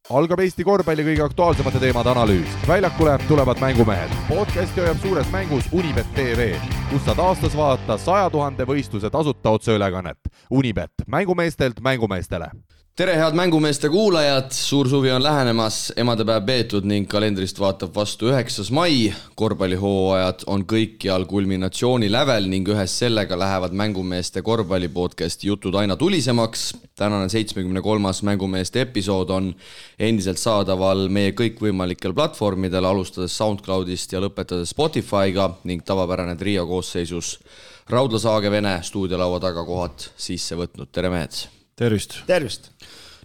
Algab Eesti korvpalli kõige aktuaalsemate teemade analüüs. Väljakule tulevad mängumehed. Podcasti hoiab suures mängus Unibet TV, kus saad aastas vaadata 100 000 võistluse tasuta otseülekannet. Unibet, mängumeestelt mängumeestele. Tere head mängumeeste kuulajad, suur suvi on lähenemas, emadepäev peetud ning kalendrist vaatab vastu 9. mai. Korvpallihooajad on kõikjal kulminatsiooni lävel ning ühes sellega lähevad mängumeeste korvpallipodcasti jutud aina tulisemaks. Tänane 73. mängumeeste episood on endiselt saadaval meie kõikvõimalikel platvormidel, alustades SoundCloudist ja lõpetades Spotify'ga ning tavapärane trio koosseisus Raudla Saage-Vene stuudiolaua taga kohad sisse võtnud. Tere mehed! Tervist! Tervist!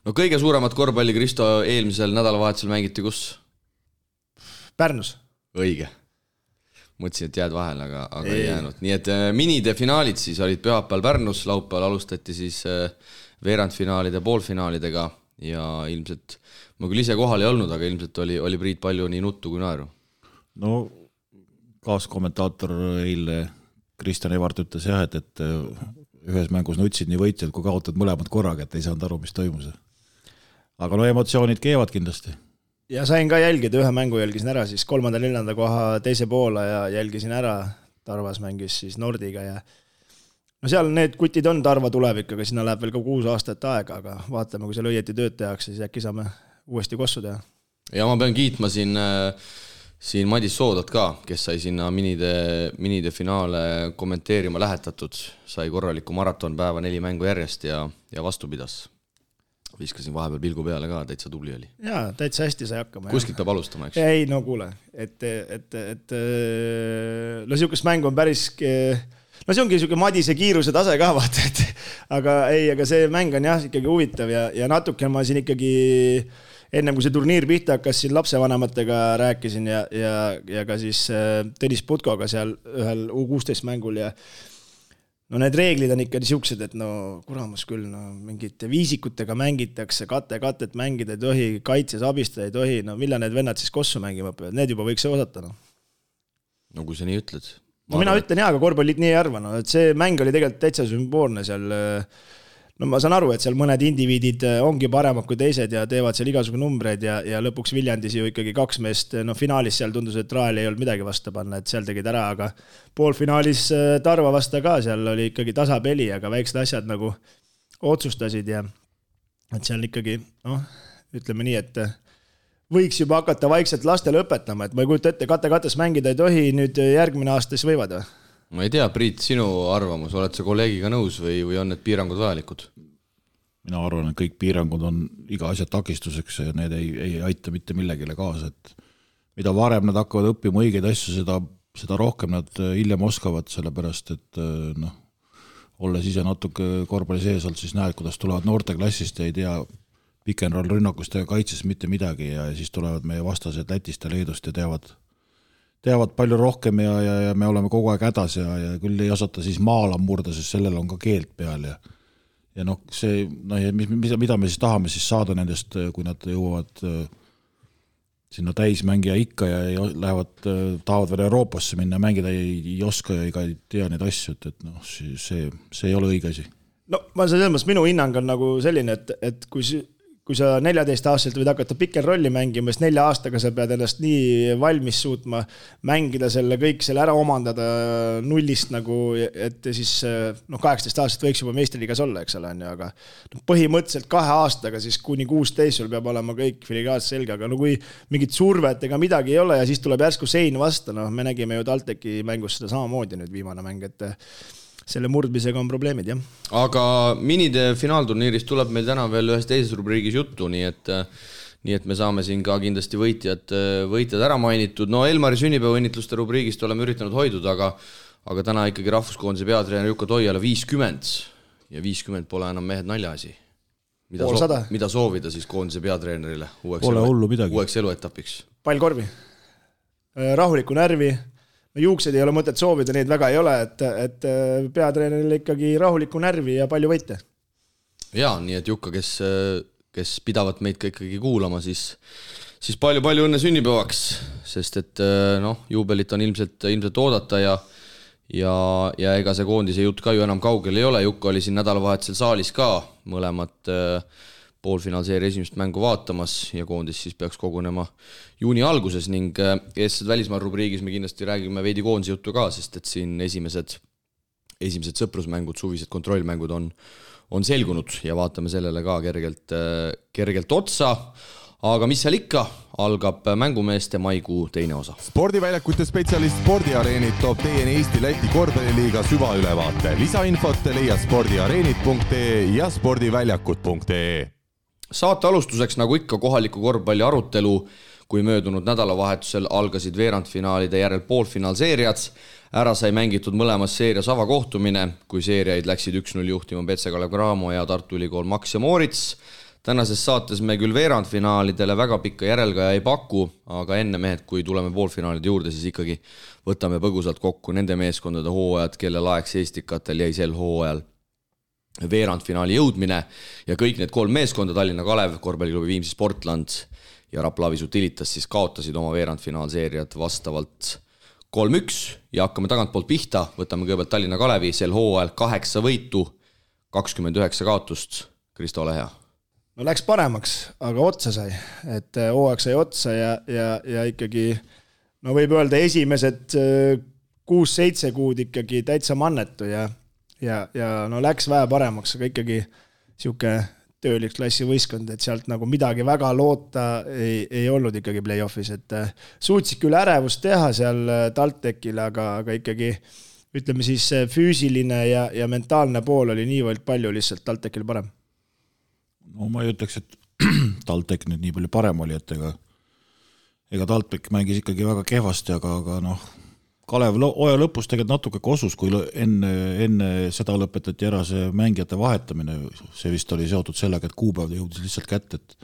No kõige suuremat korvpalli, Kristo, eelmisel nädalavahetusel mängiti kus? Pärnus. Õige. Mõtlesin, et jääd vahel, aga ei jäänud. Nii et minide finaalid siis olid pühapäeval Pärnus, laupäeval alustati siis veerandfinaalide poolfinaalidega ja ilmselt, ma küll ise kohal ei olnud, aga ilmselt oli Priit palju nii nuttu kui naeru. No kaaskommentaator eile Kristjan Evart ütles jah, et ühes mängus nutsid nii võitjad, kui kaotad mõlemad korraga, et ei saanud aru, mis toimus. Aga no emotsioonid keevad kindlasti. Ja sain ka jälgida, ühe mängu jälgisin ära, siis 3.–4. koha teise poole ja jälgisin ära. Tarvas mängis siis Nordiga ja no seal need kutid on Tarva tulevik, aga sinna läheb veel ka 6 aastat aega, aga vaatame, kui seal õieti tööd tehakse, siis äkki saame uuesti kossu teha. Ja ma pean kiitma siin Madis Soodat ka, kes sai sinna minide finaale kommenteerima lähetatud, sai korraliku maratonpäeva 4 mängu järjest ja vastu pidas. Viskasin vahepeal pilgu peale ka, täitsa tubli oli. Jaa, täitsa hästi sai hakkama. Kuskilt peab alustama, eks? Ei, no kuule, no siukest mängu on päris, no see ongi siuke Madise kiiruse tase ka vaata, aga see mäng on jah ikkagi huvitav ja natuke ma siin ikkagi ennem kui see turniir pihta hakkas, siin lapsevanematega rääkisin ja ka siis Tõnis Putkoga seal ühel U16 mängul ja no need reeglid on ikka siuksed, et no kuramus küll, no mingite viisikutega mängitakse, katet mängida ei tohi, kaitses abistada ei tohi, no millal need vennad siis kossu mängima õpivad, need juba võiks osata, no. No kui sa nii ütled. No mina ütlen jah, aga korvpallit nii ei arva, no, et see mäng oli tegelikult täitsa sümboolne seal. No ma saan aru, et seal mõned indiviidid ongi paremad kui teised ja teevad seal igasugu numbreid ja lõpuks Viljandis ju ikkagi 2 meest, no finaalis seal tundus, et Raali ei olnud midagi vasta panna, et seal tegid ära, aga poolfinaalis Tarva vasta ka, seal oli ikkagi tasapeli, aga väiksed asjad nagu otsustasid ja et seal ikkagi, noh, ütleme nii, et võiks juba hakata vaikselt lastele õpetama, et ma ei kujuta ette, kates mängida ei tohi, nüüd järgmine aastas võivad või? Ma ei tea, Priit, sinu arvamus, oled sa kolleegiga nõus või on need piirangud vajalikud? Mina arvan, et kõik piirangud on iga asja takistuseks ja need ei aita mitte millegile kaasa, et mida varem nad hakkavad õppima õigeid asju, seda rohkem nad hiljem oskavad, sellepärast, et noh, olles ise natuke korvpalli sees olnud, siis näed, kuidas tulevad noorteklassist ja ei tea pikenroll rünnakust ja kaitses mitte midagi ja siis tulevad meie vastased Lätist ja Leedust ja teavad palju rohkem ja me oleme kogu aeg hädas ja küll ei osata siis maala murda, sest sellel on ka keelt peal ja noh, see, no, mida me siis tahame siis saada nendest, kui nad jõuavad sinna täismängija ikka ja tahavad veel Euroopasse minna, mängida ei oska ja ei tea neid asju, et noh, see ei ole õige asi. No ma selles mõttes, minu hinnang on nagu selline, et kui sa 14-aastaselt võid hakata pikenrolli mängima, siis 4 aastaga sa pead ennast nii valmis suutma mängida selle kõik selle ära omandada nullist nagu, et siis 18 aastat võiks juba meistriliigas olla, eks ole, aga põhimõtteliselt 2 aastaga siis kuni 16 sul peab olema kõik filigaat selge, aga no kui mingit survet ega midagi ei ole ja siis tuleb järsku sein vasta, me nägime ju TalTechi mängus seda samamoodi nüüd viimane mäng, et selle murdmisega on probleemid, jah. Aga minide finaalturniirist tuleb meil täna veel ühes teises rubriigis juttu, nii et me saame siin ka kindlasti võitjad ära mainitud. No Elmari sünnipäevaõnnitluste rubriigist oleme üritanud hoiduda, aga täna ikkagi rahvuskoondise peatreener Jukka Toiala 50 ja 50 pole enam mehed naljaasi. Mida soovida siis koondise peatreenerile uueks eluetapiks? Pall korvi, rahulikku närvi, juuksed ei ole mõtet soovida, neid väga ei ole, et peatreenerile ikkagi rahulikku närvi ja palju võite. Jaa, nii et Jukka, kes pidavat meid ka ikkagi kuulama, siis palju õnne sünnipäevaks, sest et juubelit on ilmselt oodata ja ega see koondise jutt ka ju enam kaugel ei ole. Jukka oli siin nädalavahetusel saalis ka, mõlemad poolfinaalseeria esimest mängu vaatamas ja koondis siis peaks kogunema juuni alguses ning eestsed välismaal rubriigis me kindlasti räägime veidi koondise juttu ka, sest et siin esimesed sõprusmängud, suvised kontrollmängud on selgunud ja vaatame sellele ka kergelt otsa. Aga mis seal ikka, algab mängumeeste maikuu teine osa. Spordiväljakute spetsialist Spordiareenid toob teieni Eesti-Läti korvpalliliiga süvaülevaate. Lisainfot leia spordiareenid.ee ja spordiväljakud.ee. Saate alustuseks nagu ikka kohaliku korvpalli arutelu, kui möödunud nädalavahetusel algasid veerandfinaalide järel poolfinaalseeriad. Ära sai mängitud mõlemas seerias avakohtumine, kui seeriaid läksid 1-0 juhtima Petse Kalev Cramo ja Tartu Ülikool Max ja Moritz. Tänases saates me küll veerandfinaalidele väga pikka järelgaja ei paku, aga enne mehed, kui tuleme poolfinaalide juurde, siis ikkagi võtame põgusalt kokku nende meeskondade hooajad, kelle laeks Eestikatel jäi sel hooajal veerandfinaali jõudmine ja kõik need 3 meeskonda, Tallinna Kalev, korvpalliklubi Viimsi Sportland ja Rapla Avisu Tilitas siis kaotasid oma veerandfinaalseeriad vastavalt 3-1 ja hakkame tagantpoolt pihta, võtame kõigepealt Tallinna Kalevi, sel hooajal 8 võitu, 29 kaotust, Kristo, ole hea. No läks paremaks, aga otsa sai, et hooaeg sai otsa ja ikkagi, no võib öelda esimesed 6-7 kuud ikkagi täitsa mannetu ja no läks vähe paremaks, aga ikkagi siuke tööliksklassi võistkond, et sealt nagu midagi väga loota ei olnud ikkagi play-offis, et suutsid küll ärevust teha seal TalTechil, aga ikkagi ütleme siis füüsiline ja mentaalne pool oli niivõrd palju lihtsalt TalTechil parem. No ma ei ütleks, et TalTech nüüd nii palju parem oli, et ega TalTech mängis ikkagi väga kehvasti, aga noh, Kalev oja lõpus tegelikult natuke kosus, kui enne seda lõpetati ära see mängijate vahetamine, see vist oli seotud sellega, et kuupäev jõudis lihtsalt kätte, et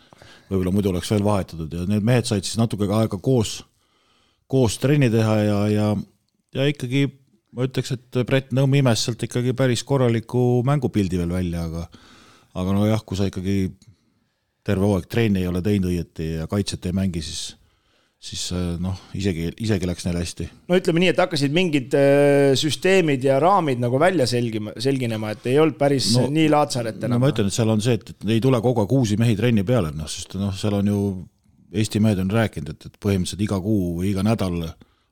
võib-olla muidu oleks veel vahetatud ja need mehed said siis natuke aega koos trenni teha ja ikkagi ma ütleks, et Brett Nõmm imes sealt ikkagi päris korraliku mängupildi veel välja, aga no jah, kui sa ikkagi terve hooaeg trenni ei ole teinud õieti ja kaitset ei mängi, siis noh, isegi läks neil hästi. No ütleme nii, et hakkasid mingid süsteemid ja raamid nagu välja selginema, et ei olnud päris nii laatsaret enam. No ma ütlen, et seal on see, et ei tule kogu aeg uusi mehi trenni peale, sest seal on ju Eesti mehed on rääkinud, et põhimõtteliselt iga kuu või iga nädal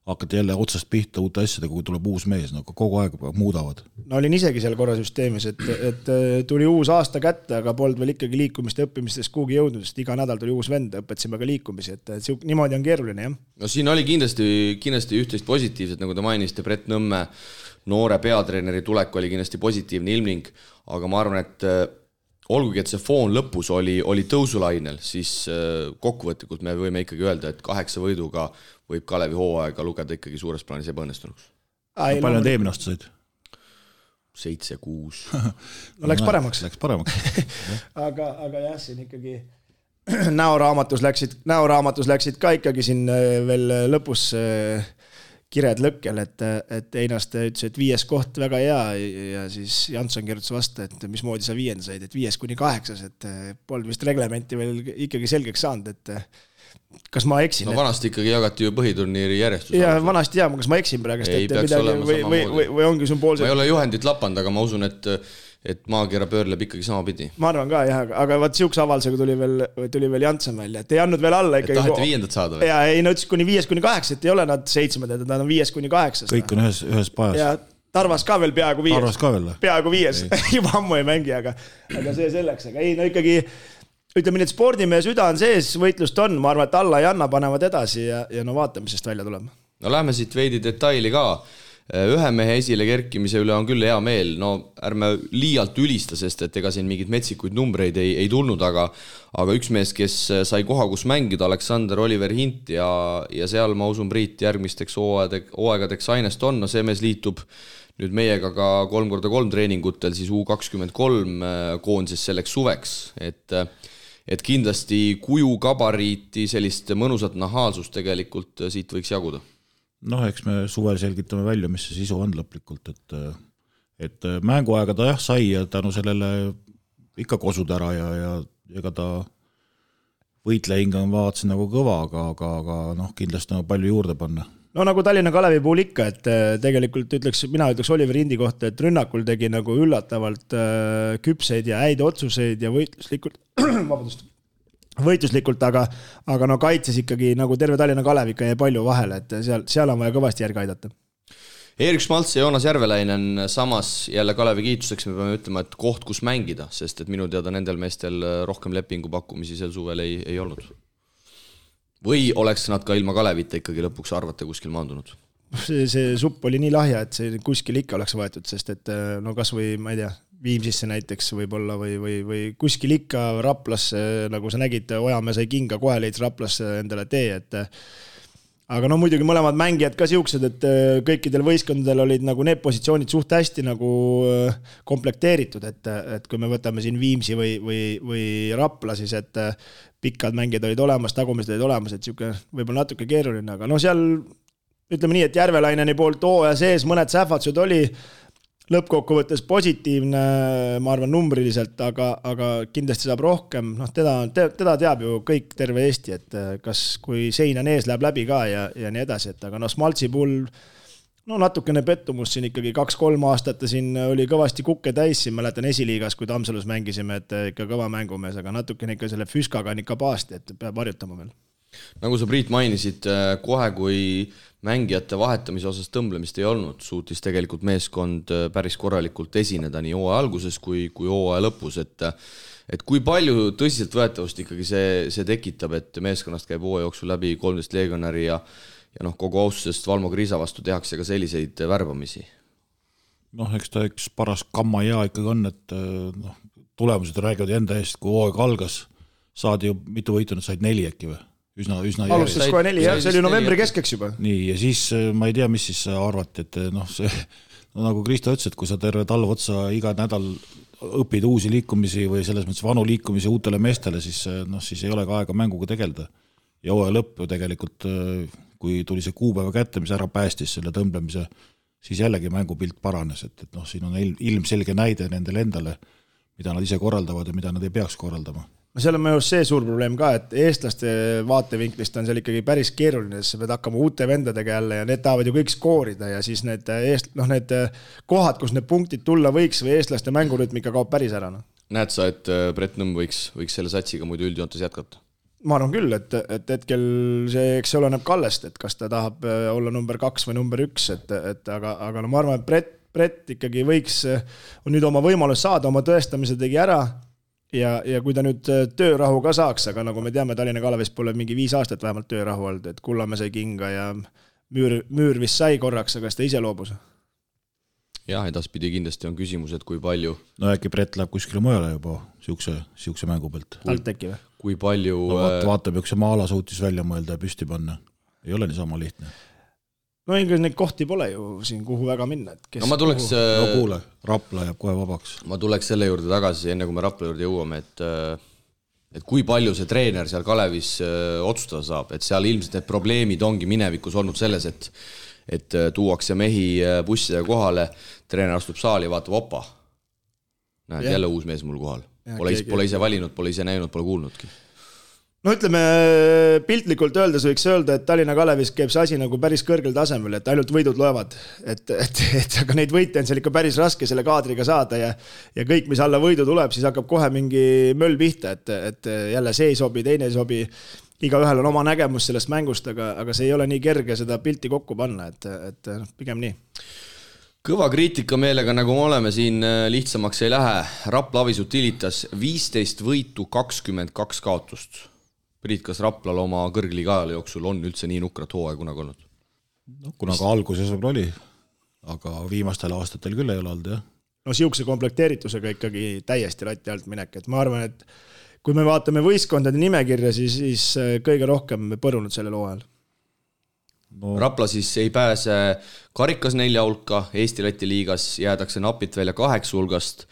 hakati jälle otsast pihta uute asjadega, kui tuleb uus mees, kogu aeg muudavad. No olin isegi seal korra süsteemis, et tuli uus aasta kätte, aga polnud veel ikkagi liikumist ja õppimistest kuhugi jõudnud, sest iga nädal tuli uus vend, õpetasime ka liikumisi, et niimoodi on keeruline, jah. No siin oli kindlasti üht-teist positiivset, nagu te mainisite, Brett Nõmme noore peatreeneri tulek oli kindlasti positiivne ilmning, aga ma arvan, et olgugi, et see foon lõpus oli tõusulainel, siis kokkuvõtlikult me võime ikkagi öelda, et 8 võiduga võib Kalevi hooaega lugeda ikkagi suures plaanis ebaõnnestunuks. Palju on teemine aasta said? 7-6. No läks paremaks. aga jah, siin ikkagi näoraamatus läksid ka ikkagi siin veel lõpus kired lõkkel, et Einaste ütles, et 5. koht väga hea ja siis Jansson kirjutas vastu, et mismoodi sa 5. said, et 5-8, et polnud vist reglementi veel ikkagi selgeks saanud, et kas ma eksin? No vanasti ikkagi jagati ju põhiturniiri järjestus. Ja vanasti kas ma eksin praegust, või ongi sümboolselt. Ma ei ole juhendit lapanud, aga ma usun, et maakera pöörleb ikkagi sama pidi. Ma arvan ka, jah, aga vaat siukse avaldusega tuli veel Jansson välja, et ei andnud veel alla ikkagi. Et taheti 5. saada või? Ja ei, no ütles kuni 5-8, et ei ole nad 7, et nad on 5-8. Kõik on ühes pajas. Ja Tarvas ka veel peaaegu 5. Tarvas ka veel? Peaaegu 5. Juba ammu ei mängi, aga see selleks. Aga ei, no ikkagi ütleme nii, et spordimehe süda on sees, võitlust on, ma arvan, et alla ja Anna panevad edasi ja no vaatame, sest välja tulema. No lähme siit veidi detaili ka. Ühe mehe esile kerkimise üle on küll hea meel, no ärme liialt ülista, sest et ega siin mingid metsikuid numbreid ei tulnud, aga üks mees, kes sai koha, kus mängida, Aleksander Oliver Hint ja seal ma usun Priit järgmisteks hooaegadeks ainest on, no see mees liitub nüüd meiega ka 3x3 treeningutel siis U23 koondises selleks suveks, et kindlasti kuju gabariiti sellist mõnusat nahaalsust tegelikult siit võiks jaguda. Noh, eks me suvel selgitame välja, mis see sisu on lõplikult, et mänguaega ta jah sai ja tänu sellele ikka kosud ära ja ega ta võitlehinga on vaatasin nagu kõva, aga noh, kindlasti on palju juurde panna. no nagu Tallinna Kalevi puhul ikka, et tegelikult mina ütleks Oliver Indi kohta, et rünnakul tegi nagu üllatavalt küpseid ja häid otsuseid ja võitluslikult, aga no kaitses ikkagi nagu terve Tallinna Kalev ikka jäi palju vahele, et seal on vaja kõvasti järgi aidata. Erik Schmaltz ja Joonas Järvelainen samas jälle Kalevi kiituseks me peame ütlema, et koht, kus mängida, sest et minu teada nendel meestel rohkem lepingu pakkumisi sel suvel ei olnud. Või oleks nad ka ilma Kalevita ikkagi lõpuks arvata kuskil maandunud? See supp oli nii lahja, et see kuskil ikka oleks võetud, sest et no kas või, ma ei tea, Viimsisse näiteks võib-olla või kuskil ikka Raplasse, nagu sa nägid, Ojamäe sai kinga, kohe leidis Raplasse endale tee, et aga no muidugi mõlemad mängijad ka siuksed, et kõikidel võistkondadel olid nagu need positsioonid suht hästi nagu komplekteeritud, et kui me võtame siin Viimsi või Rapla, siis et pikad mängijad olid olemas, tagumised olid olemas, et siuke võib-olla natuke keeruline, aga no seal ütleme nii, et Järvelaineni poolt hooaja sees mõned sähvatused oli lõppkokkuvõttes positiivne, ma arvan, numbriliselt, aga kindlasti saab rohkem. Noh, teda teab ju kõik terve Eesti, et kas kui sein on ees, läheb läbi ka ja nii edasi, et aga no Schmaltzi puhul no natukene pettumus siin ikkagi 2-3 aastat siin oli kõvasti kukke täis, siin mäletan esiliigas, kui Tammsalus mängisime, et ikka kõva mängumees, aga natukene ikka selle füskaga on ikka paasti, et peab harjutama veel. Nagu sa, Priit, mainisid, kohe kui mängijate vahetamise osas tõmblemist ei olnud, suutis tegelikult meeskond päris korralikult esineda nii hooaja alguses kui hooaja lõpus, et kui palju tõsiselt võetavust ikkagi see tekitab, et meeskonnast käib hooaja jooksul läbi 13 legionäri ja kogu austusest Valmo Kriisa vastu tehakse ka selliseid värbamisi? Eks ta üks paras kamma ja ikkagi on, et tulemused räägivad enda eest, kui hooaeg algas, saadi ju mitu võitu, nad said 4 äkki või? Üsna alustas kohe 4, jah, see oli novembri keskeks juba. Nii, ja siis ma ei tea, mis siis arvati, et see, nagu Kristo ütles, et kui sa terve talv otsa iga nädal õpid uusi liikumisi või selles mõttes vanu liikumisi uutele meestele, siis ei ole ka aega mänguga tegeleda. Ja hooaja lõpp ju tegelikult, kui tuli see kuupäeva kätte, mis ära päästis selle tõmblemise, siis jällegi mängupilt paranes, et siin on ilmselge näide nendele endale, mida nad ise korraldavad ja mida nad ei peaks korraldama. No seal on minu see suur probleem ka, et eestlaste vaatevinklist on seal ikkagi päris keeruline, sest pead hakkama uute vendadega jälle ja need tahavad ju kõik skoorida ja siis need kohad, kus need punktid tulla võiks või eestlaste mängurütm ikka kaob päris ära. Näed sa, et Brett Nõmm võiks selle satsiga muidu üldjoontes jätkata? Ma arvan küll, et hetkel see, eks see oleneb Kallest, et kas ta tahab olla number 2 või number 1, aga no ma arvan, et Brett ikkagi võiks, on nüüd oma võimalus saada, oma tõestamise tegi ära. Ja kui ta nüüd töörahu ka saaks, aga nagu me teame, Tallinna Kalevis pole mingi 5 aastat vähemalt töörahu olnud, et Kullamäe sai kinga ja müür vist sai korraks, aga ta ise loobus. Jah, edaspidi kindlasti on küsimus, et kui palju... No äkki Brett läheb kuskile mujale juba siukse mängu pealt. Alteki või? Kui palju... Vaatab, üks Maala suutis välja mõelda ja püsti panna. Ei ole niisama lihtne. No ikka neid kohti pole ju siin, kuhu väga minna. No ma tuleks... No kuule, Rapla jääb kohe vabaks. Ma tuleks selle juurde tagasi, enne kui me Rapla juurde jõuame, et kui palju see treener seal Kalevis otsustada saab, et seal ilmselt need probleemid ongi minevikus olnud selles, et tuuakse mehi bussidega kohale, treener astub saali ja vaatab opa. Näed, jälle uus mees mul kohal. Pole ise valinud, pole ise näinud, pole kuulnudki. No ütleme, piltlikult öeldes võiks öelda, et Tallinna Kalevis käib see asi nagu päris kõrgel tasemel, et ainult võidud loevad. Aga neid võite on seal ikka päris raske selle kaadriga saada ja kõik, mis alla võidu tuleb, siis hakkab kohe mingi möll pihta, et jälle see ei sobi, teine ei sobi. Igaühel on oma nägemus sellest mängust, aga see ei ole nii kerge seda pilti kokku panna, et pigem nii. Kõva kriitika meelega, nagu me oleme siin, lihtsamaks ei lähe. Rapla Avis Utilitas 15 võitu, 22 kaotust. Priit, kas Raplal oma kõrgliiga ajal jooksul on üldse nii nukrat hooaja kunagi olnud? Kuna ka alguses oli, aga viimastel aastatel küll ei ole olnud, jah. No siukse komplekteeritusega ikkagi täiesti latti alt minek, et ma arvan, et kui me vaatame võistkondade nimekirja, siis kõige rohkem põrunud sellel hooajal. No. Rapla siis ei pääse karikas 4 hulka, Eesti-Läti liigas jäädakse napit välja 8 hulgast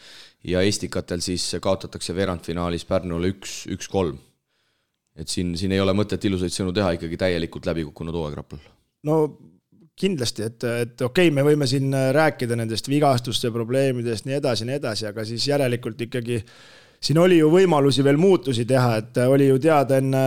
ja Eestikatel siis kaotatakse veerandfinaalis Pärnule 1-3. Et siin ei ole mõtet ilusaid sõnu teha, ikkagi täielikult läbi kukkunud hooaeg Raplal. No kindlasti, et okei, me võime siin rääkida nendest vigastuste probleemidest nii edasi, aga siis järelikult ikkagi siin oli ju võimalusi veel muutusi teha, et oli ju teada enne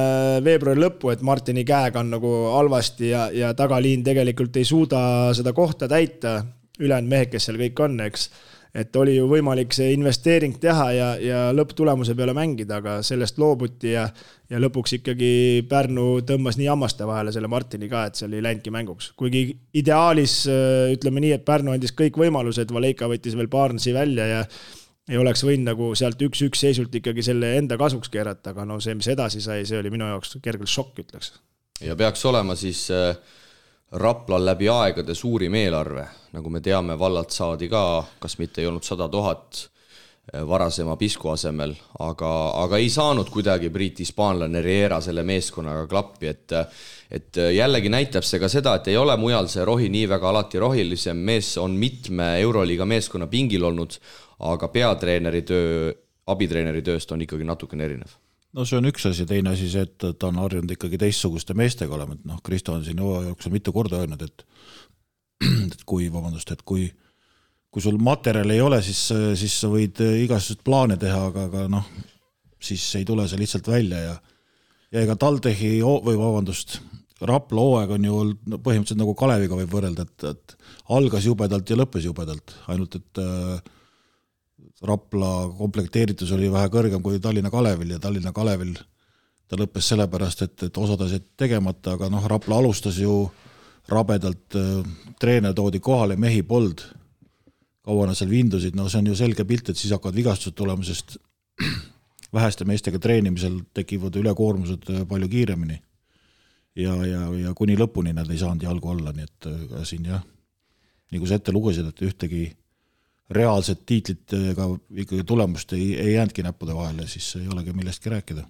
veebruari lõppu, et Martini käega on nagu halvasti ja tagaliin tegelikult ei suuda seda kohta täita, ülejäänud mehed, kes seal kõik on, eks. Et oli ju võimalik see investeering teha ja lõpptulemuse peale mängida, aga sellest loobuti ja lõpuks ikkagi Pärnu tõmbas nii hammaste vahele selle Martini ka, et seal ei läinudki mänguks. Kuigi ideaalis ütleme nii, et Pärnu andis kõik võimalused, Valeika võttis veel Barnesi välja ja ei oleks võinud nagu sealt 1-1 seisult ikkagi selle enda kasuks keerata, aga no see, mis edasi sai, see oli minu jaoks kergelt šokk, ütleks. Ja peaks olema siis Raplal läbi aegade suurim eelarve, nagu me teame, vallalt saadi ka, kas mitte ei olnud 100 000 varasema Pisku asemel, aga ei saanud kuidagi Hispaanlane Riera selle meeskonnaga klappi, et jällegi näitab see ka seda, et ei ole mujal see rohi nii väga alati rohilisem mees, on mitme Euroliiga meeskonna pingil olnud, aga peatreeneri töö, abitreeneri tööst on ikkagi natukene erinev. No see on üks asi, teine asi see, et ta on harjunud ikkagi teistsuguste meestega olema, et noh, Kristo on siin jooksul mitu korda öelnud, et kui sul materjal ei ole, siis sa võid igasugust plaane teha, aga noh, siis ei tule see lihtsalt välja ja ega Taltehi Rapla hooaeg on ju põhimõtteliselt nagu Kaleviga võib võrrelda, et algas jubedalt ja lõppes jubedalt, ainult et Rapla komplekteeritus oli vähe kõrgem kui Tallinna Kalevil ja Tallinna Kalevil ta lõppes sellepärast, et osad asjad tegemata, aga noh, Rapla alustas ju rabedalt, treener toodi kohale, mehi pold, kaua nad seal vindusid, no see on ju selge pilt, et siis hakkavad vigastused tulema, sest väheste meestega treenimisel tekivad ülekoormused palju kiiremini ja kuni lõpuni nad ei saanud jalgu olla, nii et siin jah, nii kui sa ette lugesid, et ühtegi reaalset tiitlit ega ikkagi tulemust ei jäänudki näppude vahele, siis ei olegi millestki rääkida.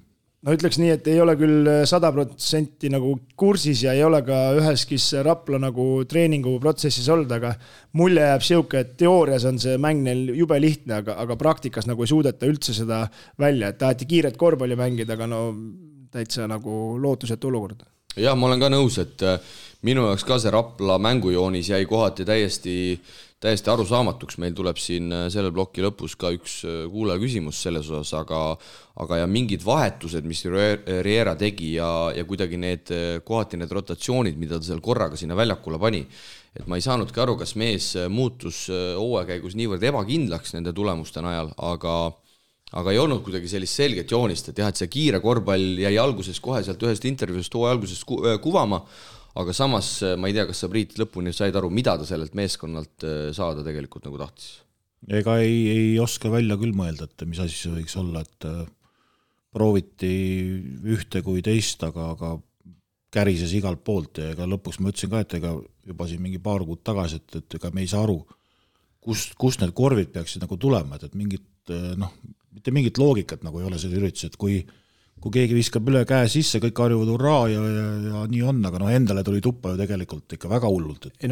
No ütleks nii, et ei ole küll 100% nagu kursis ja ei ole ka üheskis Rapla nagu treeningu protsessis olnud, aga mulje jääb siuke, et teoorias on see mäng neil jube lihtne, aga praktikas nagu ei suudeta üldse seda välja, et taheti kiiret korvpalli mängida, aga no täitsa nagu lootusetu olukord. Jah, ma olen ka nõus, et minu jaoks ka see Rapla mängujoonis jäi kohati täiesti arusaamatuks, meil tuleb siin selle ploki lõpus ka üks kuulaja küsimus selles osas, aga ja mingid vahetused, mis Riera tegi ja kuidagi kohati need rotatsioonid, mida ta seal korraga sinna väljakule pani, et ma ei saanudki aru, kas mees muutus hooajakäigus niivõrd ebakindlaks nende tulemuste najal, aga ei olnud kuidagi sellist selget joonist, et jah, et see kiire korvpall jäi alguses kohe sealt ühest intervjuust hooaja alguses kuvama, aga samas ma ei tea, kas sa Priit lõpuni said aru, mida ta sellelt meeskonnalt saada tegelikult nagu tahtis. Ega ei oska välja küll mõelda, et mis asi see võiks olla, et prooviti ühte kui teist, aga kärises igalt poolt ja ega lõpuks ma ütlesin ka, et ega juba siin mingi paar kuud tagasi, et ega me ei saa aru, kust need korvid peaksid nagu tulema, et mingit, noh, mitte mingit loogikat nagu ei ole selle üritus, et kui keegi viskab üle käe sisse, kõik harjuvad hurraa ja nii on, aga noh, endale tuli tuppa ju tegelikult ikka väga hullult, et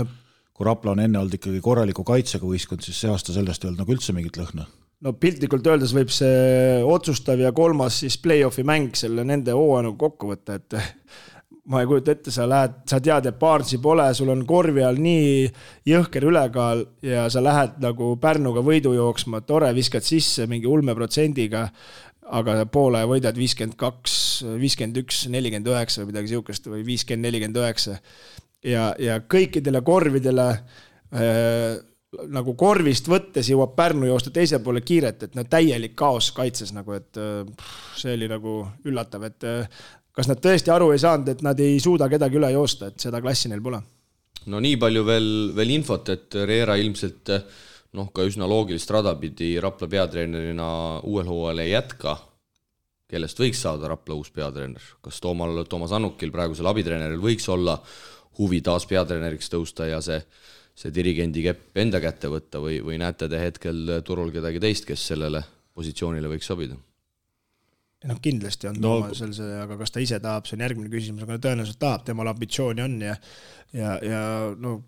kui Rapla on enne olnud ikkagi korraliku kaitsega võistkond, siis see aasta sellest ei olnud nagu üldse mingit lõhna. No piltlikult öeldes võib see otsustav ja kolmas siis play-offi mäng selle nende hooaja kokku võtta, et ma ei kujuta ette, sa tead, et Barnesi pole, sul on korvi all nii jõhker ülekaal ja sa lähed nagu Pärnuga võidu jooksma, tore, viskad sisse mingi ulmeprotsendiga, aga poole võidad 52, 51, 49 või midagi siukest või 50, 49 ja kõikidele korvidele nagu korvist võttes jõuab Pärnu joosta teise poole kiiret, et täielik kaos kaitses nagu, et see oli nagu üllatav, et kas nad tõesti aru ei saanud, et nad ei suuda kedagi üle joosta, et seda klassi neil pole? No nii palju veel infot, et Riera ilmselt ka üsna loogilist rada pidi Rapla peatreenerina uuel hooajal ei jätka, kellest võiks saada Rapla uus peatreener. Kas Toomas Annukil, praegusel abitreeneril, võiks olla huvi taas peatreeneriks tõusta ja see dirigendi kepp enda kätte võtta või näete te hetkel turul kedagi teist, kes sellele positsioonile võiks sobida? Kindlasti on Toomasel see, aga kas ta ise tahab, see on järgmine küsimus, aga tõenäoliselt tahab, temal ambitsiooni on ja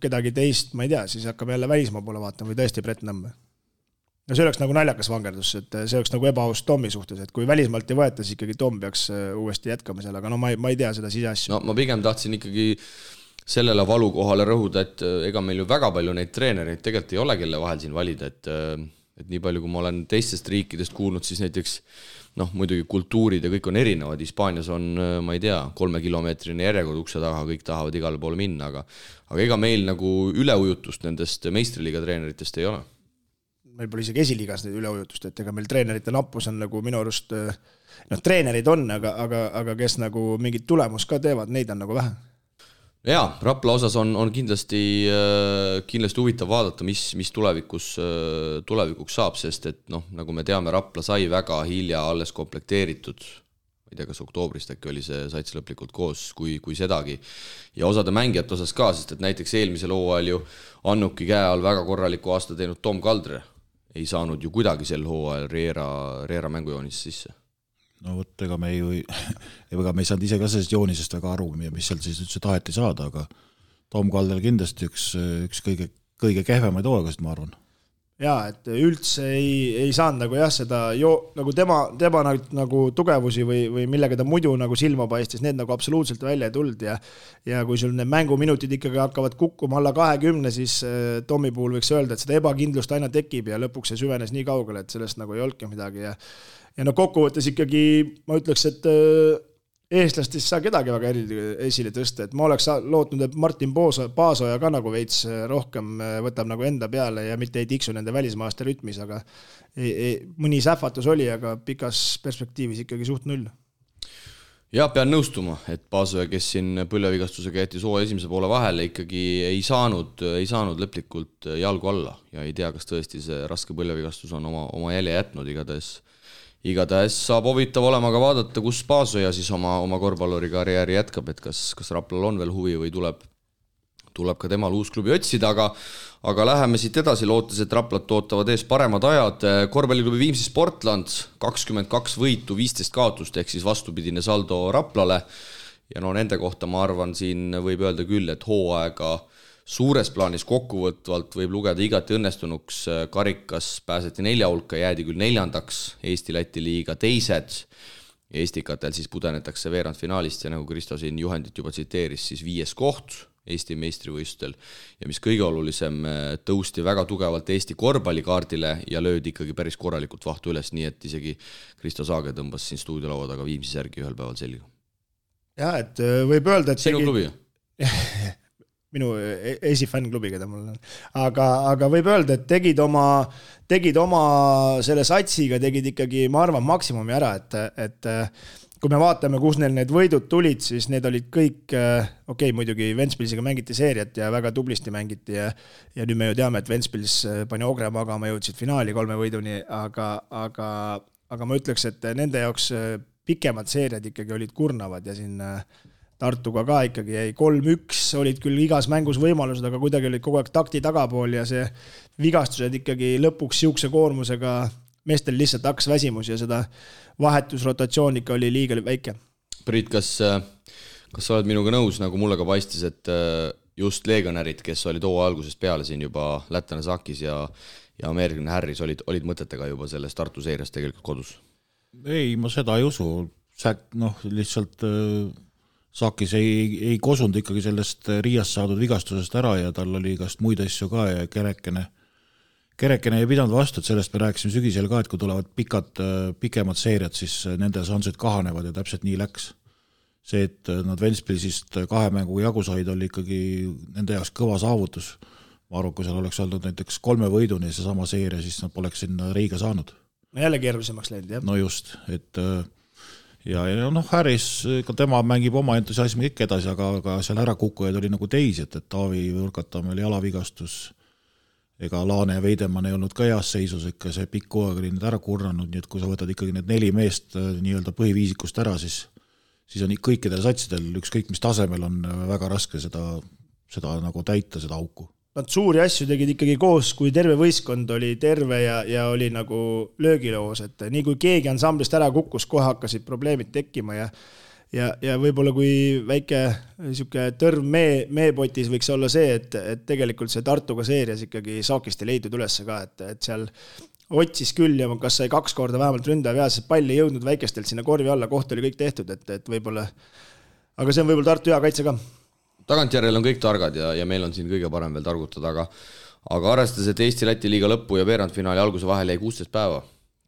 kedagi teist, ma ei tea, siis hakkab jälle välismaa poole vaatama või tõesti Brett Nõmme. No see oleks nagu naljakas vangerdus, et see oleks nagu ebaaus Tommi suhtes, et kui välismaalt ei võeta, siis ikkagi Tom peaks uuesti jätkama seal, aga ma ei tea seda siseasju. No ma pigem tahtsin ikkagi sellele valukohale rõhuda, et ega meil ju väga palju neid treenereid tegelikult ei ole, kelle vahel siin valida, et et nii palju, kui ma olen teistest riikidest kuulnud, siis näiteks muidugi kultuurid ja kõik on erinevad, Hispaanias on, ma ei tea, 3-kilomeetrine järjekord ukse taga, kõik tahavad igale poole minna, aga ega meil nagu üleujutust nendest meistriliiga treeneritest ei ole. Meil pole isegi esiliigas neid üleujutust, et ega meil treenerite nappus on nagu minu arust, treenerid on, aga kes nagu mingit tulemus ka teevad, neid on nagu vähe. Jaa, Rapla osas on kindlasti huvitav vaadata, mis tulevikuks saab, sest et nagu me teame, Rapla sai väga hilja alles komplekteeritud, ma ei tea, kas oktoobrist äkki oli see sats lõplikult koos, kui sedagi, ja osade mängijate osas ka, sest et näiteks eelmisel hooajal ju Annuki käe all väga korraliku aasta teinud Tom Kaldre ei saanud ju kuidagi sel hooajal Riera mängujoonis sisse. No võt, ega me ei saanud ise ka sellest joonisest väga aru, mis seal siis üldse taheti saada, aga Tom Kaldel kindlasti üks kõige kehvemaid hooaegast, ma arvan. Jaa, et üldse ei saanud nagu seda nagu tema nagu tugevusi või millega ta muidu nagu silma paistis, need nagu absoluutselt välja ei tulnud ja kui sul need mänguminutid ikkagi hakkavad kukkuma alla 20, siis Tomi puhul võiks öelda, et seda ebakindlust aina tekib ja lõpuks see süvenes nii kaugele, et sellest nagu ei olnudki midagi ja kokkuvõttes ikkagi ma ütleks, et eestlastest saa kedagi väga esile tõsta, et ma oleks lootnud, et Martin Paasoja ka nagu veits rohkem võtab nagu enda peale ja mitte ei tiksu nende välismaaste rütmis, aga mõni sähvatus oli, aga pikas perspektiivis ikkagi suht null. Ja pean nõustuma, et Paasoja, kes siin põlvevigastusega jättis hooaja esimese poole vahele, ikkagi ei saanud lõplikult jalgu alla ja ei tea, kas tõesti see raske põlvevigastus on oma jälje jätnud, igatahes saab huvitav olema ka vaadata, kus Paasoja siis oma korvpalluri karjääri jätkab, et kas Raplal on veel huvi või tuleb ka temal uus klubi otsida, aga läheme siit edasi, lootes, et Raplat ootavad ees paremad ajad. Korvpalliklubi Viimsi Sportland 22 võitu, 15 kaotust, ehk siis vastupidine saldo Raplale ja nende kohta ma arvan, siin võib öelda küll, et hooaega suures plaanis kokkuvõtvalt võib lugeda igati õnnestunuks, karikas pääseti 4 hulka, jäädi küll 4. Eesti-Läti liiga 2. Eestikatel siis pudenetakse veerandfinaalist ja nagu Kristo siin juhendit juba tsiteeris, siis 5. koht Eesti meistrivõistlustel ja mis kõige olulisem, tõusti väga tugevalt Eesti korvpallikaardile ja löödi ikkagi päris korralikult vahtu üles, nii et isegi Kristo Saage tõmbas siin stuudiolaua taga Viimsi särgi ühel päeval selga. Ja, et võib öelda, et sinu klubi? minu esifännklubi, keda mul on. Aga võib öelda, et tegid oma selle satsiga, tegid ikkagi, ma arvan, maksimumi ära, et kui me vaatame, kus neil need võidud tulid, siis need olid kõik, muidugi Ventspilsiga mängiti seeriat ja väga tublisti mängiti ja nüüd me ju teame, et Ventspils pani Ogre magama, jõudsid finaali 3 võiduni, aga ma ütleks, et nende jaoks pikemad seeriad ikkagi olid kurnavad ja siin Tartuga ka ikkagi jäi 3-1, olid küll igas mängus võimalused, aga kuidagi olid kogu aeg takti tagapool ja see vigastused ikkagi lõpuks siukse koormusega meestel lihtsalt hakkas väsimus ja seda vahetusrotatsioon ikka oli liiga väike. Priit, kas sa oled minuga nõus, nagu mulle ka paistis, et just legionärid, kes olid hooaja algusest peale siin juba lätlane Sakis ja ameeriklane Harris olid mõtetega juba selles Tartu seerias tegelikult kodus? Ei, ma seda ei usu. Lihtsalt Sakis ei kosunud ikkagi sellest Riiast saadud vigastusest ära ja tal oli igast muid asju ka ja kerekene ei pidanud vastu, et sellest me rääkisime sügisel ka, et kui tulevad pikemad seeriad, siis nende šansid kahanevad ja täpselt nii läks. See, et nad Ventspilsist 2 mängu jagu said, oli ikkagi nende jaoks kõva saavutus. Ma arvan, kui seal oleks olnud näiteks 3 võiduni see sama seeria, siis nad poleks sinna Riiga saanud. Jälle keerulisemaks läinud, jah? No just, et ja Harris, tema mängib oma entusiasmi ikka edasi, aga seal ära kukkujaid oli nagu teisi, et Taavi Võrkatamme oli jalavigastus, ega Laane ja Veidemann ei olnud ka heas seisus, ikka see pikk hooaeg oli need ära kurnanud, nii et kui sa võtad ikkagi need 4 meest nii-öelda põhiviisikust ära, siis on kõikidel satsidel ükskõik mis tasemel on väga raske seda nagu täita, seda auku. Nad suuri asju tegid ikkagi koos, kui terve võistkond oli terve ja oli nagu löögiloos, et nii kui keegi ansamblist ära kukkus, kohe hakkasid probleemid tekkima ja võib-olla kui väike tõrv meepotis võiks olla see, et tegelikult see Tartuga seerias ikkagi Saakist ei leidnud ülesse ka, et seal otsis küll ja kas sai 2 korda vähemalt ründav ja see pall ei jõudnud väikestelt sinna korvi alla, koht oli kõik tehtud, et võib-olla, aga see on võib-olla Tartu hea kaitse ka. Tagantjärjel on kõik targad ja meil on siin kõige parem veel targutada, aga arvestades, et Eesti-Läti liiga lõppu ja veerandfinaali alguse vahel jäi 16 päeva,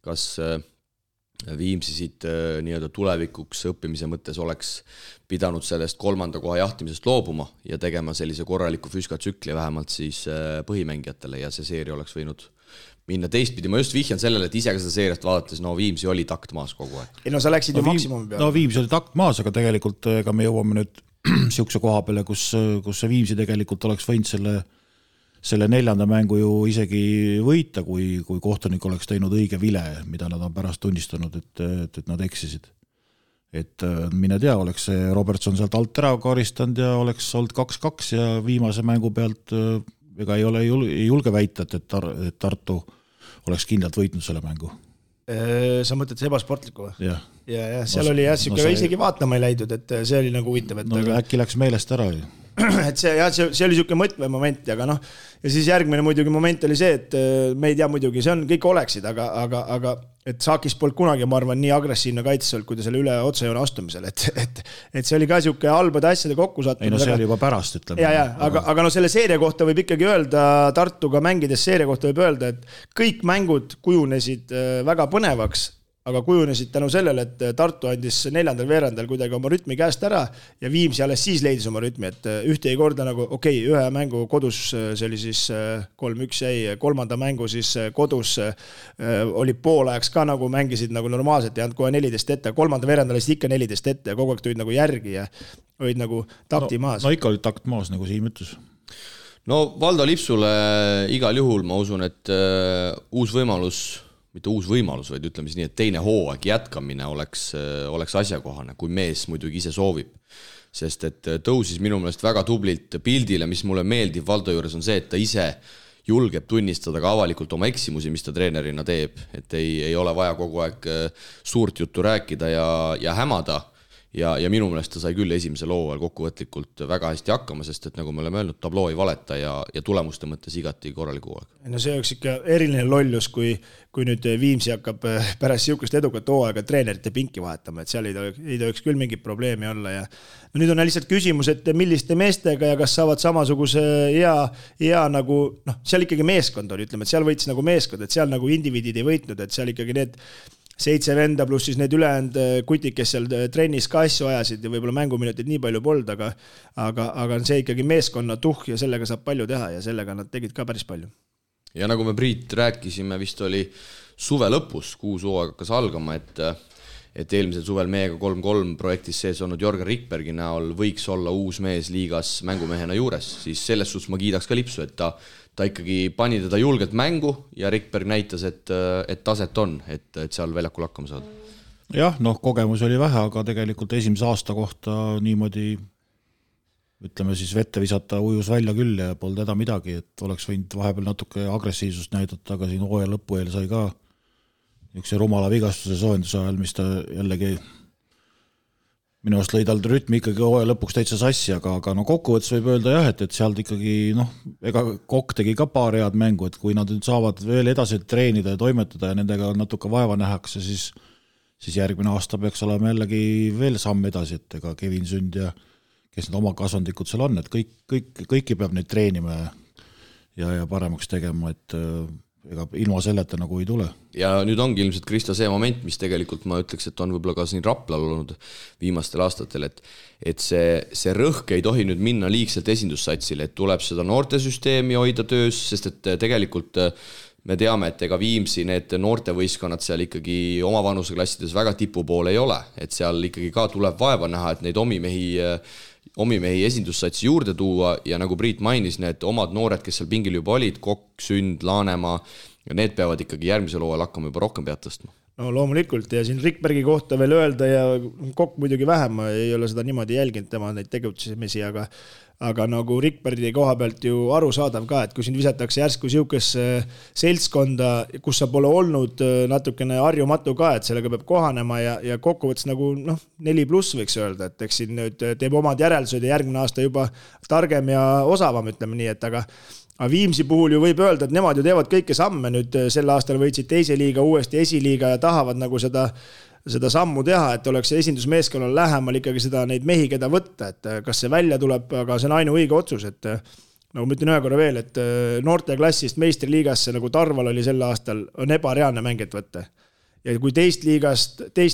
kas Viimsi siit nii-öelda tulevikuks õppimise mõttes oleks pidanud sellest 3. koha jahtimisest loobuma ja tegema sellise korraliku füskatsükli vähemalt siis põhimängijatele ja see seeria oleks võinud minna teistpidi. Ma just vihjan sellele, et ise ka seda seeriast vaadates, no Viimsi oli takt maas kogu aeg. Ei no sa läksid ju maksimumi peale. No Viimsi oli takt maas, aga tegelikult ega me jõuame nüüd siukse koha peale, kus see Viimsi tegelikult oleks võinud selle 4. mängu ju isegi võita, kui kohtunik oleks teinud õige vile, mida nad on pärast tunnistanud, et nad eksisid. Et mine tea, oleks see Robertson sealt alt ära karistanud ja oleks olnud 2-2 ja viimase mängu pealt ega ei julge väita, et Tartu oleks kindlalt võitnud selle mängu. Sa mõtled see ebasportliku või? Jah. Ja seal oli isegi vaatama ei läidud, et see oli nagu huvitav. Äkki läks meelest ära ju. Et see oli niisugune mõtvemoment, aga noh, ja siis järgmine muidugi moment oli see, et me ei tea muidugi, see on kõik oleksid, aga et Saakis polnud kunagi, ma arvan, nii agressiivne kaitses olnud, kui ta selle üle otsejoone astumisel, et see oli ka niisugune halbade asjade kokkusattumine. Ei no see oli juba pärast, ütleme. Aga no selle seeria kohta võib ikkagi öelda, Tartuga mängides seeria kohta võib öelda, et kõik mängud kujunesid väga põnevaks, aga kujunesid tänu sellele, et Tartu andis 4. veerandal kuidagi oma rütmi käest ära ja Viimsi alles siis leidis oma rütmi, et ühte ei korda nagu ühe mängu kodus, see oli siis 3-1 jäi, 3. mängu siis kodus oli poolajaks ka nagu mängisid nagu normaalselt ja andnud kohe 14 ette, 3. veerandal oli ikka 14 ette ja kogu aeg tulid nagu järgi ja olid nagu takti maas. No ikka oli takt maas, nagu Siim ütles. No Valdo Lipsule igal juhul ma usun, et uus võimalus, mitte uus võimalus, vaid ütleme siis nii, et teine hooaeg jätkamine oleks asjakohane, kui mees muidugi ise soovib. Sest et tõusis minu meelest väga tublilt pildile, mis mulle meeldib Valdo juures on see, et ta ise julgeb tunnistada ka avalikult oma eksimusi, mis ta treenerina teeb. Et ei ole vaja kogu aeg suurt juttu rääkida ja hämada. Ja minu meelest ta sai küll esimesel hooajal kokkuvõtlikult väga hästi hakkama, sest et nagu me oleme öelnud, tabloo ei valeta ja tulemuste mõttes igati korraliku hooaeg. No see oleks ikka eriline lollus, kui nüüd Viimsi hakkab pärast siukest edukat hooaega treenerite pinki vahetama, et seal ei tohiks küll mingit probleemi olla ja no nüüd on lihtsalt küsimus, et milliste meestega ja kas saavad samasuguse hea nagu, seal ikkagi meeskond oli, ütleme, et seal võitis nagu meeskond, et seal nagu indiviidid ei võitnud, et seal ikkagi need 7 venda pluss siis need ülejäänud kutid, kes seal trennis ka asju ajasid ja võib-olla mänguminutid nii palju polnud, aga see ikkagi meeskonna ja sellega saab palju teha ja sellega nad tegid ka päris palju. Ja nagu me Priit rääkisime, vist oli suve lõpus, kuus hooaeg hakkas algama, et eelmisel suvel meiega 3-3 projektis sees olnud Jorgen Rikbergi näol võiks olla uus mees liigas mängumehena juures, siis selles suhtes ma kiidaks ka Lipsu, et ta ikkagi pani teda julgelt mängu ja Rikberg näitas, et taset on, et seal väljakul hakkama saada. Jah, kogemus oli vähe, aga tegelikult esimese aasta kohta niimoodi, ütleme siis vette visata ujus välja küll ja polnud häda midagi, et oleks võinud vahepeal natuke agressiivsust näidata, aga siin hooaja lõpu eel sai ka üks rumala vigastuse soojenduse ajal, mis ta jällegi minu arust lõi tal rütmi ikkagi hooaja lõpuks täitsa sassi, aga kokkuvõttes võib öelda jah, et sealt ikkagi, ega Kokk tegi ka paar head mängu, et kui nad nüüd saavad veel edasi treenida ja toimetada ja nendega natuke vaeva nähakse, siis järgmine aasta peaks olema jällegi veel samm edasi, et ega Kevin Sünd ja kes need oma kasvandikud seal on, et kõiki peab neid treenima ja paremaks tegema, et ega ilma selleta nagu ei tule. Ja nüüd ongi ilmselt Krista see moment, mis tegelikult ma ütleks, et on võib-olla ka siin Raplal olnud viimastel aastatel, et see rõhk ei tohi nüüd minna liigselt esindussatsile, et tuleb seda noortesüsteemi hoida töös, sest et tegelikult me teame, et ega Viimsi need noortevõistkonnad seal ikkagi oma vanuseklassides väga tipu poole ei ole, et seal ikkagi ka tuleb vaeva näha, et neid omimehi esindussatsi juurde tuua ja nagu Priit mainis, need omad noored, kes seal pingil juba olid, Kokk, Sünd, Laanemaa, ja need peavad ikkagi järgmisel hooajal hakkama juba rohkem pead tõstma. No loomulikult ja siin Rikbergi kohta veel öelda ja Kokk muidugi vähem, ma ei ole seda niimoodi jälginud tema neid tegutsemisi, aga nagu Rikbergi koha pealt ju arusaadav ka, et kui siin visatakse järsku siukesse seltskonda, kus sa pole olnud natukene harjumatu ka, et sellega peab kohanema ja kokkuvõttes nagu 4+ võiks öelda, et eks siin nüüd teeb omad järeldused ja järgmine aasta juba targem ja osavam, ütleme nii, et aga Viimsi puhul ju võib öelda, et nemad ju teevad kõike samme nüüd sel aastal võitsid teise liiga, uuesti esiliiga ja tahavad nagu seda sammu teha, et oleks esindusmeeskonnal lähemal ikkagi seda neid mehi, keda võtta, et kas see välja tuleb, aga see on ainuõige otsus, et nagu ma ütlen ühe korra veel, et noorteklassist meistriliigasse, nagu Tarval oli sel aastal, on ebareaalne mängijat võtta. Ja kui teist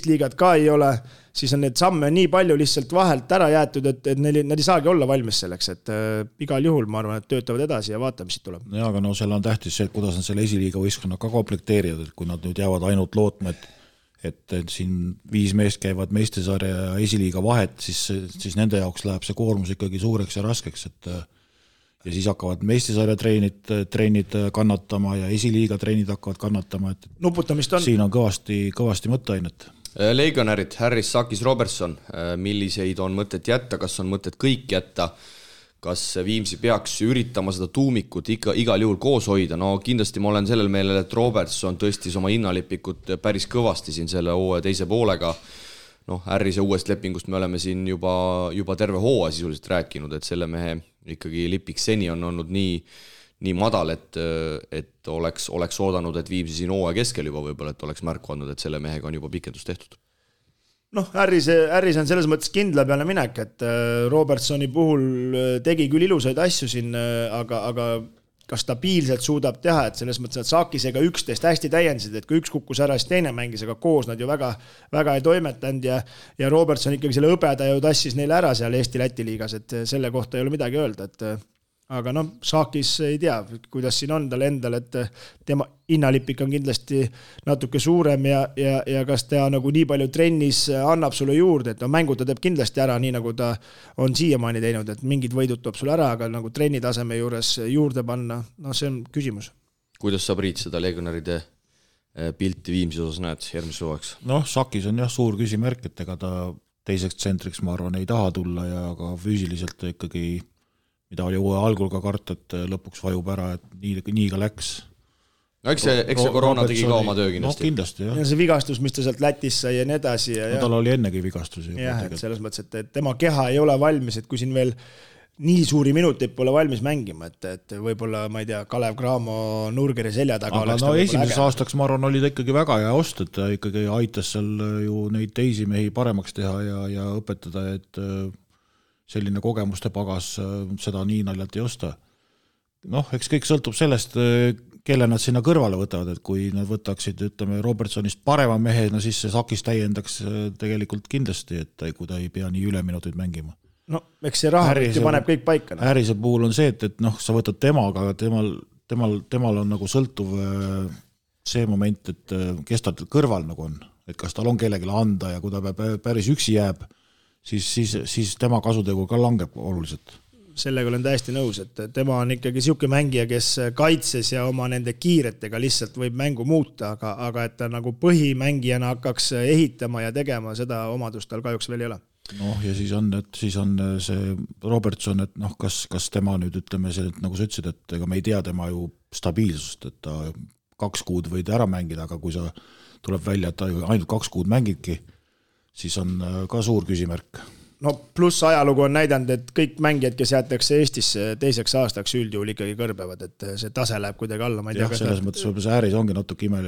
liigat ka ei ole, siis on need samme nii palju lihtsalt vahelt ära jäetud, et nad ei saagi olla valmis selleks, et igal juhul ma arvan, et töötavad edasi ja vaatame, mis siit tuleb. Ja, aga seal on tähtis see, kuidas nad selle esiliiga võistkonna ka komplekteerivad, et kui nad nüüd jäävad ainult lootma, et siin 5 meest käivad meistrisarja ja esiliiga vahet, siis nende jaoks läheb see koormus ikkagi suureks ja raskeks, ja siis hakkavad meistrisarja treenid kannatama ja esiliiga treenid hakkavad kannatama, et nuputamist on. Siin on kõvasti mõtteainet. Legionärid, Harris, Sakis, Robertson, milliseid on mõtet jätta, kas on mõtet kõik jätta, kas Viimsi peaks üritama seda tuumikut igal juhul koos hoida, no kindlasti ma olen sellel meelel, et Robertson tõstis oma hinnalipikut päris kõvasti siin selle hooaja teise poolega. Harrise uuest lepingust me oleme siin juba terve hooaja sisuliselt rääkinud, et selle mehe ikkagi lipik seni on olnud nii madal, et oleks oodanud, et Viimsi siin hooaja keskel juba võib-olla, et oleks märku andnud, et selle mehega on juba pikendus tehtud. Harris on selles mõttes kindla peale minek, et Robertsoni puhul tegi küll ilusaid asju siin, aga kas stabiilselt suudab teha, et selles mõttes, et Sakisega 11 hästi täiendasid, et kui üks kukkus ära, siis teine mängis, aga koos nad ju väga ei toimetanud ja Robertson ikkagi selle õbeda ju tassis neile ära seal Eesti-Läti liigas, et selle kohta ei ole midagi öelda, et aga Sakis ei tea, kuidas siin on tal endal, et tema hinnalipik on kindlasti natuke suurem ja kas ta nagu nii palju trennis annab sulle juurde, et mängu ta teeb kindlasti ära, nii nagu ta on siiamaani teinud, et mingid võidud toob sulle ära, aga nagu trenni taseme juures juurde panna, see on küsimus. Kuidas sa, Priit, seda legionäride pilti Viimsi osas näed järgmise hooajaks? Sakis on jah suur küsimärk, et ega ta teiseks tsentriks, ma arvan, ei taha tulla ja ka füüsiliselt ikkagi mida oli uue algul ka karta, et lõpuks vajub ära, et nii ka läks. Eks see koroona tegi ka oma töö kindlasti. Kindlasti, jah. Ja see vigastus, mis ta sealt Lätis sai ja nii edasi. Tal oli ennegi vigastusi. Jah, et selles mõttes, et tema keha ei ole valmis, et kui siin veel nii suuri minuteid pole valmis mängima, et võib-olla, ma ei tea, Kalev Cramo Nurgeri selja taga aga esimeseks aastaks, ma arvan, oli ta ikkagi väga hea ost, et ta ikkagi aitas seal ju neid teisi mehi paremaks teha ja õpetada, et selline kogemuste pagas, seda nii naljalt ei osta. Eks kõik sõltub sellest, kelle nad sinna kõrvale võtavad, et kui nad võtaksid, ütleme, Robertsonist parema mehe, siis see Sakis täiendaks tegelikult kindlasti, et kui ta ei pea nii üleminuteid mängima. Eks see rahavõtti paneb kõik paika. Harrise puhul on see, et sa võtad temaga, aga temal on nagu sõltuv see moment, et kes ta kõrval nagu on, et kas tal on kellelegi anda ja kui ta päris üksi jääb, siis tema kasutegur ka langeb oluliselt. Sellega olen täiesti nõus, et tema on ikkagi siuke mängija, kes kaitses ja oma nende kiiretega lihtsalt võib mängu muuta, aga et ta nagu põhimängijana hakkaks ehitama ja tegema, seda omadust tal kahjuks veel ei ole. Ja siis on see Robertson, et kas tema nüüd ütleme see, et nagu sa ütlesid, et ega me ei tea tema ju stabiilsust, et ta 2 kuud võid ära mängida, aga kui sa tuleb välja, et ta ainult 2 kuud mängibki, siis on ka suur küsimärk. Pluss ajalugu on näidanud, et kõik mängijad, kes jäetakse Eestisse teiseks aastaks üldjuhul ikkagi kõrbevad, et see tase läheb kuidagi alla. Jah, selles mõttes see Harris ongi natuke ime.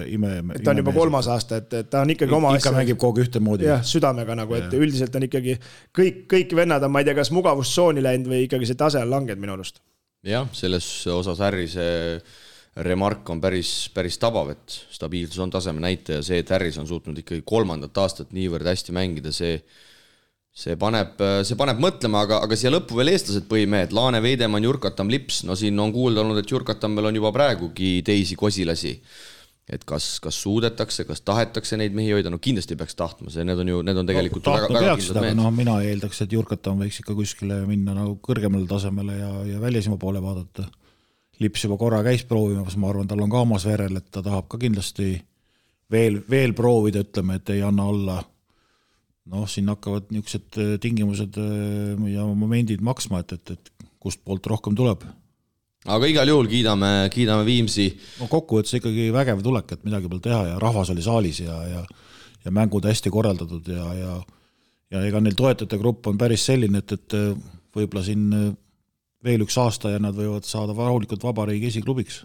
Ta on juba 3. aasta, et ta on ikkagi oma asja. Ikka mängib kogu ühte moodi. Jah, südamega nagu, et üldiselt on ikkagi kõik vennad on, ma ei tea, kas mugavustsooni läinud või ikkagi see tase on langed minu arust. Jah, selles osas Harrise remark on päris tabav, et stabiilsus on taseme näitaja, see, et Harris on suutnud ikkagi 3. aastat niivõrd hästi mängida, see paneb mõtlema, aga siia lõppu veel eestlased põhimehed, Laane, Veidemann, Jurkatam, Lips, siin on kuulda olnud, et Jurkatamel on juba praegugi teisi kosilasi, et kas suudetakse, kas tahetakse neid mehi hoida, kindlasti peaks tahtma, need on tegelikult väga kindlad mehed. Mina eeldaks, et Jurkatam võiks ikka kuskile minna nagu kõrgemale tasemele ja välisima poole vaadata. Lips juba korra käis proovimas, ma arvan, tal on ka omas verel, et ta tahab ka kindlasti veel proovida, ütleme, et ei anna olla. Siin hakkavad niisugused tingimused ja momendid maksma, et kust poolt rohkem tuleb. Aga igal juhul kiidame Viimsi. Kokkuvõttes ikkagi vägev tulek, et midagi peal teha ja rahvas oli saalis ja mängud hästi korraldatud ja ega neil toetajate grupp on päris selline, et võib-olla siin veel üks aasta ja nad võivad saada rahulikult vabariigi esiklubiks.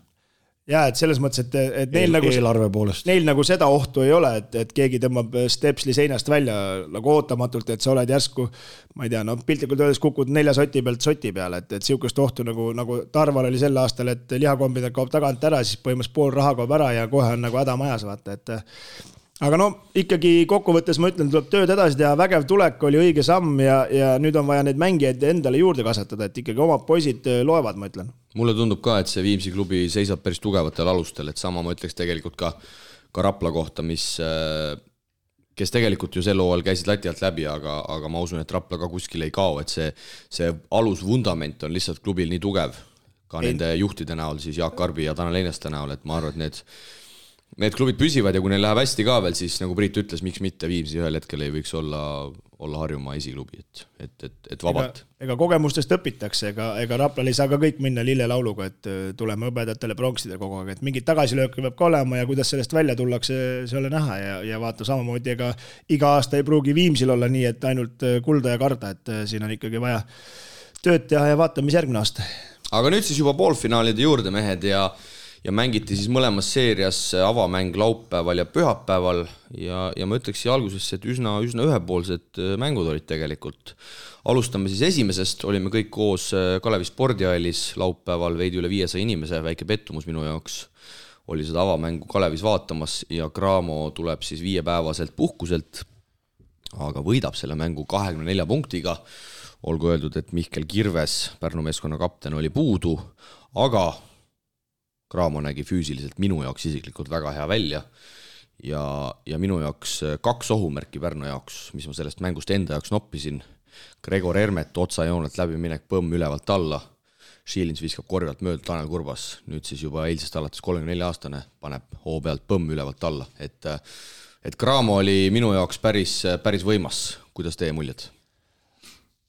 ja et selles mõttes, et neil nagu eelarve poolest. Neil nagu seda ohtu ei ole, et keegi tõmbab stepsli seinast välja nagu ootamatult, et sa oled järsku, ma ei tea, no piltlikult öeldes kukud 4 soti pealt soti peale, et siukest ohtu nagu Tarval oli sel aastal, et lihakombina kaob tagant ära, siis põhimõtteliselt pool raha kaob ära ja kohe on nagu häda majas, vaata, et aga no ikkagi kokkuvõttes ma ütlen, tuleb tööd edasi teha, vägev tulek oli õige samm ja nüüd on vaja neid mängijaid endale juurde kasvatada, et ikkagi omad poisid loevad, ma ütlen. Mulle tundub ka, et see Viimsi klubi seisab päris tugevatel alustel, et sama ma ütleks tegelikult ka Rapla kohta, kes tegelikult ju sel hooajal käisid lati alt läbi, aga ma usun, et Rapla ka kuskil ei kao, et see alusvundament on lihtsalt klubil nii tugev, ka nende juhtide näol, siis Jaak Karbi ja Tanel Eineste näol, et ma arvan, et need klubid püsivad ja kui neil läheb hästi ka veel, siis nagu Priit ütles, miks mitte Viimsi ühel hetkel ei võiks olla Harjumaa esiklubi, et vabalt. Ega kogemustest õpitakse, ega Raplal ei saa ka kõik minna lillelauluga, et tuleme õpetajatele pronksida kogu aeg, et mingid tagasilööke peab ka olema ja kuidas sellest välja tullakse, see ole näha ja vaata samamoodi, ega iga aasta ei pruugi Viimsil olla nii, et ainult kulda ja karda, et siin on ikkagi vaja tööd teha ja vaatame, mis järgmine aasta. Aga nüüd siis juba poolfinaalide juurde mehed ja mängiti siis mõlemas seerias avamäng laupäeval ja pühapäeval ja ma ütleks siia algusesse, et üsna ühepoolsed mängud olid tegelikult. Alustame siis esimesest, olime kõik koos Kalevi spordihallis laupäeval veidi üle 500 inimese, väike pettumus minu jaoks oli seda avamängu Kalevis vaatamas ja Graamo tuleb siis 5-päevaselt puhkuselt, aga võidab selle mängu 24 punktiga. Olgu öeldud, et Mihkel Kirves, Pärnu meeskonna kapten, oli puudu, aga Graamo nägi füüsiliselt minu jaoks isiklikult väga hea välja ja minu jaoks 2 ohumärki Pärnu jaoks, mis ma sellest mängust enda jaoks noppisin. Gregor Hermet otsajoonelt läbi minek põmm ülevalt alla, Šiilins viskab korjalt mööda Tanel Kurbas, nüüd siis juba eilsest alates 34-aastane paneb hoo pealt põmm ülevalt alla, et Graamo oli minu jaoks päris võimas, kuidas teie muljed?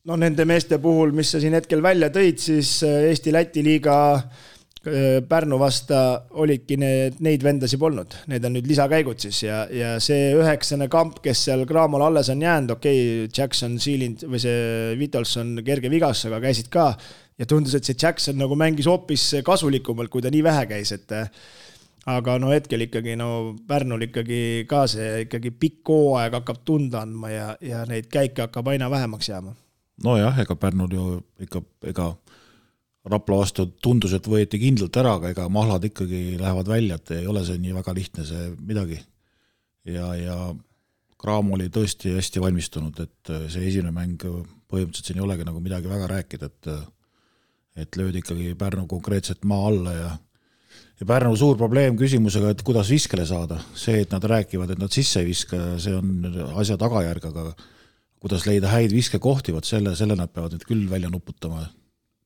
No nende meeste puhul, mis sa siin hetkel välja tõid, siis Eesti-Läti liiga Pärnu vasta olidki neid vendasi polnud. Need on nüüd lisakäigud siis ja see 9. kamp, kes seal Graamol alles on jäänud, Jackson, Sealind või see Vitolson kerge vigas, aga käisid ka ja tundus, et see Jackson nagu mängis hoopis kasulikumalt, kui ta nii vähe käis, et aga no hetkel ikkagi Pärnul ikkagi ka see ikkagi pikk hooaeg hakkab tunda andma ja neid käike hakkab aina vähemaks jääma. No jah, ega Pärnul ju ega Rapla vastu tundus, et võeti kindlalt ära, aga ega mahlad ikkagi lähevad välja, et ei ole see nii väga lihtne see midagi. Ja Graamo oli tõesti hästi valmistunud, et see esimene mäng põhimõtteliselt siin ei olegi nagu midagi väga rääkida, et löödi ikkagi Pärnu konkreetselt maa alla ja Pärnu suur probleem küsimusega, et kuidas viskele saada. See, et nad rääkivad, et nad sisse ei viska, see on asja tagajärg, aga kuidas leida häid viskekohti, selle nad peavad nüüd küll välja nuputama.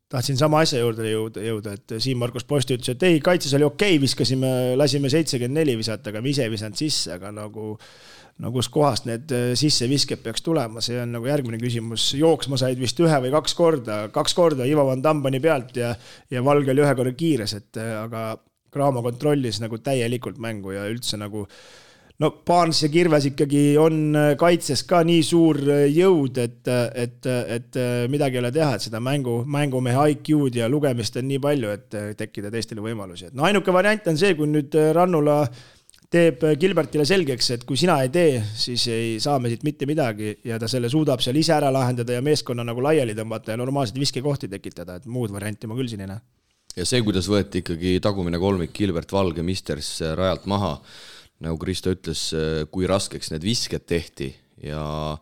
Tahtsin sama asja juurde jõuda, et Siim Markus Posti ütles, et ei, kaitses oli okei, lasime 74 visata, aga me ise visanud sisse, aga nagu kus kohast need sisse visked peaks tulema, see on nagu järgmine küsimus. Jooksma said vist 1 või 2 korda Ivo Van Dambani pealt ja Valge oli 1 korra kiires, aga Graamo kontrollis nagu täielikult mängu ja üldse nagu Paans ja Kirves ikkagi on kaitses ka nii suur jõud, et midagi ei ole teha, et seda mängumehe IQ-d ja lugemist on nii palju, et tekkida teistele võimalusi. Ainuke variant on see, kui nüüd Rannula teeb Gilbertile selgeks, et kui sina ei tee, siis ei saa me siit mitte midagi ja ta selle suudab seal ise ära lahendada ja meeskonna nagu laiali tõmbata ja normaalselt viskekohti tekitada, et muud varianti ma küll siin ei näe. Ja see, kuidas võeti ikkagi tagumine kolmik Gilbert Valge Misters rajalt maha, nagu Kristo ütles, kui raskeks need visked tehti ja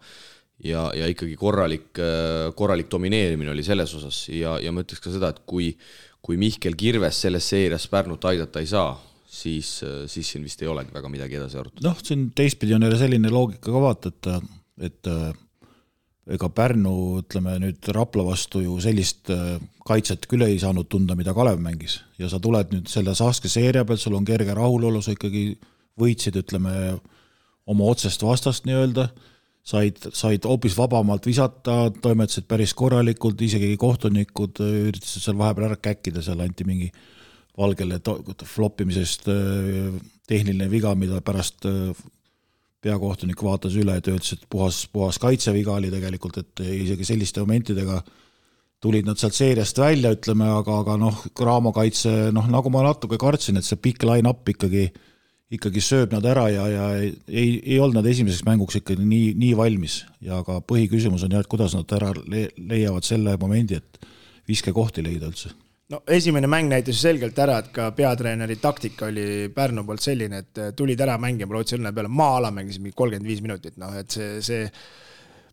ikkagi korralik domineerimine oli selles osas ja ma ütleks ka seda, et kui Mihkel Kirves selles seerias Pärnut aidata ei saa, siis siin vist ei olegi väga midagi edasi arutada. Siin teistpidi on jälle selline loogika ka vaata, et ega Pärnu, ütleme nüüd Rapla vastu ju sellist kaitset küll ei saanud tunda, mida Kalev mängis ja sa tuled nüüd selle Saske seeria pealt, sul on kerge rahulolu, sa ikkagi võitsid, ütleme, oma otsest vastast nii-öelda, said hoopis vabamalt visata, toimetasid päris korralikult, isegi kohtunikud üritasid seal vahepeal ära käkkida, seal anti mingi Valgele floppimisest tehniline viga, mida pärast peakohtunik vaatas üle, et ütles, et puhas kaitseviga oli tegelikult, et isegi selliste momentidega tulid nad sealt seeriast välja, ütleme, aga Cramo kaitse, nagu ma natuke kartsin, et see pikk line-up ikkagi sööb nad ära ja ei olnud nad esimeseks mänguks ikkagi nii valmis ja ka põhiküsimus on et kuidas nad ära leiavad selle momendi, et viskekohti leida üldse. No esimene mäng näitas selgelt ära, et ka peatreeneri taktika oli Pärnu poolt selline, et tulid ära mängima Rootsi õnne peale, maa-ala mängis 35 minutit, et see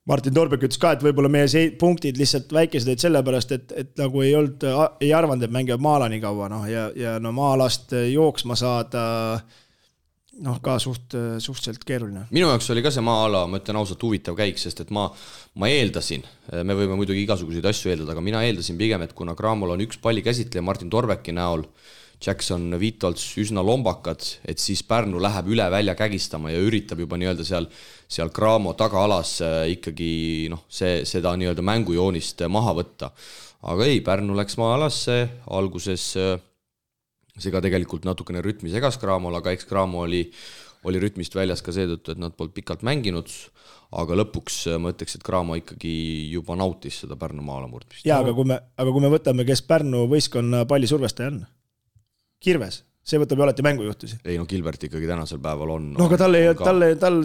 Martin Torbek ütles ka, et võib-olla meie punktid lihtsalt väikesed olid sellepärast, et nagu ei arvanud, et mängivad maa-ala nii kaua, ja maa-alast jooksma saada ka suhteliselt keeruline. Minu jaoks oli ka see maa-ala, ma ütlen ausalt huvitav käik, sest et ma eeldasin, me võime muidugi igasuguseid asju eeldada, aga mina eeldasin pigem, et kuna Cramol on üks palli käsitleja Martin Torbeki näol, Jackson, Vitolts üsna lombakad, et siis Pärnu läheb üle välja kägistama ja üritab juba nii-öelda seal Cramo tagaalas ikkagi seda nii-öelda mängujoonist maha võtta. Aga ei, Pärnu läks maa-alasse, alguses see ka tegelikult natukene rütmi segas Cramol, aga eks Cramo oli rütmist väljas ka seetõttu, et nad polnud pikalt mänginud, aga lõpuks ma ütleks, et Cramo ikkagi juba nautis seda Pärnu maala murdmist. Jaa, aga kui me võtame, kes Pärnu võistkonna palli survestaja on? Kirves, see võtab ju alati mängujuhtusi. Ei, Gilbert ikkagi tänasel päeval on. No aga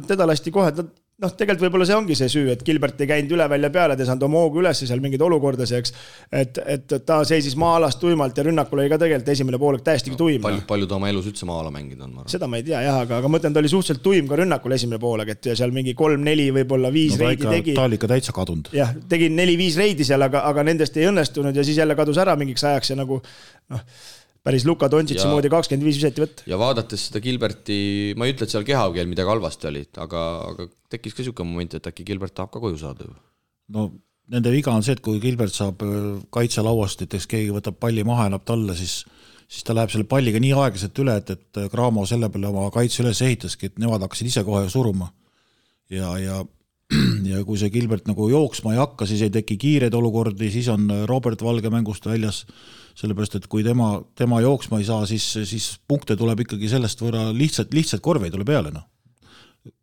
teda lasti kohe, tegelikult võib-olla see ongi see süü, et Gilbert ei käinud üle välja peale, ta saanud oma hoogu üles seal mingid olukordaseks, et ta seisis maa-alast tuimalt ja rünnakul oli ka tegelikult esimene poolek täiesti tuim. Palju ta oma elus üldse maa-ala mängida on? Seda ma ei tea, jah, aga mõtlen, ta oli suhteliselt tuim ka rünnakul esimene poolek, et seal mingi 3-4 võib-olla 5 reidi tegi. Ta oli ikka täitsa kadunud. Jah, tegi 4-5 reidi seal, aga nendest ei õnnestunud ja siis jälle kadus ära mingiks ajaks ja nagu päris Luka Dontšitsi moodi 25 viseti võtta. Ja vaadates seda Gilberti, ma ei ütle, et seal kehakeel midagi halvasti oli, aga tekkis ka siuke moment, et äkki Gilbert tahab ka koju saada. No nende viga on see, et kui Gilbert saab kaitselauast, et keegi võtab palli maha, annab talle, siis ta läheb selle palliga nii aeglaselt üle, et Cramo selle peale oma kaitse üles ehitaski, et nemad hakkasid ise kohe suruma. Ja kui see Gilbert nagu jooksma ei hakka, siis ei teki kiireid olukordi, siis on Robert Valge mängust väljas, sellepärast, et kui tema jooksma ei saa, siis punkte tuleb ikkagi sellest võrra lihtsalt korve ei tule peale.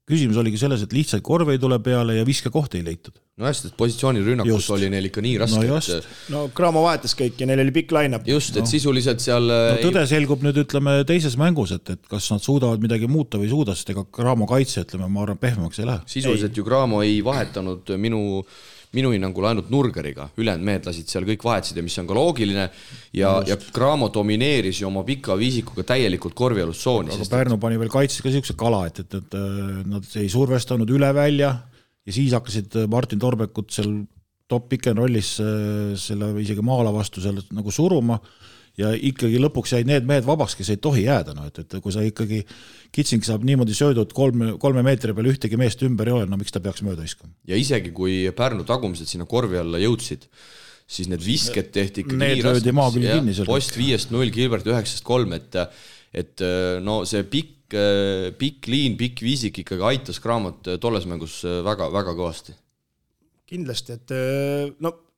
Küsimus oligi selles, et lihtsalt korve ei tule peale ja viskekohti ei leitud. No hästi, et positsioonirünnakus oli neil ikka nii raske. No Cramo vahetas kõik ja neil oli pikk line-up. Just, et sisuliselt seal... tõde selgub nüüd, ütleme, teises mängus, et kas nad suudavad midagi muuta või suuda, sest ega Cramo kaitse, ütleme, ma arvan, pehmemaks ei lähe. Sisuliselt ju Cramo ei vahetanud minu hinnangul ainult Nurgeriga, ülejäänud mehed lasid seal kõik vahetasid ja mis on ka loogiline ja Cramo domineeris ju oma pika viisikuga täielikult korvialust sooni. Aga Pärnu pani veel kaitses ka siukse kala, et nad ei survestanud üle välja ja siis hakkasid Martin Torbekut seal top pick-and rollis selle isegi maala vastu seal nagu suruma ja ikkagi lõpuks jäid need mehed vabaks, kes ei tohi jääda. Et kui sa ikkagi Kitsing saab niimoodi söödud 3 meetri peal ühtegi meest ümber ei ole, miks ta peaks mööda iskama? Ja isegi kui Pärnu tagumised sinna korvi alla jõudsid, siis need visked tehti ikkagi nii raskeks. Post 5-0, Gilbert 9-3, et no see pikk liin, pikk viisik ikkagi aitas Cramot tolles mängus väga, väga kõvasti. Kindlasti, et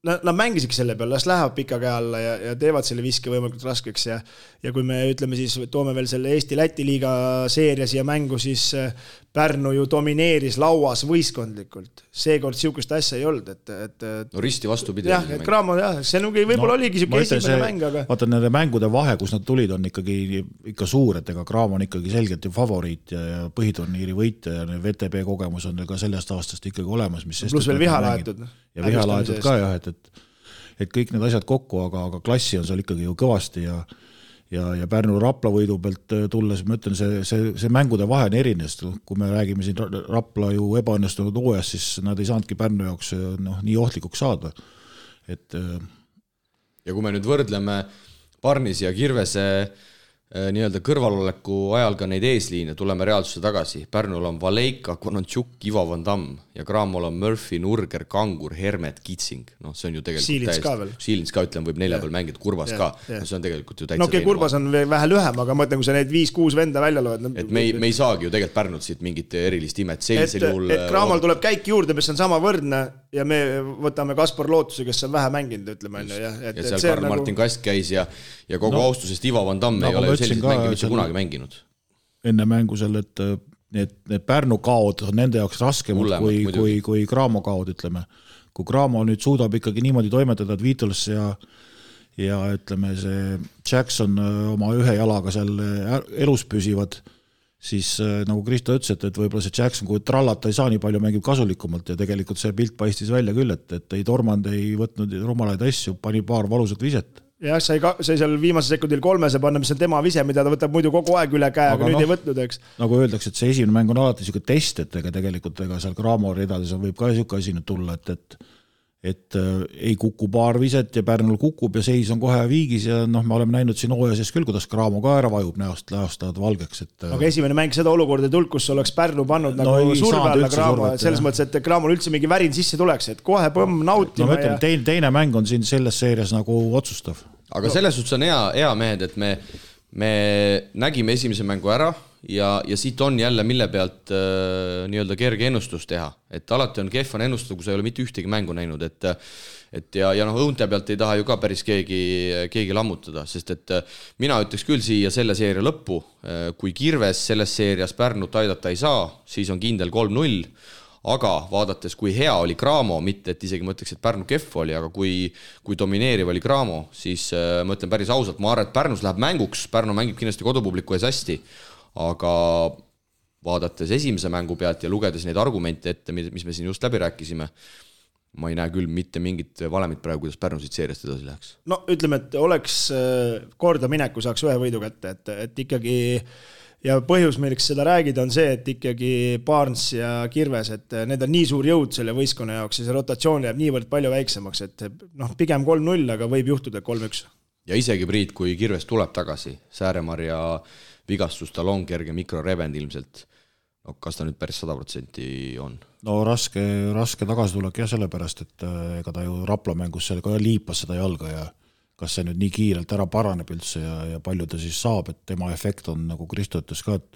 nad mängisid selle peal, las lähevad pika käe alla ja teevad selle viske võimalikult raskeks ja kui me ütleme siis, toome veel selle Eesti-Läti liiga seeria siia mängu, siis Pärnu ju domineeris lauas võistkondlikult. Seekord siukest asja ei olnud, et no risti vastupidi. Jah, et Cramo, see võib-olla oligi siuke esimene mäng, aga... Vaata, nende mängude vahe, kus nad tulid, on ikka suur, et ega Cramo on ikkagi selgelt ju favoriit ja põhiturniiri võitja ja VTB kogemus on ka sellest aastast ikkagi olemas. Plus veel vihalaetud. Ja vihalaetud ka jah, et kõik need asjad kokku, aga klassi on seal ikkagi ju kõvasti ja Pärnu Rapla võidu pealt tulles, ma ütlen, see mängude vahe on erines, kui me räägime siin Rapla ju ebaõnnestunud hooajast, siis nad ei saanudki Pärnu jaoks nii ohtlikuks saada. Ja kui me nüüd võrdleme Parnis ja Kirvese nii-öelda kõrvaloleku ajal ka neid eesliine, tuleme reaalsusse tagasi. Pärnul on Valeika, Konantšuk, Ivo Van Damm ja Cramol on Murphy, Nurger, Kangur, Hermet, Kitsing. No see on ju tegelikult Siilins ka veel. Siilins ka, ütlen, võib 4 peal mängida, Kurbas ka. No see on tegelikult ju täitsa no okei, Kurbas on vähe lühem, aga mõtlen, kui sa need 5-6 venda välja loed. Et me ei saagi ju tegelikult Pärnult siit mingit erilist imet. Et Cramol tuleb käik juurde, mis on sama võrdne ja me võtame Kaspar Lootuse, kes on vähe mänginud, ütleme. Ja seal Karl Martin Kast käis ja kogu austusest Ivo Van Damm ei ole sellised mängi mitte kunagi mänginud. Enne mängu seal, et need Pärnu kaod on nende jaoks raskemad kui Cramo kaod, ütleme. kui Cramo nüüd suudab ikkagi niimoodi toimetada, et Beatles ja ütleme, see Jackson oma ühe jalaga seal elus püsivad, siis nagu Kristo ütles, et võib-olla see Jackson, kui trallata ei saa nii palju, mängib kasulikumalt ja tegelikult see pilt paistis välja küll, et ei tormand, ei võtnud rumalaid asju, pani paar valusat viset. Jah, sai seal viimase sekundil 3 panna, mis on tema vise, mida ta võtab muidu kogu aeg üle käe, aga nüüd ei võtnud, eks. Nagu öeldakse, et see esimene mäng on alati niisugune test, et tegelikult seal Cramo ridades võib ka niisugune asi nüüd tulla, et ei kuku paar viset ja Pärnul kukub ja seis on kohe viigis ja me oleme näinud siin hooaja sees küll, kuidas Cramo ka ära vajub näost valgeks. Aga esimene mäng seda olukorda tulnud, kus oleks Pärnu pannud nagu surve alla Cramo, selles mõttes, et Cramol üldse mingi värin sisse tuleks, et kohe põmm nautima. Teine mäng on siin selles seerias nagu otsustav. Aga selles suhtes on hea mehed, et me nägime esimese mängu ära ja siit on jälle mille pealt nii-öelda kerge ennustus teha, et alati on kehvan ennustada, kui sa ei ole mitte ühtegi mängu näinud, ja õunte pealt ei taha ju ka päris keegi lammutada, sest et mina ütleks küll siia selle seeria lõppu, kui Kirves selles seerias Pärnut aidata ei saa, siis on kindel 3-0, aga vaadates, kui hea oli Cramo, mitte et isegi ma ütleks, et Pärnu kehv oli, aga kui domineeriv oli Cramo, siis ma ütlen päris ausalt, ma arvan, et Pärnus läheb mänguks, Pärnu mängib kindlasti kodupubliku ees hästi, aga vaadates esimese mängu pealt ja lugedes neid argumente ette, mis me siin just läbi rääkisime, ma ei näe küll mitte mingit valemit praegu, kuidas Pärnu siit seeriast edasi läheks. No ütleme, et oleks korda mineku, saaks ühe võidu kätte, et ikkagi ja põhjus, milleks seda räägida, on see, et ikkagi Barnes ja Kirves, et need on nii suur jõud selle võistkonna jaoks ja see rotatsioon jääb niivõrd palju väiksemaks, et pigem 3-0, aga võib juhtuda 3-1. Ja isegi Priit, kui Kirves tuleb tagasi, Sääremarja vigastus, tal on kerge mikrorebend ilmselt. No, kas ta nüüd päris 100% on? No raske tagasitulek jah, sellepärast, et ega ta ju Rapla mängus seal ka liipas seda jalga ja kas see nüüd nii kiirelt ära paraneb üldse ja palju ta siis saab, et tema efekt on, nagu Kristo ütles ka, et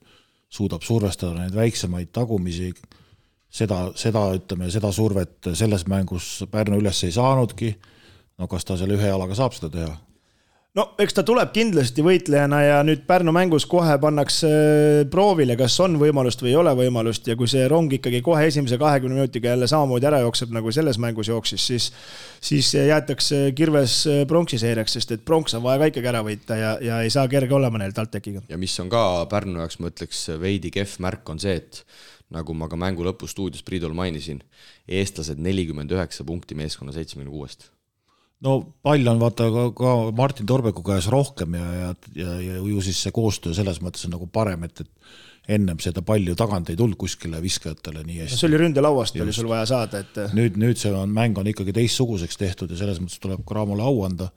suudab survestada neid väiksemaid tagumisi, seda survet selles mängus Pärnu üles ei saanudki, no kas ta selle ühe jalaga saab seda teha? No eks ta tuleb kindlasti võitlejana ja nüüd Pärnu mängus kohe pannakse proovile, kas on võimalust või ei ole võimalust ja kui see rong ikkagi kohe esimese 20 minutiga jälle samamoodi ära jookseb, nagu selles mängus jooksis, siis jäetakse Kirves pronksi seeriaks, sest et pronks on vaja ka ikkagi ära võita ja ei saa kerge olema neil TalTechiga. Ja mis on ka Pärnu jaoks, ma ütleks, veidi kehv märk on see, et nagu ma ka mängu lõpu stuudios Priidol mainisin, eestlased 49 punkti meeskonna 76. No pall on vaata ka Martin Torbeku käes rohkem ja ju siis see koostöö selles mõttes on nagu parem, et ennem seda palju tagant ei tulnud kuskile viskajatele nii hästi. See oli ründelauast, oli sul vaja saada. Et... Nüüd see mäng on ikkagi teistsuguseks tehtud ja selles mõttes tuleb Cramole au anda.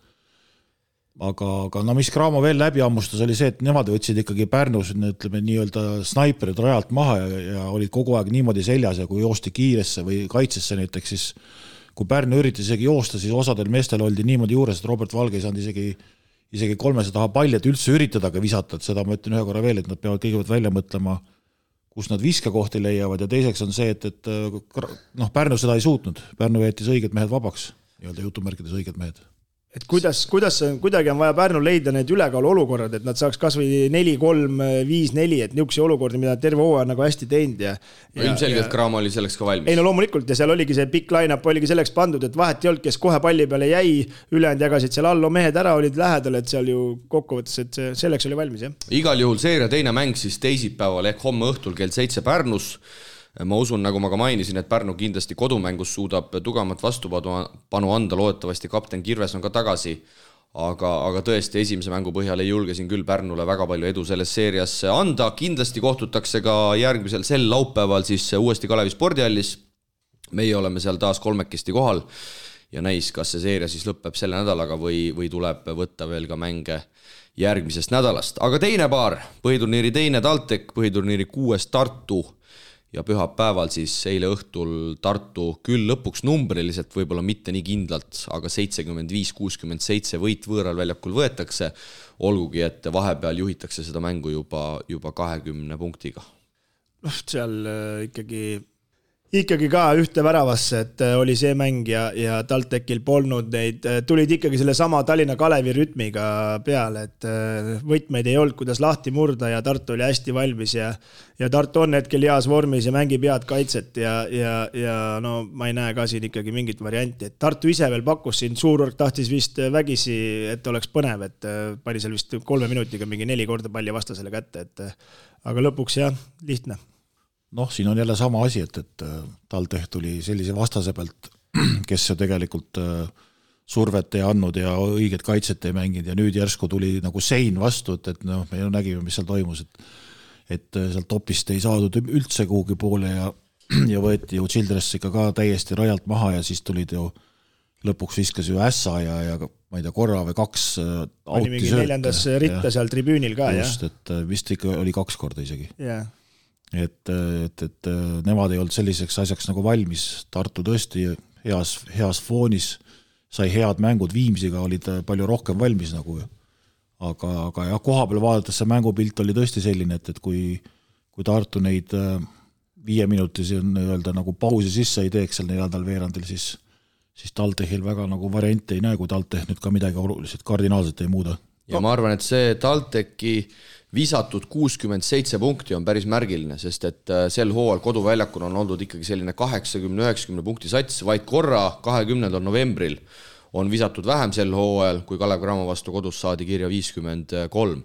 Aga no mis Cramo veel läbi ammustas oli see, et nemad võtsid ikkagi Pärnus ütleme, nii-öelda snaiperid rajalt maha ja olid kogu aeg niimoodi seljas ja kui joosti kiiresse või kaitsesse näiteks, siis kui Pärnu üritas isegi joosta, siis osadel meestel oldi niimoodi juures, et Robert Valge ei saanud isegi 300 taha palli, et üldse üritadaga visata, et seda ma ütlen ühe korra veel, et nad peavad kõigepealt välja mõtlema, kus nad viskakohti leiavad ja teiseks on see, et Pärnu seda ei suutnud. Pärnu jättis õiged mehed vabaks, nii-öelda jutumärkides õiged mehed. Et kuidas kuidagi on vaja Pärnul leida need ülekaalu olukorrad, et nad saaks kas või 4-3, 5-4, et niisuguseid olukordi, mida terve hooaja nagu hästi teinud. Ilmselgelt Cramo oli selleks ka valmis. Ei no loomulikult ja seal oligi see pikk line-up oligi selleks pandud, et vahet ei olnud, kes kohe palli peale jäi, ülejäänud jagasid seal allo mehed ära, olid lähedal, et seal ju kokkuvõttes, et selleks oli valmis. Jah. Igal juhul seeria teine mäng siis teisipäeval ehk homme õhtul kell 7 Pärnus. Ma usun, nagu ma ka mainisin, et Pärnu kindlasti kodumängus suudab tugevamat vastupanu anda, loodetavasti kapten Kirves on ka tagasi, aga tõesti esimese mängu põhjal ei julge siin küll Pärnule väga palju edu selles seerias anda, kindlasti kohtutakse ka järgmisel sel laupäeval siis uuesti Kalevi spordihallis, meie oleme seal taas kolmekesti kohal ja näis, kas see seeria siis lõpeb selle nädalaga või tuleb võtta veel ka mänge järgmisest nädalast, aga teine paar, põhiturniiri teine TalTech, põhiturniiri 6 Tartu ja pühapäeval siis eile õhtul Tartu küll lõpuks numbriliselt, võib-olla mitte nii kindlalt, aga 75-67 võit võõral väljakul võetakse, olgugi, et vahepeal juhitakse seda mängu juba 20 punktiga. Seal ikkagi ikkagi ka ühte väravasse, et oli see mäng ja TalTechil polnud neid, tulid ikkagi selle sama Tallinna Kalevi rütmiga peale, et võtmeid ei olnud, kuidas lahti murda ja Tartu oli hästi valmis ja Tartu on hetkel heas vormis ja mängib head kaitset ja no ma ei näe ka siin ikkagi mingit varianti, et Tartu ise veel pakkus siin, Suurorg tahtis vist vägisi, et oleks põnev, et pani seal vist 3 minutiga mingi 4 korda palli vastasele kätte, et aga lõpuks jah, lihtne. Noh, siin on jälle sama asi, et TalTech tuli sellise vastase pealt, kes ju tegelikult survet ei andnud ja õiget kaitset ei mänginud ja nüüd järsku tuli nagu sein vastu, et noh, me ju nägime, mis seal toimus, et sealt topist ei saadud üldse kuhugi poole ja võeti ju Childress ikka ka täiesti rajalt maha ja siis tulid ju lõpuks viskas ju ässa ja ma ei tea, korra või 2 oli mingi 4. ritta seal tribüünil ka, just, jah? et vist ikka oli 2 korda isegi. Jah. Et nemad ei olnud selliseks asjaks nagu valmis, Tartu tõesti heas foonis, sai head mängud, Viimsiga olid palju rohkem valmis nagu, aga jah, koha peal vaadates see mängupilt oli tõesti selline, et kui Tartu neid 5 minutisi öelda nagu pausi sisse ei teeks seal 4. veerandil, siis TalTechil väga nagu variante ei näe, kui TalTech nüüd ka midagi oluliselt kardinaalselt ei muuda. Ja ma arvan, et see TalTechi visatud 67 punkti on päris märgiline, sest et sel hooajal koduväljakul on olnud ikkagi selline 80-90 punkti sats, vaid korra 20. novembril on visatud vähem sel hooajal, kui Kalev Cramo vastu kodus saadi kirja 53.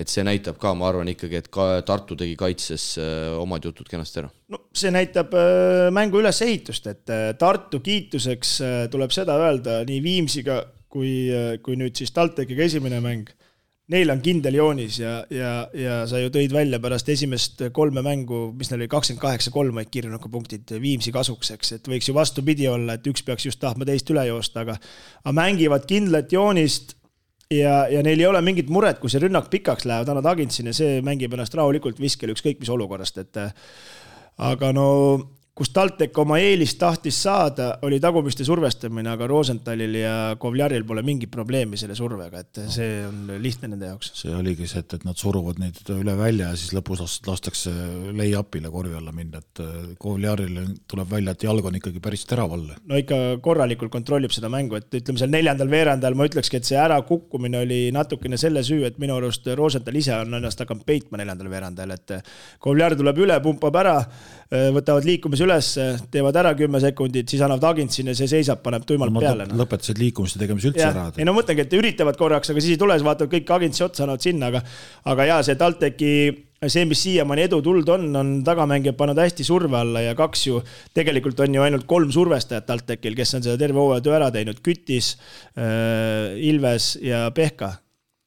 Et see näitab ka, ma arvan ikkagi, et ka Tartu tegi kaitses omad jutud kenasti ära. No, see näitab mängu ülesehitust, et Tartu kiituseks tuleb seda öelda nii Viimsiga kui nüüd siis TalTechiga esimene mäng. Neil on kindel joonis ja sa ju tõid välja pärast esimest 3 mängu, mis neil oli 28-3 vaid kirjunuka punktid Viimsi kasukseks, et võiks ju vastupidi olla, et üks peaks just tahtma teist üle joosta, aga mängivad kindlat joonist ja neil ei ole mingit muret, kui see rünnak pikaks läheb, annad Agintsini, see mängib ennast rahulikult viskel ükskõik mis olukorrast, et aga no kus TalTech oma eelist tahtis saada, oli tagumiste survestamine, aga Rosenthalil ja Kovljaril pole mingit probleemi selle survega, et see on lihtne nende jaoks. See oligi see, et nad suruvad neid üle välja ja siis lõpus lastakse lay-upile korvi alla minna, et Kovljaril tuleb välja, et jalg on ikkagi päris teravalle. No ikka korralikult kontrollib seda mängu, et ütleme seal 4. veerandal ma ütlekski, et see ära kukkumine oli natukene selle süü, et minu arust Rosenthal ise on ennast hakanud peitma 4. veerandal, et Kovljar tuleb üle, pumpab ära, võtavad liikumise üles, teevad ära 10 sekundit, siis annavad Agintsini ja see seisab, paneb tuimalt peale. Lõpetasid liikumiste tegemise üldse ära. Ei no mõtlengi, et üritavad korraks, aga siis ei tule, vaatavad kõik Agintsi otsa, annavad sinna, aga jaa, see TalTechi, see, mis siiamaani edu tuld on tagamängijad pannud hästi surve alla ja 2 ju, tegelikult on ju ainult 3 survestajat TalTechil, kes on seda terve hooaja töö ära teinud, Kütis, Ilves ja Pehka.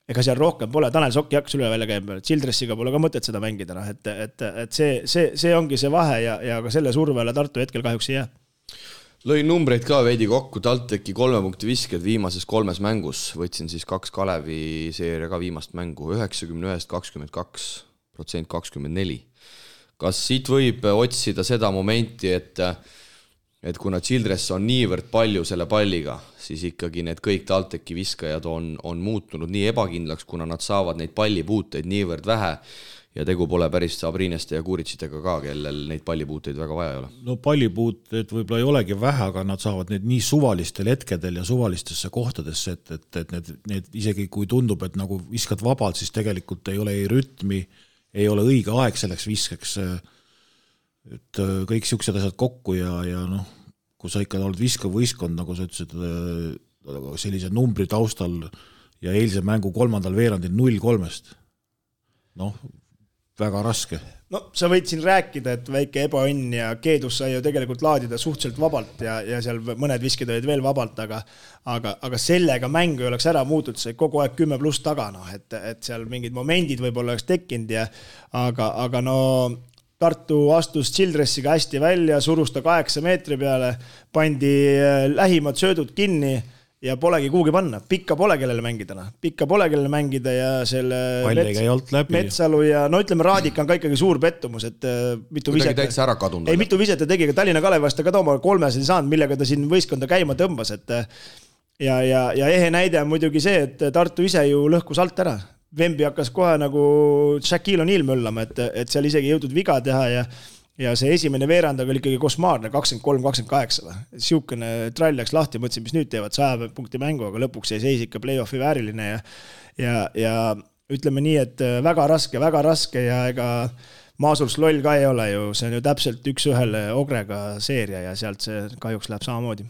Ega seal rohkem pole, Tanel Sokki hakkas üle välja käima, Childressiga pole ka mõtet seda mängida, et see ongi see vahe ja ka selle survele Tartu hetkel kahjuks ei jää. Lõin numbreid ka veidi kokku, TalTechi 3 punkti visked viimases 3 mängus, võtsin siis 2 Kalevi seeria ka viimast mängu, 91-22%, 24. Kas siit võib otsida seda momenti, et kuna Childress on niivõrd palju selle palliga, siis ikkagi need kõik TalTechi viskajad on muutunud nii ebakindlaks, kuna nad saavad neid pallipuuteid niivõrd vähe ja tegu pole päris Sabrineste ja Kuritsitega ka, kellel neid pallipuuteid väga vaja ei ole. No pallipuuteid võib-olla ei olegi vähe, aga nad saavad need nii suvalistel hetkedel ja suvalistesse kohtadesse, et need isegi kui tundub, et nagu viskad vabalt, siis tegelikult ei ole ei rütmi, ei ole õige aeg selleks viskeks, et kõik siuksed asjad kokku ja noh, kui sa ikka oled viskav võistkond, nagu sa ütlesid, sellise numbri taustal ja eilse mängu 3. veerandil 0-3, noh, väga raske. No sa võid siin rääkida, et väike ebaõnn ja Keedus sai ju tegelikult laadida suhteliselt vabalt ja seal mõned viskid olid veel vabalt, aga sellega mängu ei oleks ära muutud, see kogu aeg 10+ taga, et seal mingid momendid võib-olla oleks tekkinud aga no Tartu astus Childressiga hästi välja, surus ta 8 meetri peale, pandi lähimad söödud kinni ja polegi kuhugi panna. Pikka pole kellele mängida ja selle Metsalu ja no ütleme, Raadik on ka ikkagi suur pettumus, et mitu viset ta tegi, ka Tallinna Kalevast ta ka tooma 3 saanud, millega ta siin võistkonda käima tõmbas, et ja ehe näide on muidugi see, et Tartu ise ju lõhkus alt ära. Vembi hakkas kohe nagu Shaquille O'Neal möllama, et seal isegi jõudnud viga teha ja see esimene veerand oli ikkagi kosmaarne, 23-28. Siukene trall läks lahti, mõtlesin, mis nüüd teevad 100 punkti mängu, aga lõpuks jäi seis ikka play-offi vääriline ja ütleme nii, et väga raske ja ega Maasurs loll ka ei ole ju, see on ju täpselt 1-1 Ogrega seeria ja sealt see kahjuks läheb samamoodi.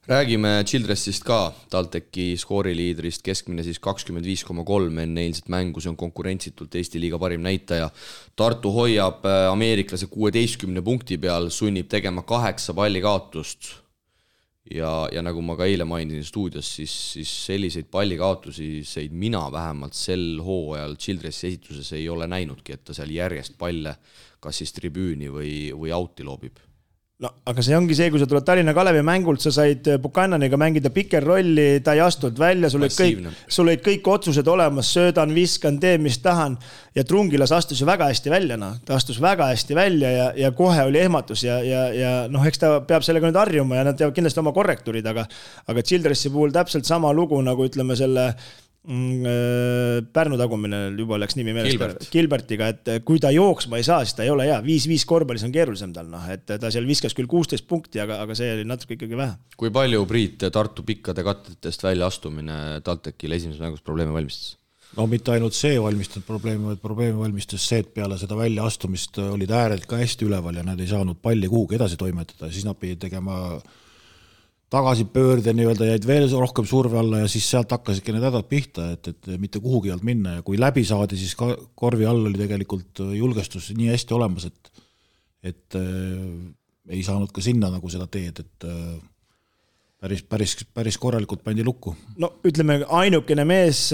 Räägime Childressist ka, TalTechi skooriliidrist, keskmine siis 25,3 enne eilset mängu, see on konkurentsitult Eesti liiga parim näitaja. Tartu hoiab ameeriklase 16 punkti peal, sunnib tegema 8 pallikaotust ja nagu ma ka eile mainisin stuudios, siis selliseid pallikaotusi mina vähemalt sel hooajal Childressi esituses ei ole näinudki, et ta seal järjest palle kas siis tribüüni või auti loobib. No, aga see ongi see, kui sa tuled Tallinna Kalevi mängult, sa said Buchananiga mängida piker rolli, ta ei astunud välja, sul olid kõik otsused olemas, söödan, viskan, teen, mis tahan ja Trungilas astus ju väga hästi välja, ta astus väga hästi välja ja kohe oli ehmatus ja eks ta peab sellega nüüd harjuma ja nad teevad kindlasti oma korrektuurid, aga Childressi puhul täpselt sama lugu, nagu ütleme selle Pärnu tagumine juba läks nimi meelest Gilbertiga, et kui ta jooksma ei saa, siis ta ei ole hea. 5-5 korvpallis on keerulisem tal, et ta seal viskas küll 16 punkti, aga see oli natuke ikkagi vähe. Kui palju Priit Tartu pikkade kattetest välja astumine TalTechile esimeses mängus probleeme valmistas? No mitte ainult see valmistanud probleemi, vaid probleemi valmistas see, et peale seda välja astumist olid ääred ka hästi üleval ja nad ei saanud palli kuhugi edasi toimetada, siis nad pidid tegema tagasipöörde nii-öelda, jäid veel rohkem surve alla ja siis sealt hakkasidki need hädad pihta, et mitte kuhugi alt minna ja kui läbi saadi, siis korvi all oli tegelikult julgestus nii hästi olemas, et ei saanud ka sinna nagu seda teed, et päris korralikult pandi lukku. No ütleme, ainukene mees,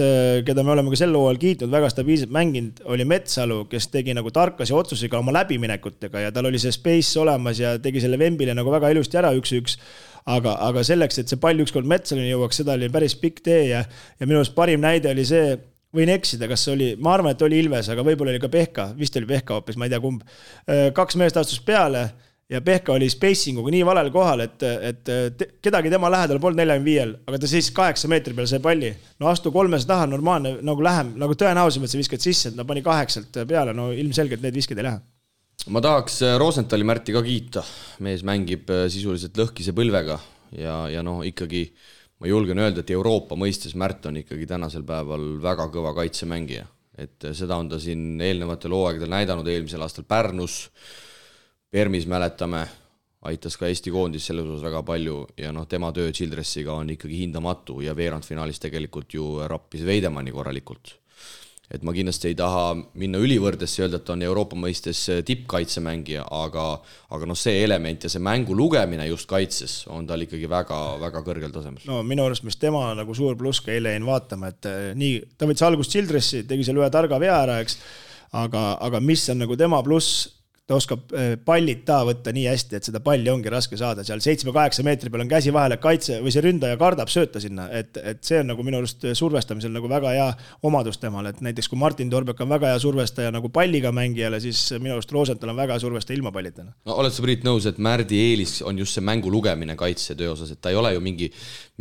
keda me oleme ka sel hooajal kiitnud, väga stabiilselt mänginud, oli Metsalu, kes tegi nagu tarkasi otsusega oma läbiminekutega ja tal oli see space olemas ja tegi selle Vembile nagu väga ilusti ära 1-1. Aga selleks, et see pall ükskord Metsalini jõuaks, seda oli päris pikk tee ja minu arust parim näide oli see, võin eksida, kas oli, ma arvan, et oli Ilves, aga võib-olla oli ka Pehka, vist oli Pehka hoopis, ma ei tea kumb. 2 meest astus peale ja Pehka oli spacinguga nii valel kohal, et kedagi tema lähedal polnud 45, aga ta siis 8 meetri peal sai palli. No astu 300 taha, normaalne, nagu lähem, nagu tõenäosim, et sa viskad sisse, et ta pani 8 peale, no ilmselgelt need viskid ei lähe. Ma tahaks Rosenthali Märti ka kiita, mees mängib sisuliselt lõhkise põlvega ja ikkagi ma julgen öelda, et Euroopa mõistes Märt on ikkagi tänasel päeval väga kõva kaitsemängija, et seda on ta siin eelnevatel hooaegadel näidanud eelmisel aastal Pärnus, Permis mäletame, aitas ka Eesti koondis selles osas väga palju ja tema töö Childressiga on ikkagi hindamatu ja veerandfinaalis tegelikult ju rappis Veidemanni korralikult. Et ma kindlasti ei taha minna ülivõrdesse öelda, et on Euroopa mõistes tippkaitsemängija, aga see element ja see mängu lugemine just kaitses on tal ikkagi väga, väga kõrgel tasemel. No minu arust, mis tema nagu suur pluss ka eile jäin vaatama, et nii, ta võttis algust Childressi, tegi seal ühe targa vea ära, eks, aga mis on nagu tema pluss, ta oskab pallid võtta nii hästi, et seda palli ongi raske saada. Seal 7-8 meetri peal on käsi vahele kaitse või see ründaja kardab sööta sinna, et see on nagu minu arust survestamisel nagu väga hea omadus temal, et näiteks kui Martin Torbek on väga hea survestaja nagu palliga mängijale, siis minu arust Rosenthal on väga hea survestaja ilma pallitena. No, oled sa Priit nõus, et Märdi eelis on just see mängu lugemine kaitsetöö osas, et ta ei ole ju mingi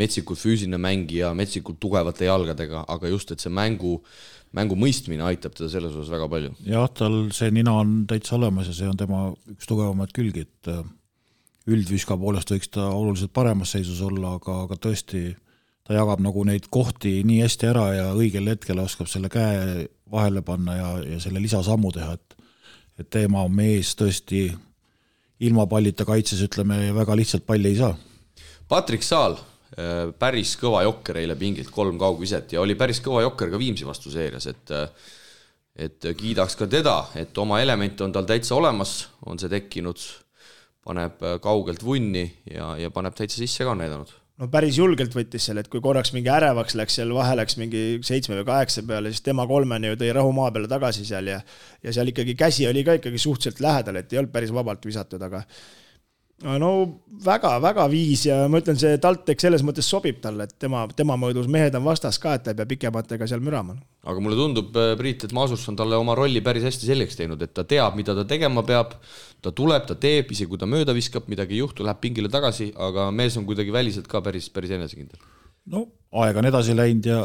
metsikult füüsiline mängija, metsikult tugevate jalgadega, aga just, et see mängu mõistmine aitab teda selles osas väga palju. Jah, tal see nina on täitsa olemas ja see on tema üks tugevamad külgi, et üldviska poolest võiks ta oluliselt paremas seisus olla, aga tõesti ta jagab nagu neid kohti nii hästi ära ja õigel hetkel oskab selle käe vahele panna ja selle lisasammu teha, et teema on mees tõesti ilma pallita kaitses, ütleme, väga lihtsalt palli ei saa. Patrik Saal, päris kõva jokker eile pingilt 3 kaugviset ja oli päris kõva jokker ka Viimsi vastu seerias, et kiidaks ka teda, et oma element on tal täitsa olemas, on see tekkinud, paneb kaugelt vunni ja paneb täitsa sisse ka näidanud. No päris julgelt võttis seal, et kui korraks mingi ärevaks läks, seal vahe läks mingi 7 või 8 peale, siis tema 3 ju tõi rahu maa peale tagasi seal ja seal ikkagi käsi oli ka ikkagi suhteliselt lähedal, et ei olnud päris vabalt visatud, aga no väga viis ja ma ütlen, see TalTech selles mõttes sobib talle, et tema mõõdus mehed on vastas ka, et ta ei pea pikematega seal mürama. Aga mulle tundub, Priit, et Maasurs on talle oma rolli päris hästi selgeks teinud, et ta teab, mida ta tegema peab, ta tuleb, ta teeb, isegi kui ta mööda viskab, midagi ei juhtu, läheb pingile tagasi, aga mees on kuidagi väliselt ka päris enesekindel. No aeg on edasi läinud ja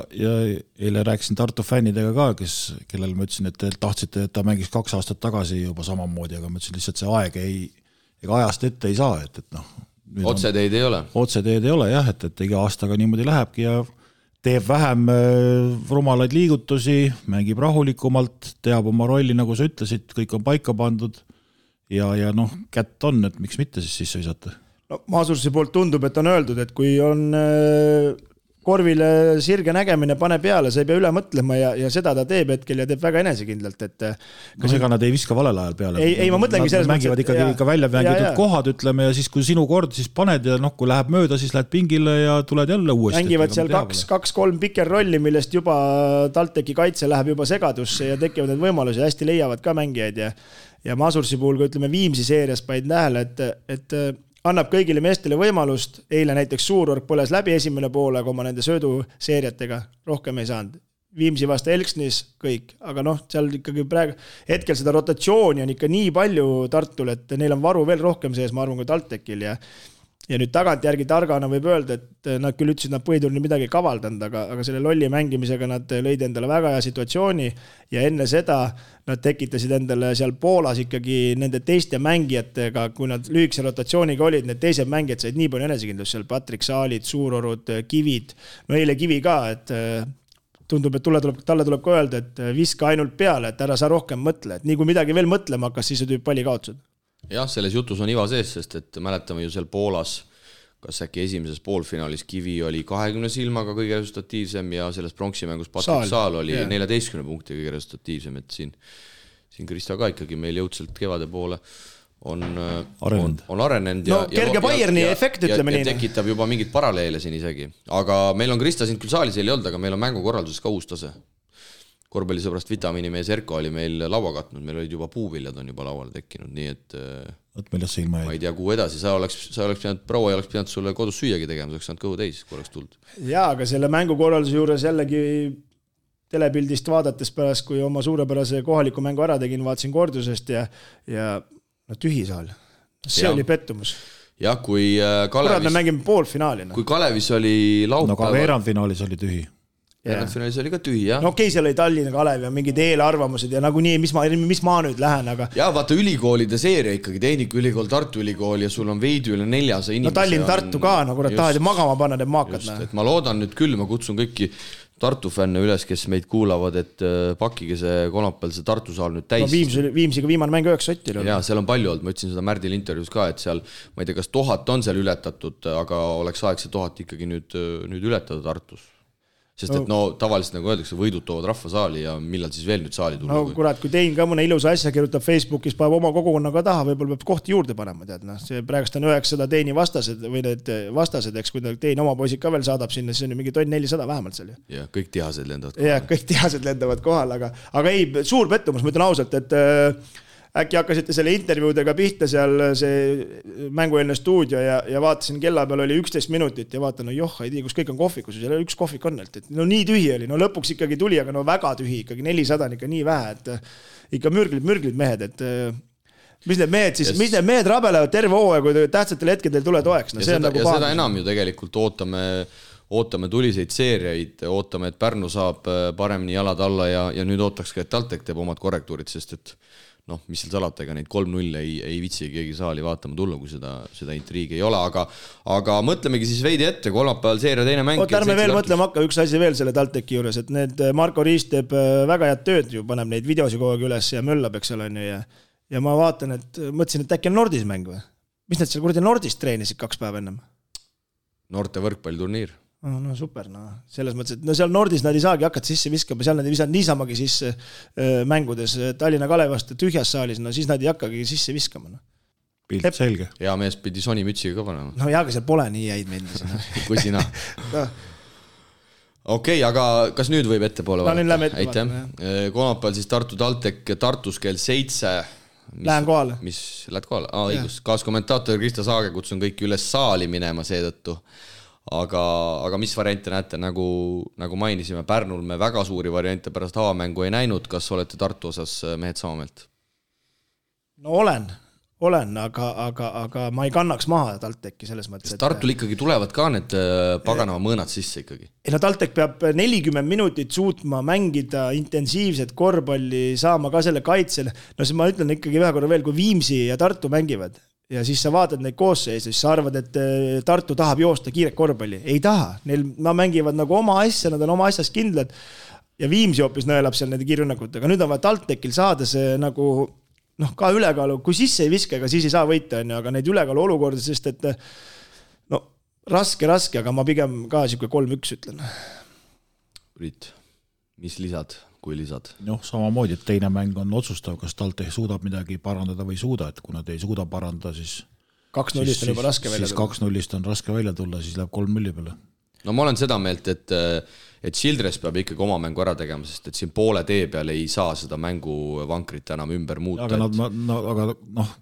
eile rääkisin Tartu fännidega ka, kellel ma ütlesin, et te tahtsite, et ta mängis 2 aastat tagasi juba samamoodi, aga ma ütlesin lihtsalt see aeg ega ajast ette ei saa, et otseteed ei ole. Otseteed ei ole jah, et iga aastaga niimoodi lähebki ja teeb vähem rumalaid liigutusi, mängib rahulikumalt, teab oma rolli, nagu sa ütlesid, kõik on paika pandud ja kätt on, et miks mitte siis sisse visata. No Maasursi poolt tundub, et on öeldud, et kui on korvile sirge nägemine, pane peale, sa ei pea üle mõtlema ja seda ta teeb hetkel ja teeb väga enesekindlalt. Ega nad ei viska valel ajal peale. Ei ma mõtlengi selles mõttes. Mängivad ikkagi ikka välja mängitud kohad, ütleme, ja siis kui sinu kord, siis paned ja kui läheb mööda, siis lähed pingile ja tuled jälle uuesti. Mängivad seal 2-3 piker rolli, millest juba TalTechi kaitse läheb juba segadusse ja tekivad need võimalusi, hästi leiavad ka mängijaid ja Maasursi puhul, kui ütleme Viimsi seerias paid nähele, et annab kõigile meestele võimalust, eile näiteks Suurorg põles läbi esimene poolega oma nende sööduseeriatega, rohkem ei saanud. Viimsi vastu Elksnis kõik, aga seal ikkagi praegu, hetkel seda rotatsiooni on ikka nii palju Tartul, et neil on varu veel rohkem sees, ma arvan, kui TalTechil ja nüüd tagantjärgi targana võib öelda, et nad küll ütlesid, nad põhiturni midagi kavaldanud, aga selle lolli mängimisega nad lõid endale väga hea situatsiooni ja enne seda nad tekitasid endale seal Poolas ikkagi nende teiste mängijatega, kui nad lühikese rotatsiooniga olid, need teised mängijad said nii palju enesekindlust seal, Patrik Saalid, Suurorud, Kivid, eile Kivi ka, et tundub, et talle tuleb ka öelda, et viska ainult peale, et ära sa rohkem mõtle, et nii kui midagi veel mõtlema hakkas, siis tüüb palli kaotused. Jah, selles jutus on iva sees, sest et mäletame ju seal Poolas, kas äkki esimeses poolfinaalis Kivi oli 20 silmaga kõige resultatiivsem ja selles pronksimängus Patrik Saal oli 14 punkti kõige resultatiivsem, et siin Krista ka ikkagi meil jõudselt kevade poole on arenenud kerge Bayerni efekt, ütleme nii. Ja tekitab juba mingit paralleele siin isegi. Aga meil on Krista siin küll saalis ei olnud, aga meil on mängukorralduses ka uus tase. Korvpallisõbrast vitamiinimees Erko oli meil laua katnud, meil olid juba puuviljad on juba lauale tekkinud, nii et ma ei tea, kuhu edasi, sa oleks pidanud, proua ei oleks pidanud sulle kodus süüagi tegema, sa oleks saanud kõhu täis, kui oleks tulnud. Jaa, aga selle mängukorralduse juures jällegi telepildist vaadates pärast, kui oma suurepärase kohaliku mängu ära tegin, vaatasin kordusest ja tühi saal. See oli pettumus. Jah, kui Kalevis... me mängime poolfinaalina. Kui Kalevis oli laupäeval... ka veerandfinaalis oli tühi. Finaalis oli ka tühi, jah. Okei, seal oli Tallinna Kalev ja mingid eelarvamused ja nagu nii, mis ma nüüd lähen, aga... Jah, vaata ülikoolide seeria ikkagi, Tehnikaülikool, Tartu Ülikool ja sul on veidi üle 400 inimese. Tallinn, Tartu ka, nagu tahad magama panna need maakad. Et ma loodan nüüd küll, ma kutsun kõiki Tartu fänne üles, kes meid kuulavad, et pakige see kolmapäeval see Tartu saal nüüd täis. Viimsiga viimane mäng 9 sotil. Jaa, seal on palju olnud, ma ütlesin seda Märdil intervjuus ka, et seal, ma ei tea, kas 1000 on seal ületatud, aga oleks aeg see 1000 ikkagi nüüd ületada Tartus. Sest et tavaliselt nagu öeldakse, võidud toovad rahva saali ja millal siis veel nüüd saali tulla? Kurat, kui tein ka mõne ilusa asja kirjutab Facebookis, paneb oma kogukonnaga taha, võib-olla peab kohti juurde panema, tead. See praegust on 900 teini vastased või need vastased, eks, kui tein oma poisid ka veel saadab sinna, siis on ju mingi 400 vähemalt seal. Ja kõik tihased lendavad kohal. Ja kõik tihased lendavad kohal, aga ei, suur pettumus, ma ütlen ausalt, et äkki hakkasite selle intervjuudega pihta seal see mängueelne stuudio ja vaatasin, kella peal oli 11 minutit ja vaatan, ei tea, kus kõik on kohvikus, seal üks kohvik on, et nii tühi oli, lõpuks ikkagi tuli, aga väga tühi, ikkagi 400 on ikka nii vähe, et ikka mürglid mehed, et mis need mehed rabelevad terve hooaja, kui tähtsatel hetkedel tule toeks. Seda enam ju tegelikult ootame tuliseid seeriaid, ootame, et Pärnu saab paremini jalad alla ja nüüd ootaks ka, et TalTech teeb omad korrektuurid, sest et mis seal salata, ega neid 3-0 ei vitsi keegi saali vaatama tulla, kui seda intriigi ei ole, aga mõtlemegi siis veidi ette, kolmapäeval seeria teine mäng. Ärme veel mõtlema hakka, üks asi veel selle TalTechi juures, et need Marko Riis teeb väga head tööd ju, paneb neid videosi kogu aeg üles ja möllab, eks ole, ja ma vaatan, et mõtlesin, et äkki on Nordis mäng või? Mis nad seal kuradi Nordis treenisid 2 päeva ennem? Noorte võrkpalliturniir. No super, selles mõttes, et seal Nordis nad ei saagi hakata sisse viskama, seal nad ei visanud niisamagi sisse mängudes Tallinna Kalevast tühjas saalis, siis nad ei hakkagi sisse viskama. Pilt selge. Hea mees pidi Sony mütsiga ka panema. Aga seal pole nii jäid meeldis. Kui sina. Okei, aga kas nüüd võib ettepoole vaadata? Aitäh. Kolmapäeval siis Tartu TalTech Tartus kell 7. Lähen kohale. Lähed kohale? Õigus. Kaaskommentaator Krista Saage kutsun kõiki üles saali minema seetõttu. Aga mis variante näete, nagu mainisime, Pärnul me väga suuri variante pärast avamängu ei näinud, kas olete Tartu osas mehed sama meelt? No olen, olen, aga ma ei kannaks maha TalTechi selles mõttes. Sest Tartul ikkagi tulevad ka need paganava mõõnad sisse ikkagi. No TalTech peab 40 minutit suutma mängida intensiivset korvpalli, saama ka selle kaitsel. No siis ma ütlen ikkagi ühe korra veel, kui Viimsi ja Tartu mängivad ja siis sa vaatad neid koosseise, siis sa arvad, et Tartu tahab joosta kiiret korvpalli. Ei taha. Nad mängivad nagu oma asja, nad on oma asjas kindlad ja Viimsi hoopis nõelab seal nende kiirrünnakutega. Nüüd on vaja TalTechil saada see nagu ka ülekaalu, kui sisse ei viska, ega siis ei saa võita, aga neid ülekaalu olukorda, sest et raske, aga ma pigem ka siuke 3-1 ütlen. Priit, mis lisad, kui lisad? Samamoodi, et teine mäng on otsustav, kas TalTech suudab midagi parandada või ei suuda, et kui nad ei suuda parandada, siis 2-0 on juba raske välja tulla. Siis 2-0 on raske välja tulla, siis läheb 3-0 peale. No ma olen seda meelt, et Childress peab ikkagi oma mängu ära tegema, sest et siin poole tee peal ei saa seda mängu vankrit enam ümber muuta. Aga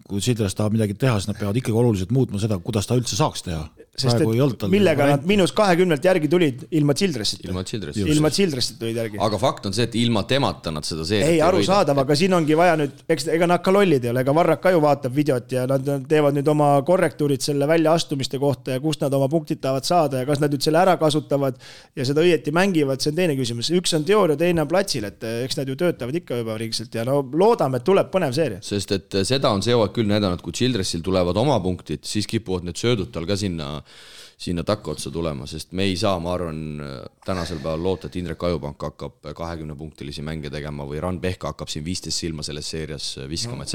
kui Childress tahab midagi teha, siis nad peavad ikkagi oluliselt muutma seda, kuidas ta üldse saaks teha. Sest et millega nad -20 järgi tulid ilma Childressita. Ilma Childressita tulid järgi. Aga fakt on see, et ilma temata nad seda seeriat ei aru saadav, aga siin ongi vaja nüüd, ega nad ka lollid ei ole, ega Varrak ka ju vaatab videot ja nad teevad nüüd oma korrektuurid selle väljaastumiste kohta ja kust nad oma punktid tahavad saada ja kas nad nüüd selle ära kasutavad ja seda õieti mängivad, see on teine küsimus. Üks on teooria, teine on platsil, et eks nad ju töötavad ikka juba riigselt ja loodame, et tuleb põnev seeria. Sest et seda on see küll näidanud, kui Childressil tulevad oma punktid, siis kipuvad need söödud tal ka sinna takka otsa tulema, sest me ei saa, ma arvan, tänasel päeval loota, et Indrek Ajupank hakkab 20-punktilisi mänge tegema või Ran Pehka hakkab siin 15 silma selles seerias viskama, et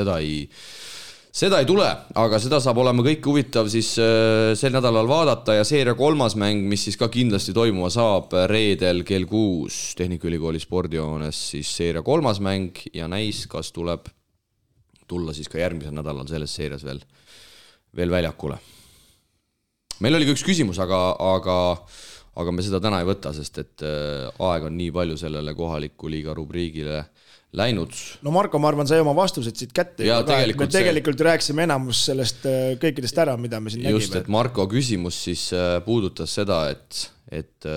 seda ei tule, aga seda saab olema kõik huvitav siis sel nädalal vaadata ja seeria 3. mäng, mis siis ka kindlasti toimuma saab reedel kell 6 Tehnikaülikooli spordihoones, siis seeria 3. mäng ja näis, kas tuleb tulla siis ka järgmisel nädalal selles seerias veel väljakule. Meil oli üks küsimus, aga me seda täna ei võta, sest et aeg on nii palju sellele kohaliku liiga rubriigile läinud. No Marko, ma arvan, sai oma vastused siit kätte. Me tegelikult rääksime enamus sellest kõikidest ära, mida me siin nägime. Just, et Marko küsimus siis puudutas seda, et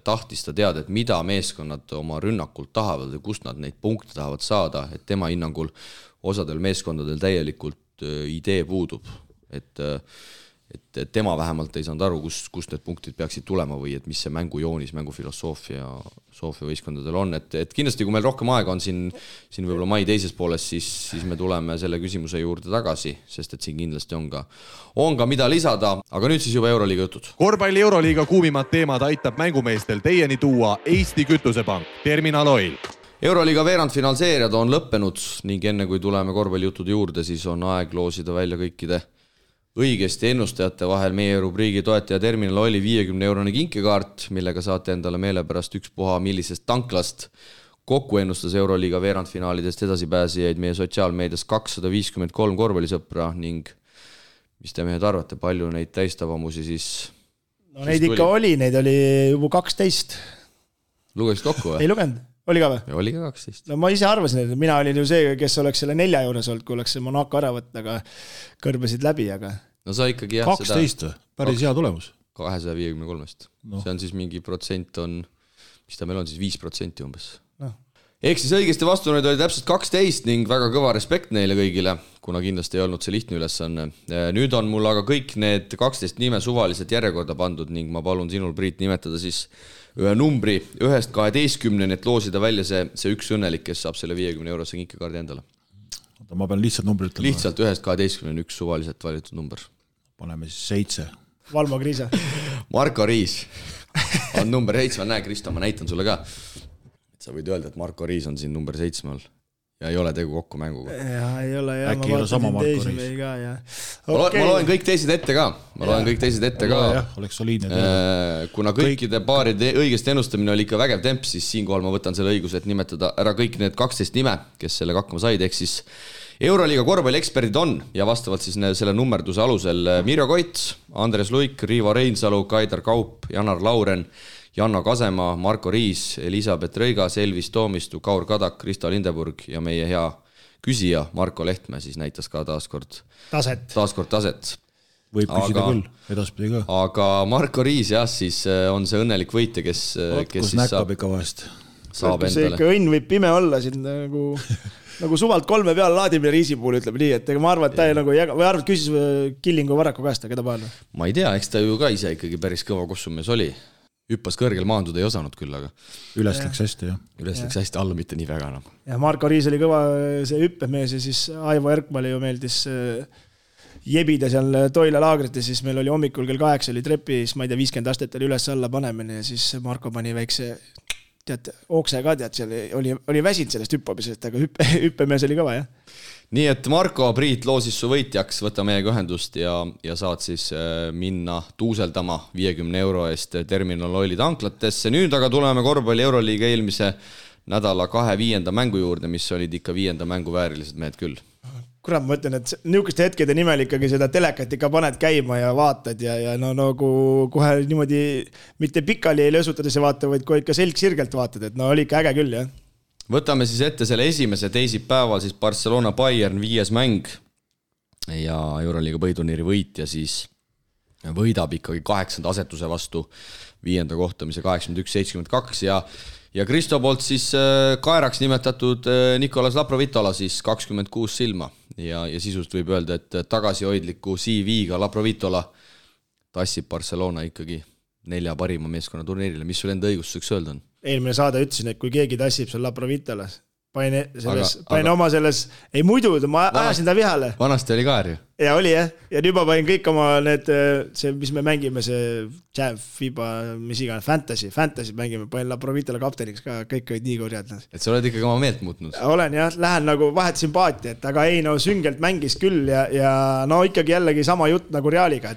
tahtis ta teada, et mida meeskonnad oma rünnakult tahavad ja kust nad neid punkte tahavad saada, et tema hinnangul osadel meeskondadel täielikult idee puudub, et tema vähemalt ei saanud aru, kust need punktid peaksid tulema või et mis see mängujoonis, mängufilosoofia võistkondadel on, et kindlasti kui meil rohkem aega on siin võib-olla mai teises pooles, siis me tuleme selle küsimuse juurde tagasi, sest et siin kindlasti on ka mida lisada, aga nüüd siis juba Euroliiga jutud. Korvpalli Euroliiga kuumimad teemad aitab mängumeestel teieni tuua Eesti Kütusepank, Terminal Oil. Euroliiga veerandfinaalseeriad on lõppenud ning enne kui tuleme korvpallijuttude juurde, siis on aeg loosida välja kõikide õigesti ennustajate vahel meie rubriigi toetaja Terminal Oili 50-eurone kinkekaart, millega saate endale meelepärast ükspuha millisest tanklast. Kokku ennustas Euroliiga veerandfinaalidest edasipääsijaid meie sotsiaalmeedias 253 korvpallisõpra ning mis te mehed arvate, palju neid täistavamusi siis? No neid ikka oli, neid oli juba 12. Lugesid kokku või? Ei lugenud. Oli ka või? Oli ka 12. No ma ise arvasin, et mina olin ju see, kes oleks selle 4 juures olnud, kui oleks see Monaco ära võtta, aga kõrbesid läbi, aga... No sa ikkagi 12, päris hea tulemus. 253. No. See on siis mingi protsent on, mis ta meil on siis 5% umbes. No. Ehk siis õigesti vastuneid oli täpselt 12 ning väga kõva respekt neile kõigile, kuna kindlasti ei olnud see lihtne ülesanne. Nüüd on mul aga kõik need 12 nime suvaliselt järjekorda pandud ning ma palun sinul, Priit, nimetada siis ühe numbri 1-12, et loosida välja see üks õnnelik, kes saab selle 50-eurose kinkekaardi endale. Ma pean lihtsalt numbri ütlema. Lihtsalt 1-12 on üks suvaliselt valitud number. Paneme siis 7. Valmo Kriisa. Marko Riis on number 7. Näe, Kristo, ma näitan sulle ka. Sa võid öelda, et Marko Riis on siin number 7 all. Ja ei ole tegu kokku mänguga. Ja ei ole, ja äkki ei ole sama Marko Riis. Okay. Ma loen kõik teised ette ka. Oleks soliidne. Kuna kõikide paaride õigest ennustamine oli ikka vägev temp, siis siinkohal ma võtan selle õiguse, et nimetada ära kõik need 12 nime, kes sellega hakkama said, ehk siis Euroliiga korvpallieksperdid on ja vastavalt siis selle nummerduse alusel Mirjo Koit, Andres Luik, Riivo Reinsalu, Kaidar Kaup, Janar Lauren, Janno Kasema, Marko Riis, Elisabeth Rõigas, Elvis Toomistu, Kaur Kadak, Krista Lindeburg ja meie hea küsija Marko Lehtme siis näitas ka taaskord taset. Võib küsida küll, edaspidi ka. Aga Marko Riis jah, siis on see õnnelik võitja, kes kus siis näkkab ikka vahest. saab see endale. ikka õnn võib pime olla siin nagu suvalt 3 peale laadimine riisi puhul, ütleb nii, et ega ma arvan, et ta nagu või arvad, küsis Killingu Varraku käest, keda pael? Ma ei tea, eks ta ju ka ise ikkagi päris kõva kossumees oli. Hüppas kõrgel maanduda ei osanud küll, aga üles läks hästi, jah. Üles läks hästi, alla mitte nii väga enam. Ja Marko Riis oli kõva see hüppemees ja siis Aivo Erkmale ju meeldis jebida seal Toila laagrit ja siis meil oli hommikul kell 8 oli trepis, ma ei tea, 50 astet oli üles alla panemine ja siis Marko pani väikse okse ka, seal oli väsinud sellest hüppamisest, aga hüppemees oli kõva, jah. Nii et Marko Priit loosis su võitjaks, võta meiega ühendust ja saad siis minna tuuseldama 50 € eest Terminal Oili tanklatesse. Nüüd aga tuleme korvpalli Euroliiga eelmise nädala 2 5. mängu juurde, mis olid ikka 5. mängu väärilised mehed küll. Kurat, ma ütlen, et niisuguste hetkede nimel ikkagi seda telekat ikka paned käima ja vaatad ja no nagu kohe niimoodi mitte pikali ei lösutades vaata, vaid kohe ikka selg sirgelt vaatad, et no oli ikka äge küll, jah. Võtame siis ette selle esimese teisipäeval siis Barcelona Bayern 5. mäng ja Euroliiga põhiturniiri võitja siis võidab ikkagi 8. asetuse vastu 5. kohtamise 81-72 ja Kristo poolt siis kaeraks nimetatud Nicolas Laprovitola siis 26 silma ja sisust võib öelda, et tagasihoidliku CV-ga Laprovitola tassib Barcelona ikkagi 4 parima meeskonna turniirile. Mis sul enda õigustuseks öelda on? Eelmine saade ütlesin, et kui keegi tassib seal Laprovitolas, panin oma selles, ei muidu, ma ajasin ta vihale. Vanasti oli kaer ju. Ja oli jah, ja nüüd ma panin kõik oma need, see, mis me mängime, see Jam, FIBA, mis iga, Fantasy mängime, panin Laprovitola kapteniks ka, kõik olid nii kurjad. Et sa oled ikkagi oma meelt muutnud? Olen jah, lähen nagu vahet sümpaatiat, aga ei no süngelt mängis küll ja no ikkagi jällegi sama jutt nagu Realiga,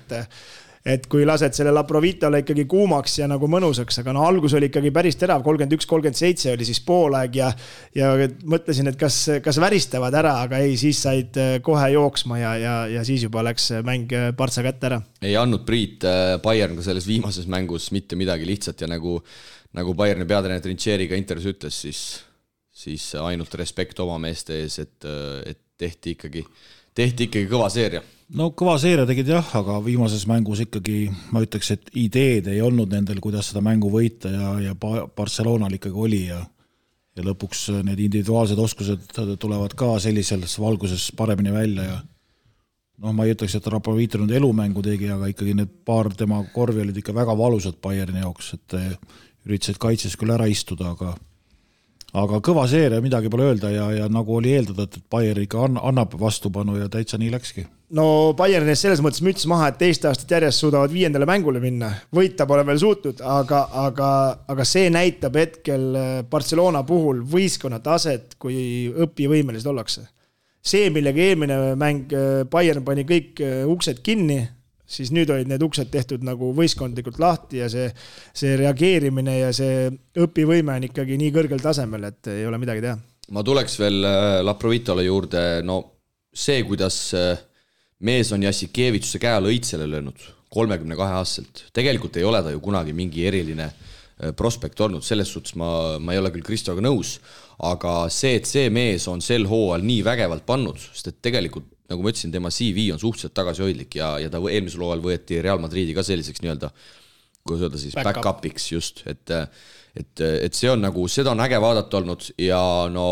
et kui lased selle Laprovitola ikkagi kuumaks ja nagu mõnusaks, aga no algus oli ikkagi päris terav, 31-37 oli siis poolaeg ja mõtlesin, et kas väristavad ära, aga ei, siis said kohe jooksma ja siis juba läks mäng partsa kätte ära. Ei andnud Priit Bayern ka selles viimases mängus mitte midagi lihtsat ja nagu Bayerni peatreener Trincheriga intervjuus ütles, siis ainult respekt oma meeste ees, et tehti ikkagi kõva seeria. No kõva seeria tegid jah, aga viimases mängus ikkagi ma ütleks, et ideed ei olnud nendel, kuidas seda mängu võita ja Barcelonal ikkagi oli ja lõpuks need individuaalsed oskused tulevad ka sellises valguses paremini välja ja noh, ma ei ütleks, et Raprovito nüüd elumängu tegi, aga ikkagi need paar tema korvi olid ikka väga valusad Bayerni jaoks, et üritasid kaitses küll ära istuda, aga kõva seeria, midagi pole öelda ja nagu oli eeldada, et Bayern ikka annab vastupanu ja täitsa nii läkski. No Bayernis selles mõttes müts maha, et teist aastat järjest suudavad 5. mängule minna. Võita pole veel suutnud, aga see näitab hetkel Barcelona puhul võistkonna taset, kui õpivõimelised ollakse. See, millega eelmine mäng Bayern pani kõik uksed kinni, siis nüüd olid need uksed tehtud nagu võistkondlikult lahti ja see reageerimine ja see õpivõime on ikkagi nii kõrgel tasemel, et ei ole midagi teha. Ma tuleks veel Laprovitola juurde, no see, kuidas mees on Jassikevitsuse käe alla õitsele löönud 32-aastaselt. Tegelikult ei ole ta ju kunagi mingi eriline prospekt olnud, selles suhtes ma ei ole küll Kristoga nõus, aga see, et see mees on sel hooajal nii vägevalt pannud, sest et tegelikult, nagu ma ütlesin, tema CV on suhteliselt tagasihoidlik ja ta eelmisel hooajal võeti Real Madridi ka selliseks nii-öelda, kuidas öelda siis, back-upiks just, et see on nagu, seda on äge vaadata olnud ja no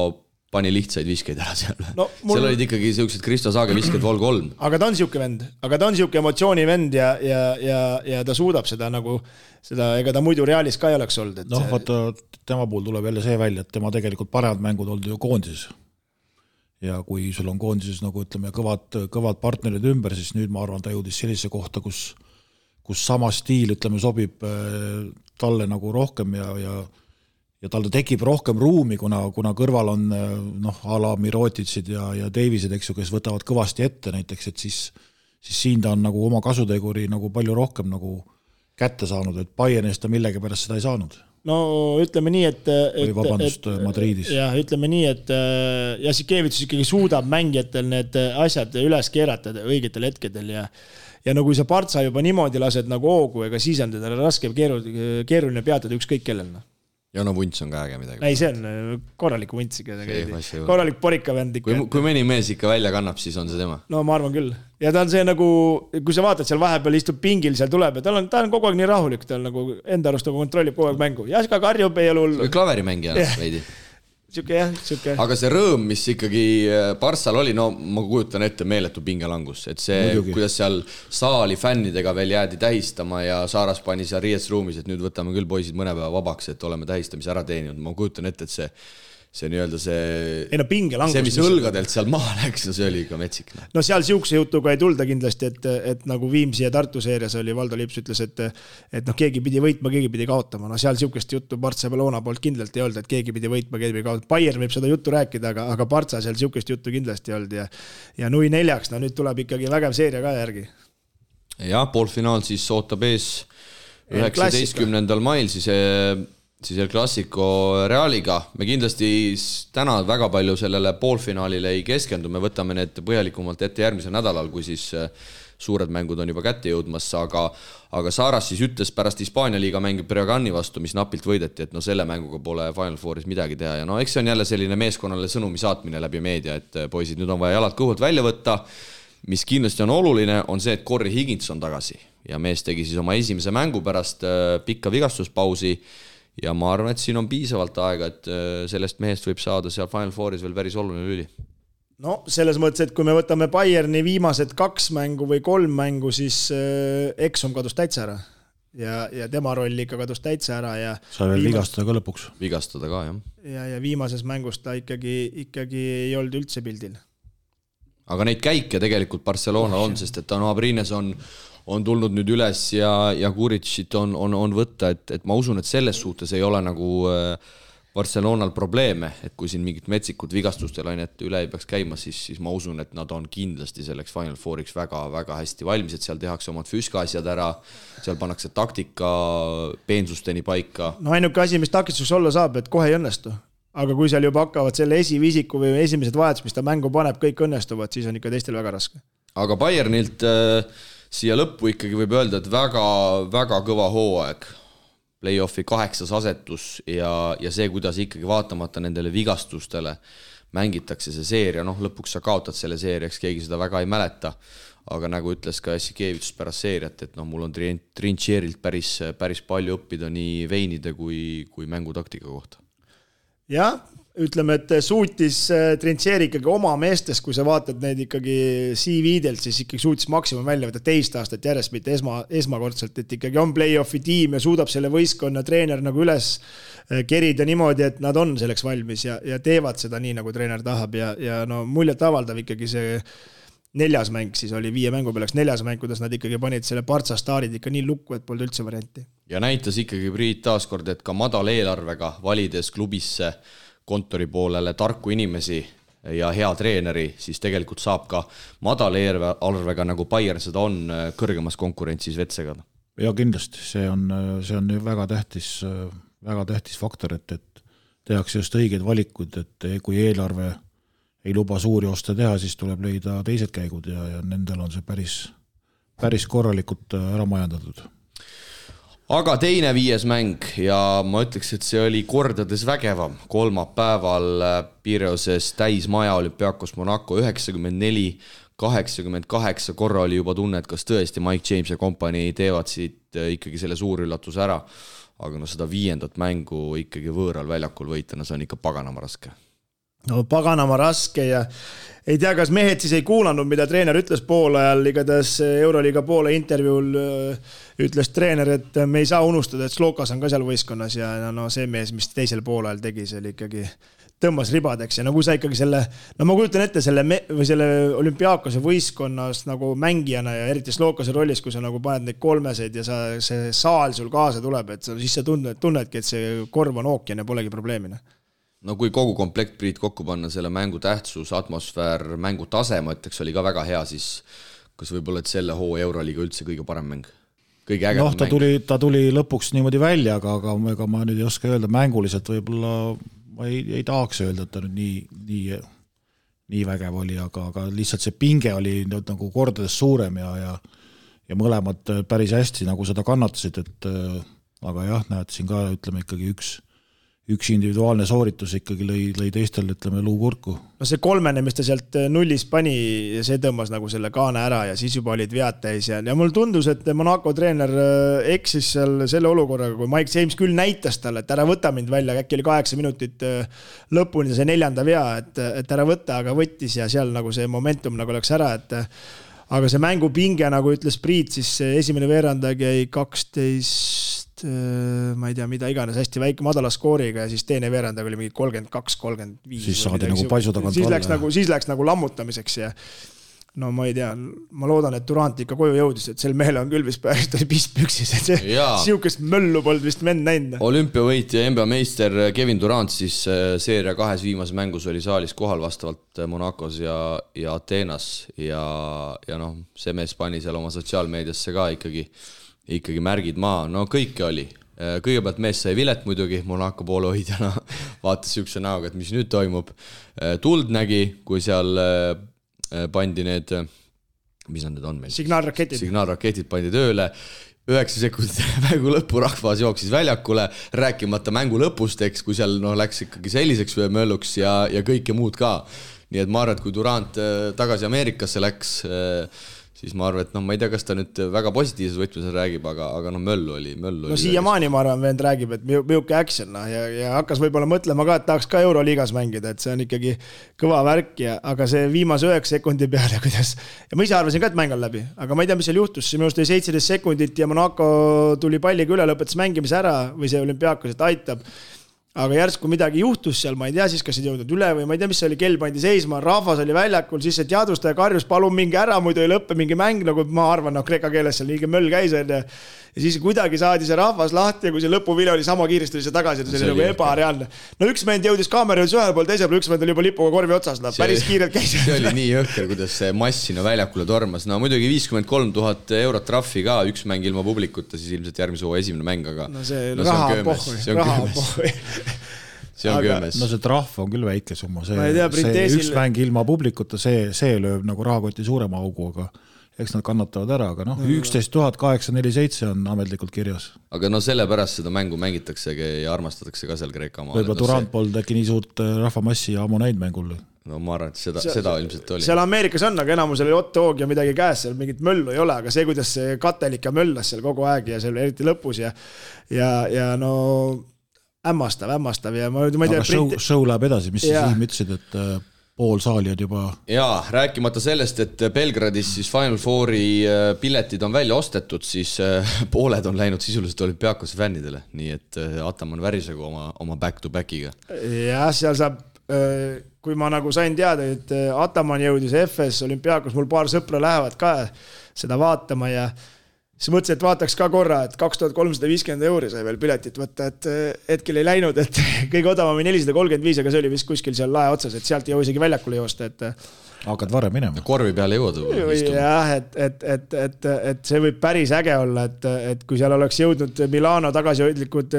pani lihtsaid viskeid ära seal. No, seal olid ikkagi sellised Kristo Saage visked vol 3. Aga ta on siuke vend, aga ta on siuke emotsioonivend ja ta suudab seda nagu, ega ta muidu Realis ka ei oleks olnud. Noh, vaata, tema puhul tuleb jälle see välja, et tema tegelikult paremad mängud olnud ju koondises. Ja kui sul on koondises nagu ütleme kõvad partnerid ümber, siis nüüd ma arvan, ta jõudis sellise kohta, kus sama stiil ütleme sobib talle nagu rohkem ja tal tekib rohkem ruumi, kuna kõrval on a la Mirotitsid ja Davisid, eks ju, kes võtavad kõvasti ette näiteks, et siis siin ta on nagu oma kasuteguri nagu palju rohkem nagu kätte saanud, et Bayernist ta millegi pärast seda ei saanud. No ütleme nii, et Madridis. Ja ütleme nii, et Jassikevitsus ikkagi suudab mängijatel need asjad üles keerata õigetel hetkedel ja nagu kui sa Partsa juba niimoodi lased nagu hoogu, ega siis on teda raske keeruline peatada ükskõik kellelna. ja no vunts on ka äge midagi. Ei, see on korralik vunts ikka. Korralik porikavend ikka. Kui mõni mees ikka välja kannab, siis on see tema. No ma arvan küll. Ja ta on see nagu, kui sa vaatad seal vahepeal istub pingil, seal tuleb ja ta on kogu aeg nii rahulik, ta on nagu enda arust nagu kontrollib kogu aeg mängu. Ja ka karjub ei ole hullu. Klaverimängija veidi. Siuke. Aga see rõõm, mis ikkagi Barssal oli, no ma kujutan ette meeletu pingelangus, et see, kuidas seal saali fännidega veel jäädi tähistama ja Saaras pani seal riietsruumis, et nüüd võtame küll poisid mõne päeva vabaks, et oleme tähistamise ära teeninud. Ma kujutan ette, et see nii-öelda see, mis õlgadelt seal maha läks, no see oli ikka metsik. No seal siukse jutuga ei tulda kindlasti, et nagu Viimsi ja Tartu seerias oli, Valdo Lips ütles, et noh, keegi pidi võitma, keegi pidi kaotama. No seal siukest juttu Barcelona poolt kindlasti ei olnud, et keegi pidi võitma, keegi pidi kaotama. Bayern võib seda juttu rääkida, aga Barca seal siukest juttu kindlasti ei olnud ja 0-4, no nüüd tuleb ikkagi vägev seeria ka järgi. Ja, poolfinaal siis ootab ees 19. mail siis El Clasico Realiga. Me kindlasti täna väga palju sellele poolfinaalile ei keskendu, me võtame need põhjalikumalt ette järgmisel nädalal, kui siis suured mängud on juba kätte jõudmas, aga Saaras siis ütles pärast Hispaania liiga mängib Breogani vastu, mis napilt võideti, et no selle mänguga pole Final Fouris midagi teha ja no eks see on jälle selline meeskonnale sõnumi saatmine läbi meedia, et poisid, nüüd on vaja jalad kõhult välja võtta, mis kindlasti on oluline, on see, et Corey Higgins on tagasi ja mees tegi siis oma esimese mängu pärast pikka vigastuspausi. Ja ma arvan, et siin on piisavalt aega, et sellest mehest võib saada seal Final Fouris veel päris oluline lüli. No selles mõttes, et kui me võtame Bayerni viimased 2 mängu või 3 mängu, siis Exum kadus täitsa ära. Ja tema roll ikka kadus täitsa ära. Ja sai veel vigastada ka lõpuks. Vigastada ka, jah. Ja viimases mängus ta ikkagi ei olnud üldse pildil. Aga neid käike tegelikult Barcelonal on, sest et Tano Abrines on tulnud nüüd üles ja Kuritšit on võtta, et ma usun, et selles suhtes ei ole nagu Barcelonal probleeme, et kui siin mingit metsikut vigastustel ainet üle ei peaks käima, siis ma usun, et nad on kindlasti selleks Final Fouriks väga-väga hästi valmis, et seal tehakse omad füüskaasjad ära, seal pannakse taktika peensusteni paika. No ainuke asi, mis takistus olla saab, et kohe ei õnnestu. Aga kui seal juba hakkavad selle esivisiku või esimesed vahetus, mis ta mängu paneb, kõik õnnestuvad, siis on ikka teistel väga raske. Aga Bayernilt siia lõppu ikkagi võib öelda, et väga kõva hooaeg. Play-offi 8. asetus ja see, kuidas ikkagi vaatamata nendele vigastustele mängitakse see seeria, noh lõpuks sa kaotad selle seeriaks, keegi seda väga ei mäleta, aga nagu ütles ka Jassikevitš pärast seeriat, et noh, mul on Trincherilt päris palju õppida nii veinide kui mängutaktika kohta. Jah, ütleme, et suutis Trincheri ikkagi oma meestes, kui sa vaatad neid ikkagi CV-delt, siis ikkagi suutis maksimum välja võtta 2 aastat järjest, mitte esmakordselt, et ikkagi on play-offi tiim ja suudab selle võistkonna treener nagu üles kerida niimoodi, et nad on selleks valmis ja teevad seda nii, nagu treener tahab ja no muljet avaldav ikkagi see 4. mäng, siis oli 5 mängu pealeks 4. mäng, kuidas nad ikkagi panid selle Partsa staarid ikka nii lukku, et polnud üldse varianti. Ja näitas ikkagi Priit taaskord, et ka madal eelarvega valides klubisse kontori poolele tarku inimesi ja hea treeneri, siis tegelikult saab ka madal eelarvega, nagu Bayern seda on, kõrgemas konkurentsis vetsega. Ja kindlasti, see on väga tähtis faktor, et tehakse just õiged valikud, et kui eelarve ei luba suuri oste teha, siis tuleb leida teised käigud ja nendel on see päris korralikult ära majandatud. Aga teine 5. mäng ja ma ütleks, et see oli kordades vägevam. Kolmapäeval Pireoses täismaja Olympiakos Monaco 94-88 korra oli juba tunne, et kas tõesti Mike James ja kompanii teevad siit ikkagi selle suur üllatuse ära. Aga no seda 5. mängu ikkagi võõral väljakul võitana, see on ikka paganama raske. No paganama raske ja ei tea, kas mehed siis ei kuulanud, mida treener ütles poolajal, igatahes Euroliiga poole intervjuul ütles treener, et me ei saa unustada, et Slokas on ka seal võistkonnas ja no see mees, mis teisel poolajal tegi, see oli ikkagi tõmbas ribadeks ja nagu sa ikkagi selle, no ma kujutan ette selle Olümpiaakose võistkonnas nagu mängijana ja eriti Slokase rollis, kui sa nagu paned neid kolmeseid ja see saal sul kaasa tuleb, et siis sa tunnedki, et see korv on ookean ja polegi probleemine. No kui kogu komplekt Priit kokku panna, selle mängu tähtsus, atmosfäär, mängu tase, ma ütleks, oli ka väga hea, siis kas võib-olla, et selle hoo Euroliiga üldse kõige parem mäng? Kõige ägedam mäng? Ta tuli lõpuks niimoodi välja, aga ma nüüd ei oska öelda, mänguliselt võib-olla ma ei tahaks öelda, et ta nüüd nii vägev oli, aga lihtsalt see pinge oli nagu kordades suurem ja mõlemad päris hästi nagu seda kannatasid, et aga jah, näed siin ka ütleme ikkagi üks individuaalne sooritus ikkagi lõi teistel, ütleme, luukurku. No see kolmene, mis ta sealt nullis pani, see tõmbas nagu selle kaane ära ja siis juba olid vead täis ja mul tundus, et Monaco treener eksis seal selle olukorraga, kui Mike James küll näitas talle, et ära võta mind välja, äkki oli 8 minutit lõpuni see 4. vea, et ära võta, aga võttis ja seal nagu see momentum nagu läks ära, et aga see mängupinge, nagu ütles Priit, siis esimene veerandag jäi 12 ma ei tea, mida iganes, hästi väike madala skooriga ja siis teine veerandag oli mingi 32-35. Siis saadi nagu paisu tagant siis läks nagu lammutamiseks ja no ma ei tea, ma loodan, et Durant ikka koju jõudis, et sel mehel on küll vist pärast püksis, et see siukest möllu polnud vist vend näinud. Olümpiavõit ja NBA meister Kevin Durant siis seeria 2 viimases mängus oli saalis kohal vastavalt Monacos ja Ateenas ja noh, see mees pani seal oma sotsiaalmeediasse ka ikkagi märgid maa, no kõike oli. Kõigepealt mees sai vilet muidugi, Monaco poole hoidjana vaatas siukse näoga, et mis nüüd toimub. Tuld nägi, kui seal pandi need, mis nad need on meil? Signaalraketid pandi tööle, 9 sekundit mängu lõppu rahvas jooksis väljakule, rääkimata mängu lõpust, eks, kui seal läks ikkagi selliseks mölluks ja kõike muud ka. Nii et ma arvan, et kui Durant tagasi Ameerikasse läks, siis ma arvan, et ma ei tea, kas ta nüüd väga positiivses võtmes räägib, aga möllu oli. No siiamaani ma arvan, vend räägib, et miuke action ja hakkas võib-olla mõtlema ka, et tahaks ka Euroliigas mängida, et see on ikkagi kõva värk aga see viimase 9 sekundi peale, kuidas ja ma ise arvasin ka, et mäng on läbi, aga ma ei tea, mis seal juhtus, minu arust oli 17 sekundit ja Monaco tuli palliga üle, lõpetas mängimise ära või see Olümpiakos, et aitab. Aga järsku midagi juhtus seal, ma ei tea siis, kas ei jõudnud üle või ma ei tea, mis see oli, kell pandi seisma, rahvas oli väljakul, siis see teadvustaja karjus, palun mingi ära, muidu ei lõppe mingi mäng, nagu ma arvan, kreeka keeles seal liige möll käis. Ja siis kuidagi saadi see rahvas lahti ja kui see lõpuvile oli sama kiiresti see tagasi, see oli nagu ebareaalne. No üks mend jõudis kaamera jõudis ühel pool, teisel pool üks mend oli juba lipuga korvi otsas, päris kiirelt käis. See oli nii jõhker, kuidas see mass sinna väljakule tormas. No muidugi 53 000 eurot trahvi ka, üks mäng ilma publikuta, siis ilmselt järgmise hooaja esimene mäng, aga no see raha pohhui. See on köömes. No see trahv on küll väike summa, see üks mäng ilma publikuta, see lööb nagu rahakoti suurema augu, aga eks nad kannatavad ära, aga 11 847 on ametlikult kirjas. Aga sellepärast seda mängu mängitaksegi ja armastatakse ka seal Kreeka maal. Võib-olla Durant polnud äkki nii suurt rahvamassi ja ammu näinud mängul. No ma arvan, et seda ilmselt oli. Seal Ameerikas on, aga enamusel oli Otto-Oog ja midagi käes, seal mingit möllu ei ole, aga see, kuidas see katelika möllas seal kogu aeg ja seal eriti lõpus ja no hämmastav ja ma ei tea. Aga show läheb edasi, mis siis Siim ütlesid, et pool saali on juba. Jaa, rääkimata sellest, et Belgradis siis Final Fouri piletid on välja ostetud, siis pooled on läinud sisuliselt Olümpiakose fännidele, nii et Ataman värisegu oma back-to-backiga. Jah, seal saab, kui ma nagu sain teada, et Ataman jõudis FS Olümpiakos, mul paar sõpra lähevad ka seda vaatama ja siis mõtlesin, et vaataks ka korra, et 2350 € sai veel piletit võtta, et hetkel ei läinud, et kõige odavam 435, aga see oli vist kuskil seal lae otsas, et sealt ei jõu isegi väljakule joosta, et hakkad varem minema. Korvi peale jõuad. Jah, et see võib päris äge olla, et kui seal oleks jõudnud Milano tagasihoidlikud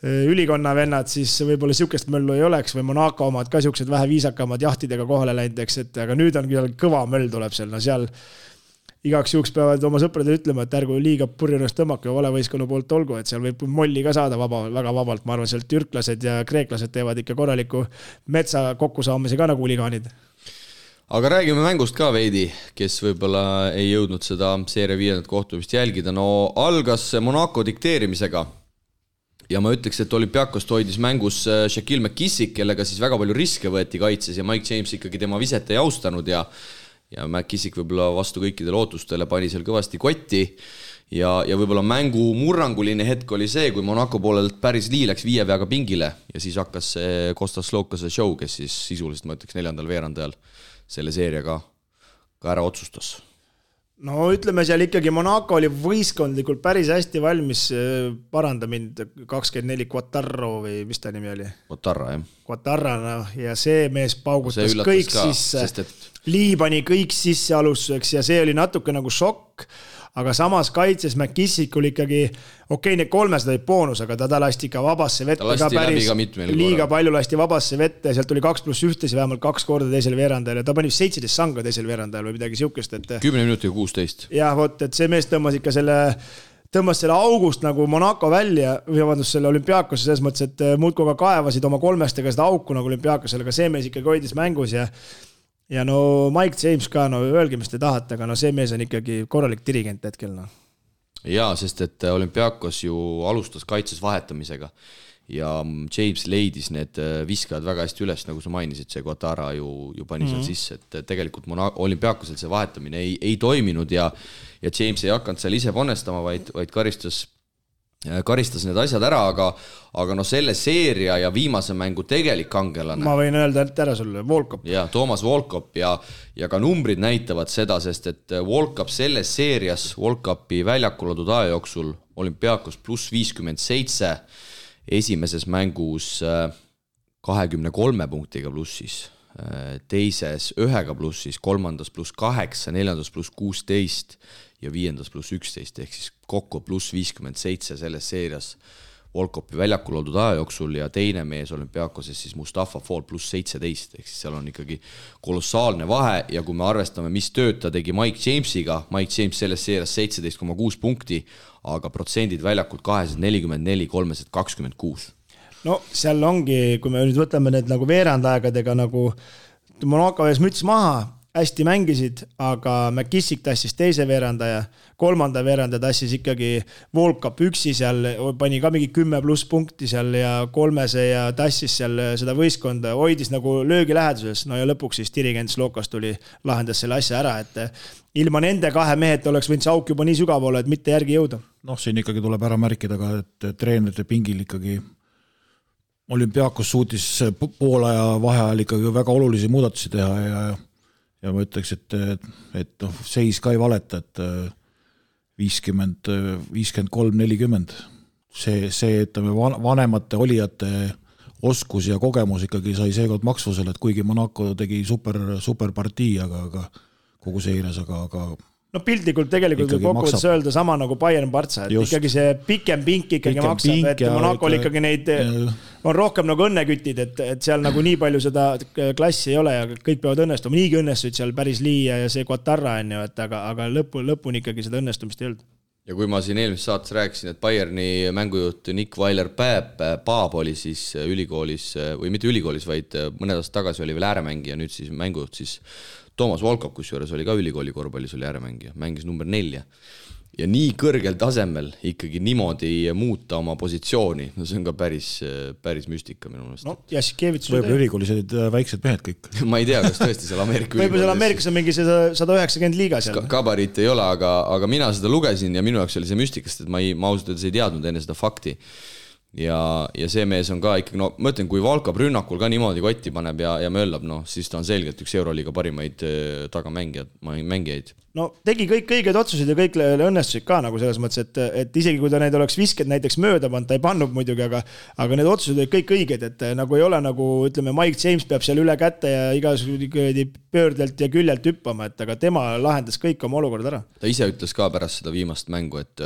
ülikonna vennad, siis võib-olla siukest möllu ei oleks või Monaco omad ka siuksed vähe viisakamad jahtidega kohale läinud, aga nüüd on küll kõva möll tuleb seal, no seal igaks juhuks peavad oma sõpradele ütlema, et ärgu liiga purjunast tõmmake ja valevõistkonna poolt olgu, et seal võib molli ka saada väga vabalt. Ma arvan, seal türklased ja kreeklased teevad ikka korraliku metsa kokkusaamise ka nagu huligaanid. Aga räägime mängust ka veidi, kes võib-olla ei jõudnud seda seeria 5. kohtumist jälgida. No algas Monaco dikteerimisega ja ma ütleks, et Olümpiakost hoidis mängus Shaquille McKissick, kellega siis väga palju riske võeti kaitses ja Mike James ikkagi tema viset ei austanud ja McKissick võib-olla vastu kõikidele ootustele pani seal kõvasti kotti ja võib-olla mängu murranguline hetk oli see, kui Monaco poolelt päris Lii läks 5 veaga pingile ja siis hakkas see Kostas Slokase show, kes siis sisuliselt, ma ütleks 4. veerandajal selle seeria ka ära otsustas. No ütleme seal ikkagi Monaco oli võistkondlikult päris hästi valmis, paranda mind 24 Quattarro või mis ta nimi oli? Quattarra, jah. Quattarra, ja see mees paugutas kõik sisse, Lii pani kõik sisse alustuseks ja see oli natuke nagu šokk, aga samas kaitses McKissick oli ikkagi, need 300 olid boonus, aga ta lasti ka vabasse vette ka päris liiga palju lasti vabasse vette, sealt tuli 2+1 vähemalt 2 korda teisel veerandajal ja ta pani 17 sanga teisel veerandajal või midagi siukest. 10 minutiga 16. Jah, et see mees tõmbas ikka selle tõmbas selle august nagu Monaco välja, või vabandust, selle Olümpiakose selles mõttes, et muudkoga kaevasid oma kolmestega seda auku nagu Olümpiakosele, aga see mees ikkagi hoidis mängus ja no Mike James ka, no öelge, mis te tahate, aga no see mees on ikkagi korralik dirigent hetkel, no. Jaa, sest et Olümpiakos ju alustas kaitses vahetamisega ja James leidis need viskajad väga hästi üles, nagu sa mainisid, see Guattara ju pani seal sisse, et tegelikult Olümpiakosel see vahetamine ei toiminud ja James ei hakanud seal ise panestama, vaid karistas need asjad ära, aga no selle seeria ja viimase mängu tegelik kangelane. Ma võin öelda ära sulle, Volkop. Ja, Toomas Volkop ja ka numbrid näitavad seda, sest et Volkop selles seerias, Volkopi väljakul oldud aja jooksul Olümpiakos pluss 57, esimeses mängus 23 punktiga plussis, teises 1 plussis, kolmandas pluss 8, neljandas pluss 16 ja viiendas pluss 11, ehk siis kokku pluss 57 selles seerias Volkopi väljakul oldud aja jooksul ja teine mees Olümpiakoses siis Mustafa Fall pluss 17, ehk siis seal on ikkagi kolossaalne vahe ja kui me arvestame, mis tööd ta tegi Mike Jamesiga, Mike James selles seerias 17,6 punkti, aga protsendid väljakult 244, 326. No seal ongi, kui me nüüd võtame need nagu veerandaegadega nagu Monaco ees müts maha, hästi mängisid, aga McKissick tassis teise veerandaja, kolmanda veeranda tassis ikkagi Volkop üksi seal, pani ka mingi 10+ punkti seal ja kolmese ja tassis seal seda võistkonda, hoidis nagu löögi läheduses, no ja lõpuks siis dirigent Slokas tuli, lahendas selle asja ära, et ilma nende kahe mehed oleks võinud see auk juba nii sügav olla, et mitte järgi jõuda. Noh, siin ikkagi tuleb ära märkida ka, et treenerite pingil ikkagi Olümpiakos suutis poolaja vaheajal ikkagi väga olulisi muudatusi teha ja ma ütleks, et noh, seis ka ei valeta, et 53-40. See ütleme, vanemate olijate oskus ja kogemus ikkagi sai seekord maksvusele, et kuigi Monaco tegi super partii, aga kogu seires, aga no piltlikult tegelikult võib kokkuvõttes öelda sama nagu Bayern Barca, et just. Ikkagi see pikem pink ikkagi maksab, et Monacol ikkagi neid on rohkem nagu õnnekütid, et seal nagu nii palju seda klassi ei ole ja kõik peavad õnnestuma, niigi õnnestuid seal päris Liia ja see Guattara on ju, et aga lõpuni ikkagi seda õnnestumist ei olnud. Ja kui ma siin eelmises saates rääkisin, et Bayerni mängujuht Nick Weiler-Paab oli siis ülikoolis, või mitte ülikoolis, vaid mõned aastad tagasi oli veel ääremängija, nüüd siis mängujuht siis Toomas Volkop, kusjuures oli ka ülikooli korvpallis, oli ääremängija, mängis number 4. Ja nii kõrgel tasemel ikkagi niimoodi muuta oma positsiooni, no see on ka päris müstika minu meelest. No, Jassikevits võib-olla ülikoolis olid väiksed mehed kõik. Ma ei tea, kas tõesti seal Ameerika võib-olla seal Ameerikas on mingi 190 liiga seal. Kabariit ei ole, aga mina seda lugesin ja minu jaoks oli see müstikast, et ma ausalt öeldes ei teadnud enne seda fakti. Ja see mees on ka ikkagi, no ma ütlen, kui Valkab rünnakul ka niimoodi kotti paneb ja möllab, no siis ta on selgelt üks Euroliiga parimaid tagamängijaid. No tegi kõik õiged otsused ja kõik õnnestusid ka nagu selles mõttes, et isegi kui ta neid oleks visked näiteks mööda pannud, ta ei pannud muidugi, aga need otsused olid kõik õiged, et nagu ei ole nagu, ütleme, Mike James peab seal üle kätte ja igasugune pöördelt ja küljelt hüppama, et aga tema lahendas kõik oma olukorda ära. Ta ise ütles ka pärast seda viimast mängu, et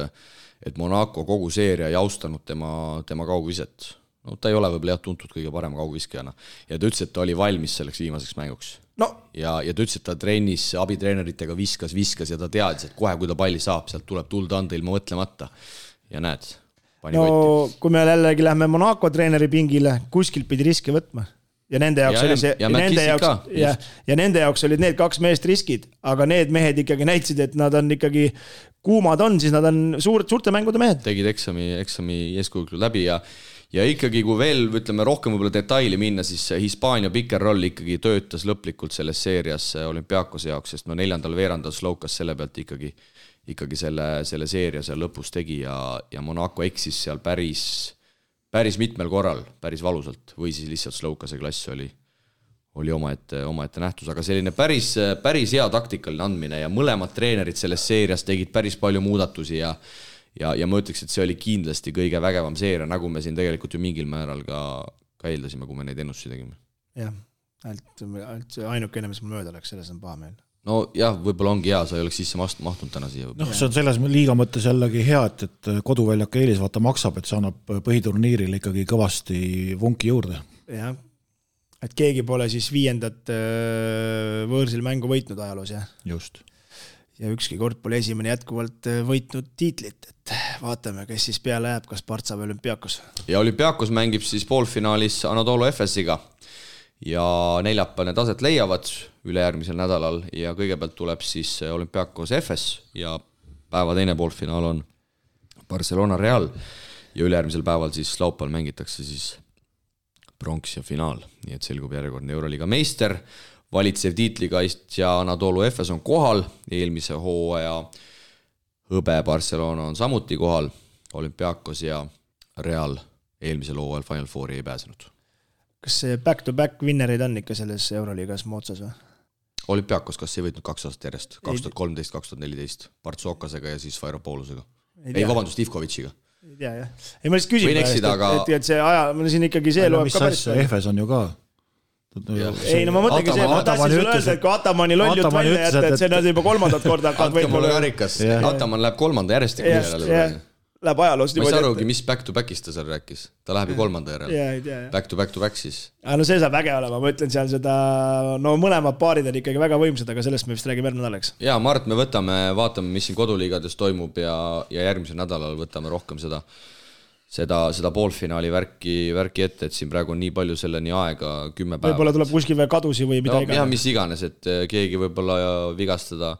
Monaco kogu seeria ei austanud tema kaugviset. No ta ei ole võib-olla tuntud kõige parem kaugviskajana. Ja ta ütles, et ta oli valmis selleks viimaseks mänguks. No. Ja ta ütles, et ta trennis abitreeneritega viskas ja ta teadis, et kohe, kui ta palli saab, sealt tuleb tulda anda ilma mõtlemata. Ja näed, pani no, kotti. Kui me jällegi lähme Monaco treeneri pingile, kuskilt pidi riske võtma. Ja nende jaoks oli see ja nende jaoks olid need kaks meest riskid, aga need mehed ikkagi näitasid, et nad on ikkagi kuumad on, siis nad on suurte mängude mehed. Tegid eksami eeskujuklu läbi ja ikkagi, kui veel ütleme rohkem võib-olla detaili minna, siis Hispaania pick and roll ikkagi töötas lõplikult selles seerias Olümpiakose jaoks, sest 4. veerandal Slokas selle pealt ikkagi selle seeria seal lõpus tegi ja Monaco eksis seal päris mitmel korral, päris valusalt, või siis lihtsalt Slokase klass oli omaette nähtus, aga selline päris hea taktikaline andmine ja mõlemad treenerid selles seerias tegid päris palju muudatusi ja ma ütleks, et see oli kindlasti kõige vägevam seeria, nagu me siin tegelikult ju mingil määral ka eeldasime, kui me neid ennustusi tegime. Jah, ainukene, mis mul mööda läks, selles on paha meel. No jah, võib-olla ongi hea, sa ei oleks sisse mahtunud täna siia. No, see on selles liiga mõttes jällegi hea, et koduväljak eelis vaata maksab, et see annab põhiturniiril ikkagi kõvasti vunki juurde. Jah, et keegi pole siis 5. võõrsil mängu võitnud ajaloos, jah? Just. Ja ükski kord pole esimene jätkuvalt võitnud tiitlit, et vaatame, kes siis peale jääb, kas Partsa või Olümpiakos. Ja Olümpiakos mängib siis poolfinaalis Anadolu Efesiga ja neljapäev need aset leiavad ülejärgmisel nädalal ja kõigepealt tuleb siis Olümpiakos Efes ja päeva teine poolfinaal on Barcelona Real ja ülejärgmisel päeval siis laupäeval mängitakse siis pronks ja finaal, nii et selgub järjekordne Euroliiga meister, valitsev tiitlikaistja Anadolu Efes on kohal, eelmise hooaja hõbe Barcelona on samuti kohal, Olümpiakos ja Real eelmisel hooajal Final Fouri ei pääsenud. Kas see back-to-back winnerid on ikka selles Euroliigas moodsas või? Olümpiakos, kas ei võitnud 2 aastat järjest? 2013-2014 Partsokasega ja siis Vairopoulusega. Ei, vabandust, Ivkovitšiga. Ei tea, jah. Ei, ma lihtsalt küsin, et see aja, see ikkagi see loeb ka päris. Efes on ju ka. Ei, no ma mõtlengi see, ma tahtsin sulle öelda, et kui Atamani loll jutt välja jätta, et see on juba 3. korda hakkad võitma. Ataman läheb 3. järjestik järele. Läheb ajaloost. Ma ei saa arugi, mis back-to-backist ta seal rääkis. Ta läheb ju 3. järele. Back-to-back siis. No see saab väge olema, ma ütlen seal seda, no mõlemad paarid on ikkagi väga võimsad, aga sellest me vist räägime järgmine nädalaks. Jaa, Mart, me vaatame, mis siin koduliigades toimub ja järgmisel nädalal võtame rohkem seda poolfinaali värki ette, et siin praegu on nii palju selleni aega 10 päeva. Võib-olla tuleb kuskil veel kadusi või mida iganes. Jah, mis iganes, et keegi võib-olla vigastada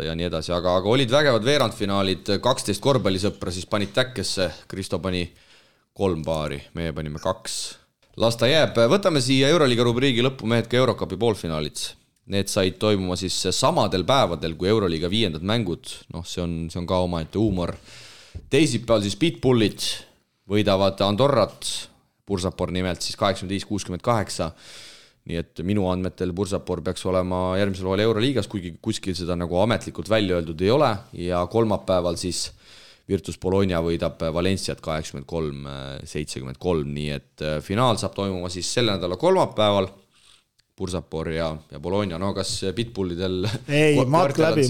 ja nii edasi, aga olid vägevad veerandfinaalid, 12 korvpallisõpra siis panid täkkesse, Kristo pani 3 paari, meie panime 2. Las ta jääb, võtame siia Euroliiga rubriigi lõppu mehed ka Eurocupi poolfinaalid. Need said toimuma siis samadel päevadel kui Euroliiga 5. mängud, see on ka omaette huumor. Teisipäeval siis Pitbullid võidavad Andorrat, Bursapor nimelt siis 85-68, nii et minu andmetel Bursapor peaks olema järgmisel hooajal Euroliigas, kuigi kuskil seda nagu ametlikult välja öeldud ei ole ja kolmapäeval siis Virtus Bologna võidab Valenciat 83-73, nii et finaal saab toimuma siis selle nädala kolmapäeval, Bursapor ja Bologna, no kas Pitbullidel ei, matk läbi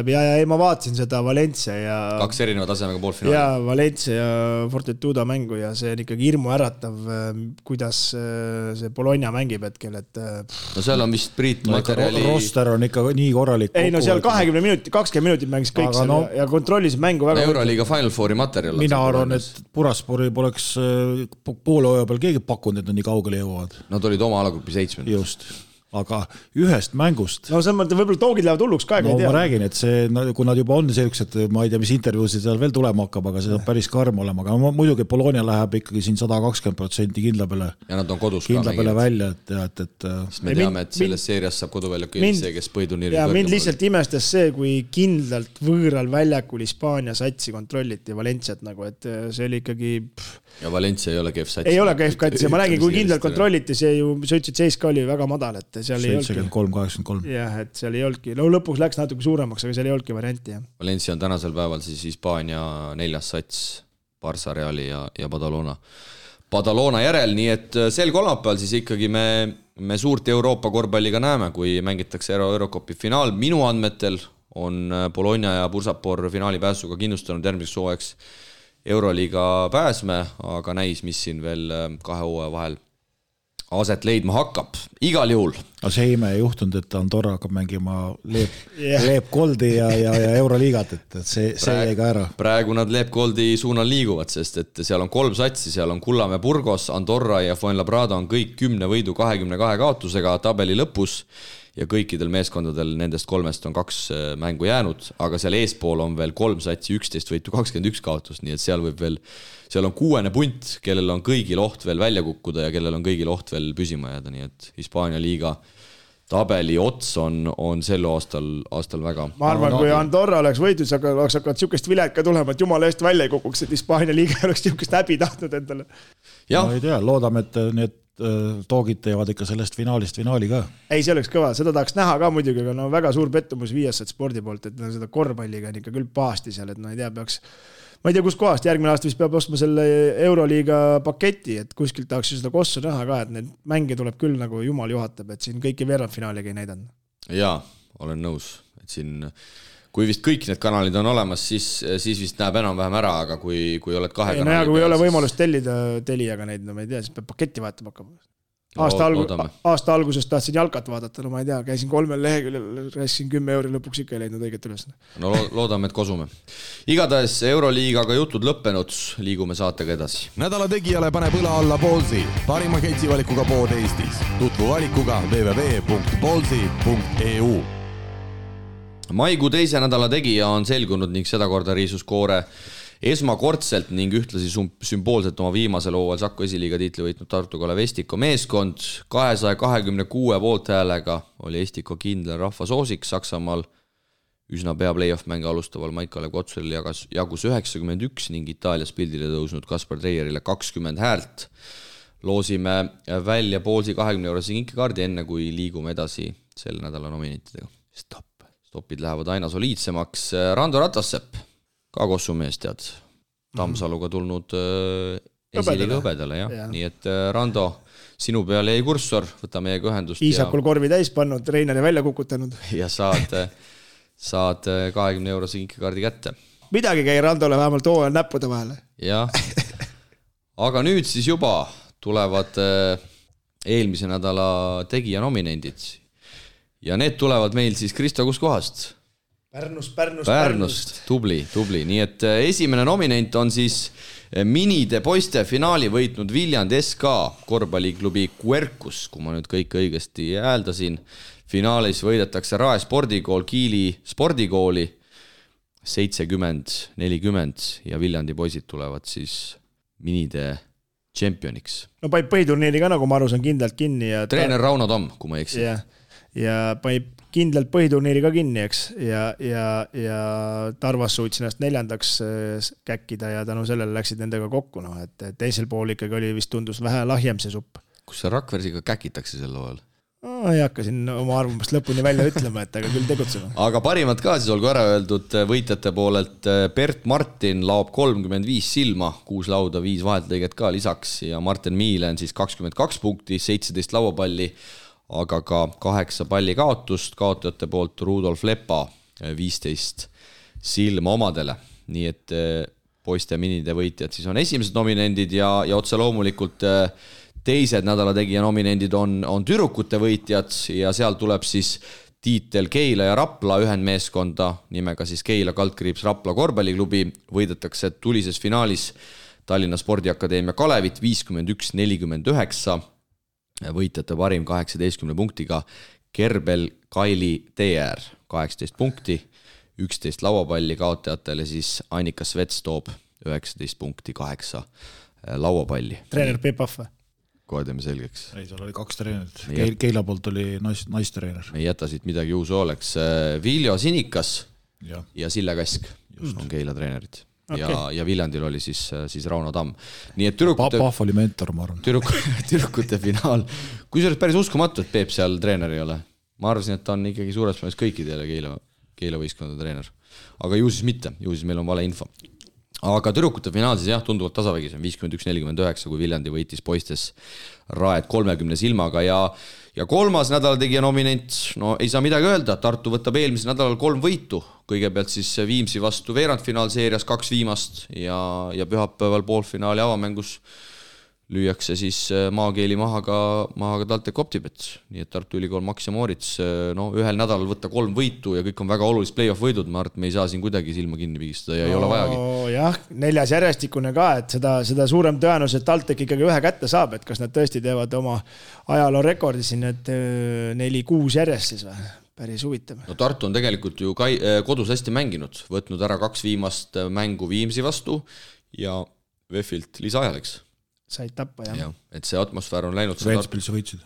ja ma vaatasin seda Valencia ja 2 erineva tasemega poolfinaali. Ja Valencia ja Fortitudo mängu ja see on ikkagi hirmu äratav, kuidas see Bologna mängib hetkel, et no seal on vist Priit materjali roster on ikka nii korralik. Ei, no seal 20 minutit mängis kõik seal ja kontrollis mängu väga. Euroliiga Final Fouri materjal. Mina arvan, et Buraspori poleks poolhooaja peal keegi pakkunud, et nad nii kaugele jõuavad. Nad olid oma alagruppi 7. Just, aga ühest mängust. No see mõte, võib-olla toogid lähevad hulluks ka, ei tea. Ma räägin, et see, kui nad juba on sellised, ma ei tea, mis intervjuusid seal veel tulema hakkab, aga see on päris karm olema, aga muidugi Bologna läheb ikkagi siin 120% kindla peale. Ja nad on kodus kindla ka peale välja, et me teame, et selles seerias saab koduväljaku see, kes põiduniiri ja mind lihtsalt imestas see, kui kindlalt võõral väljakul Hispaania satsi kontrolliti Valenciat nagu, et see oli ikkagi ja Valencia ei ole kehv sats. Ei ole kehv sats ja ma räägin, kui kindlalt kontrolliti, see ju, sa ütlesid, seis ka oli väga madal, et seal 73-83. Jah, et seal ei olnudki. No lõpuks läks natuke suuremaks, aga seal ei olnudki varianti. Jah. Valencia on tänasel päeval siis Hispaania 4. sats, Barça, Reali ja Badalona järel, nii et sel kolmapäeval siis ikkagi me suurt Euroopa korvpalliga näeme, kui mängitakse Eurocupi finaal. Minu andmetel on Bologna ja Bursapor finaali pääsuga kindlustanud järgmiseks hooajaks Euroliiga pääsme, aga näis, mis siin veel 2 hooaja vahel aset leidma hakkab. Igal juhul. Aga see ime ei juhtunud, et Andorra hakkab mängima Leep Goldi ja Euroliigat, et see jäi ka ära. Praegu nad Leep Goldi suunal liiguvad, sest et seal on 3 satsi, seal on Kullamäe Burgos, Andorra ja Fuenlabrada on kõik 10 võidu 22 kaotusega tabeli lõpus ja kõikidel meeskondadel nendest 3 on 2 mängu jäänud, aga seal eespool on veel 3 satsi 11 võitu 21 kaotust, nii et seal on 6. punt, kellel on kõigil oht veel välja kukkuda ja kellel on kõigil oht veel püsima jääda, nii et Hispaania liiga tabeli ots on sel aastal väga. Ma arvan, kui Andorra oleks võitud, siis oleks hakanud siukest vilet ka tulema, et jumala eest välja ei kukuks, et Hispaania liiga oleks siukest häbi tahtnud endale. No ei tea, loodame, et need toogid teevad ikka sellest finaalist finaali ka. Ei, see oleks kõva, seda tahaks näha ka muidugi, aga no väga suur pettumus Viasat spordi poolt, et seda korvpalliga on ikka küll pahasti seal, et no ei tea, ma ei tea, kus kohast järgmine aasta vist peab ostma selle Euroliiga paketi, et kuskilt tahaks seda kossu näha ka, et need mänge tuleb küll nagu jumal juhatab, et siin kõiki veerandfinaaliga ei näidanud. Jaa, olen nõus, et siin kui vist kõik need kanalid on olemas, siis vist näeb enam-vähem ära, aga kui oled 2 kanali kui ei ole võimalust tellida Teliaga neid, no ma ei tea, siis peab paketti vaatama hakkama. Aasta algusest tahtsin jalkat vaadata, no ma ei tea, käisin 3 leheküljel, rääkisin 10 euri, lõpuks ikka ei leidnud õiget üles. No loodame, et kosume. Igatahes Euroliigaga jutud lõppenud, liigume saatega edasi. Nädala tegijale paneb õla alla Ballsi, parima ketsivalikuga pood Eestis. Tutvu valikuga www.ballsi.eu. Maikuu teise nädala tegija on selgunud ning sedakorda riisus koore esmakordselt ning ühtlasi sümboolselt oma viimasel hooajal Saku esiliiga tiitli võitnud Tartu Kalev Estiko meeskond. 226 poolthäälega oli Estiko kindel rahvasoosik Saksamaal. Üsna pea play-off mänge alustaval Maik-Kalev Kotsuril jagus 91 ning Itaalias pildile tõusnud Kaspar Treierile 20 häält. Loosime välja Ballsi 20 eurose kinkekaardi enne, kui liigume edasi selle nädala nominentidega. Stopid lähevad aina soliidsemaks. Rando Ratassepp, ka Kossumees tead, Tammsaluga tulnud esiliiga hõbedale, jah. Nii et Rando, sinu peal jäi kurssor, võta meiega ühendust. Iisakul korvi täis pannud, treeneri välja kukutanud. Ja saad 20 eurose kinkekaardi kätte. Midagi käi Randole vähemalt hooajal näppude vahele. Jah, aga nüüd siis juba tulevad eelmise nädala tegija nominendid. Ja need tulevad meil siis Kristo kuskohast? Pärnust, tubli. Nii et esimene nominent on siis minide poiste finaali võitnud Viljandi SK korvpalliklubi Quercus, kui ma nüüd kõik õigesti hääldasin. Finaalis võidetakse Rae spordikool Kiili spordikooli 70-40 ja Viljandi poisid tulevad siis minide tšempioniks. No paib põhiturniiri ka, nagu ma aru saan, kindlalt kinni. Ja treener Rauno Tamm, kui ma eksin. Ja paib kindlalt põhiturniiri ka kinni, eks, ja Tarvas suutsi ennast 4. käkkida ja tänu sellele läksid nendega kokku, no, et teisel pool ikkagi oli vist tundus vähe lahjem see supp. Kus see Rakversiga käkitakse sel loal? Ei hakka siin oma arvamust lõpuni välja ütlema, et aga küll tegutsema. Aga parimad ka siis olgu ära öeldud võitjate poolelt. Bert Martin laob 35 silma, 6 lauda, 5 vaheltõiget ka lisaks ja Martin Miilen siis 22 punkti, 17 lauapalli, aga ka 8 palli kaotust, kaotajate poolt Rudolf Lepa 15 silma omadele. Nii et poiste minide võitjad siis on esimesed nominendid ja otse loomulikult teised nädala tegija nominendid on tüdrukute võitjad ja seal tuleb siis tiitel Keila ja Rapla ühendmeeskonda nimega siis Keila Kaldkriips Rapla korvpalliklubi. Võidetakse tulises finaalis Tallinna Spordiakadeemia Kalevit 51-49. Võitjate parim 18 punktiga Kerbel Kaili TR 18 punkti, 11 lauapalli, kaotajatele siis Annika Svets toob 19 punkti, 8 lauapalli. Treener Peep Ahve. Kohe teeme selgeks. Ei, seal oli 2 treenerit. Keila poolt oli naistreener. Me ei jäta siit midagi uus oleks. Viljo Sinikas ja Sille Kask on Keila treenerid. Okay. Ja Viljandil oli siis Rauno Tamm. Nii et Pahv oli mentor, ma arvan. Tüdrukute finaal. Kui see oleks päris uskumatu, et Peep seal treener ei ole. Ma arvasin, et ta on ikkagi suures plaanis kõikidele Keila võistkondade treener. Aga ju siis mitte, ju siis meil on vale info. Aga tüdrukute finaal siis tunduvalt tasavägis on 51-49, kui Viljandi võitis poistes Raed 30 silmaga ja kolmas nädala tegija nominent, no ei saa midagi öelda, Tartu võtab eelmisel nädalal 3 võitu, kõigepealt siis Viimsi vastu veerandfinaalseerias 2 viimast ja pühapäeval poolfinaali avamängus lüüakse siis maakeeli maha ka TalTech Optibet, nii et Tartu Ülikool Max ja Moorits ühel nädalal võtta 3 võitu ja kõik on väga olulised play-off võidud, ma arvan, et me ei saa siin kuidagi silma kinni pigistada ja ei ole vajagi. Jah, 4. järjestikune ka, et seda suurem tõenus, et TalTech ikkagi 1 kätte saab, et kas nad tõesti teevad oma ajaloo rekordi siin, et 4-6 järjest siis või? Päris huvitav. No Tartu on tegelikult ju kodus hästi mänginud, võtnud ära 2 viimast mängu Viimsi vastu ja VEF-ilt lisaajaleks. Said tappa, jah. Et see atmosfäär on läinud. Ventspilsi võitsid.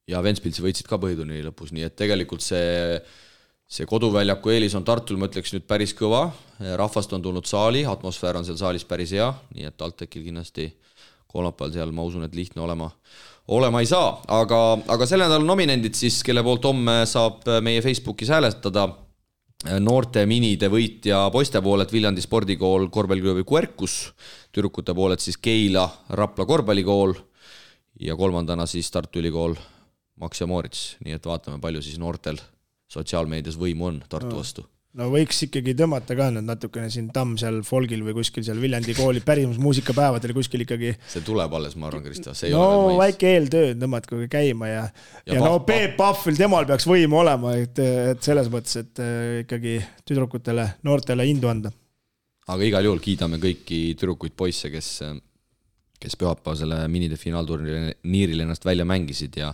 Ja Ventspilsi võitsid ka põhiturniiri lõpus, nii et tegelikult see koduväljaku eelis on Tartul, ma ütleks nüüd päris kõva. Rahvast on tulnud saali, atmosfäär on seal saalis päris hea, nii et TalTechil kindlasti kolmapäeval seal, ma usun, et lihtne olema ei saa. Aga selle nädala nominendid siis, kelle poolt homme saab meie Facebookis hääletada. Noorte minide võitja poiste poolet Viljandi spordikool korvpalliklubi Quercus, tüdrukute poolet siis Keila Rapla korvpallikool ja kolmandana siis Tartu Ülikool Max ja Moorits, nii et vaatame, palju siis noortel sotsiaalmeedias võimu on Tartu vastu. no võiks ikkagi tõmmata ka nüüd natukene siin Tamm seal folgil või kuskil seal Viljandi kooli pärimus muusikapäevadel kuskil ikkagi. See tuleb alles, ma arvan, Krista. No väike eeltöö tõmmatku käima ja no Peep Pahvil temal peaks võim olema, et selles mõttes, et ikkagi tüdrukutele, noortele indu anda. Aga igal juhul kiidame kõiki tüdrukuid poisse, kes pühapäeva selle minide finaalturniiril ennast välja mängisid ja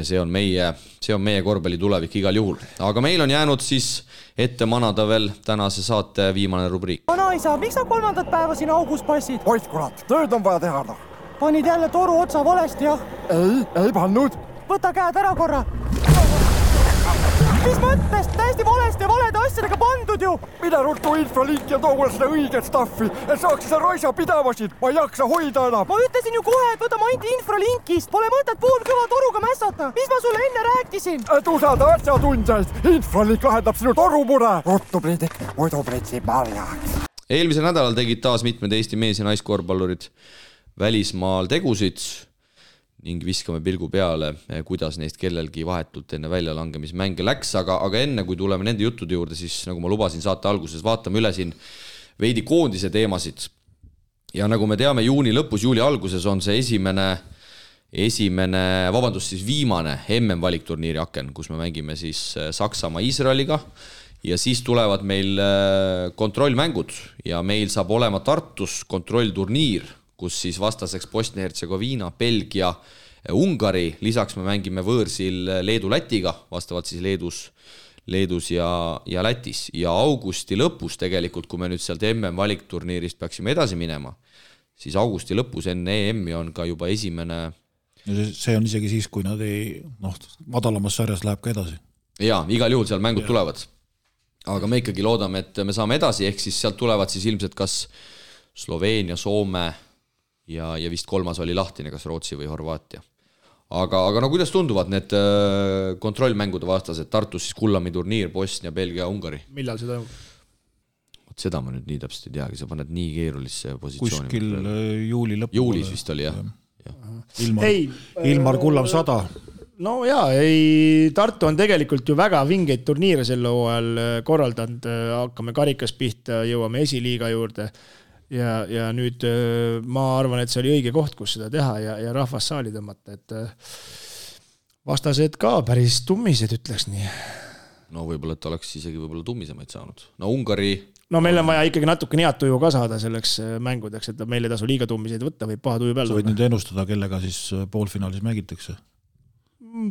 see on meie korvpalli tulevik igal juhul. Aga meil on jäänud siis ette manada veel tänase saate viimane rubriik. Vanaisa, miks sa 3. päeva siin augus passid? Oit kurat, tööd on vaja teha. Panid jälle toru otsa valesti, jah? Ei pannud. Võta käed ära korra. Mis mõttes? Täiesti valesti ja valede asjadega pandud ju. Mine ruttu infralink ja too mulle seda õiget staffi, et saaks seda raisa pidavasid. Ma ei jaksa hoida enam. Ma ütlesin ju kohe, et võta mainti infralinkist. Pole mõtet poolkõva toruga mässata. Mis ma sulle enne rääkisin? Et usalda asjatundjaid. Infralink lahendab sinu torumure. Ruttu Priidik, muidu pritsib marjaks. Eelmisel nädalal tegid taas mitmed Eesti mees- ja naiskorvpallurid välismaal tegusid ning viskame pilgu peale, kuidas neist kellelgi vahetult enne väljalangemismänge läks, aga enne kui tuleme nende juttude juurde, siis nagu ma lubasin saate alguses, vaatame üle siin veidi koondise teemasid. Ja nagu me teame, juuni lõpus, juuli alguses on see viimane MM-valikturniiri aken, kus me mängime siis Saksamaa Iisraeliga ja siis tulevad meil kontrollmängud ja meil saab olema Tartus kontrollturniir, kus siis vastaseks Bosnia-Hertsegoviina, Belgia, Ungari, lisaks me mängime võõrsil Leedu-Lätiga, vastavalt siis Leedus ja Lätis. Ja augusti lõpus tegelikult, kui me nüüd sealt MM-valikturniirist peaksime edasi minema, siis augusti lõpus enne EM-i on ka juba esimene... See on isegi siis, kui nad madalamas sarjas läheb ka edasi. Jaa, igal juhul seal mängud tulevad. Aga me ikkagi loodame, et me saame edasi, ehk siis sealt tulevad siis ilmselt kas Sloveenia, Soome ja vist 3. oli lahtine, kas Rootsi või Horvaatia. Aga no kuidas tunduvad need kontrollmängude vastased? Tartus siis Kullami turniir, Bosnia, Belgia, Ungari. Millal see toimub? Seda ma nüüd nii täpselt ei teagi, sa paned nii keerulisse positsiooni. Kuskil juuli lõppu. Juulis vist oli, jah. Ilmar Kullam 100. No jaa, Tartu on tegelikult ju väga vingeid turniire sel hooajal korraldanud, hakkame karikas pihta, jõuame esiliiga juurde ja nüüd ma arvan, et see oli õige koht, kus seda teha ja rahvas saali tõmmata, et vastased ka päris tummised, ütleks nii. No võib-olla, et oleks isegi võib-olla tummisemaid saanud. No Ungari... No meil on vaja ikkagi natuke head tuju ka saada selleks mängudeks, et meil ei tasu liiga tummiseid võtta, võib paha tuju peal. Sa võid nüüd ennustada, kellega siis poolfinaalis mängitakse?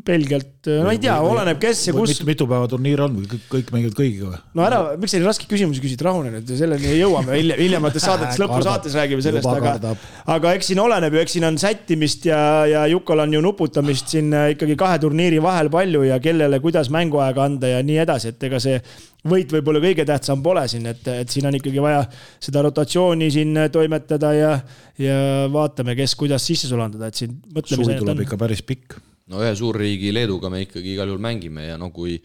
Pelgalt, no ei tea, oleneb kes ja kus. Mitu päeva turniir on või kõik mängivad kõigiga või? No ära, miks selline raske küsimusi küsid, rahune nüüd, selleni jõuame hiljemates saadetes, lõpusaates räägime sellest, aga eks siin oleneb ju, eks siin on sättimist ja Jukal on ju nuputamist siin ikkagi 2 turniiri vahel palju ja kellele kuidas mänguaega anda ja nii edasi, et ega see võit võib-olla kõige tähtsam pole siin, et siin on ikkagi vaja seda rotatsiooni siin toimetada ja vaatame, kes kuidas sisse sulandada, et siin mõtleme. Suvi tuleb ikka päris pikk. No ühe suurriigi Leeduga me ikkagi igal juhul mängime ja no kui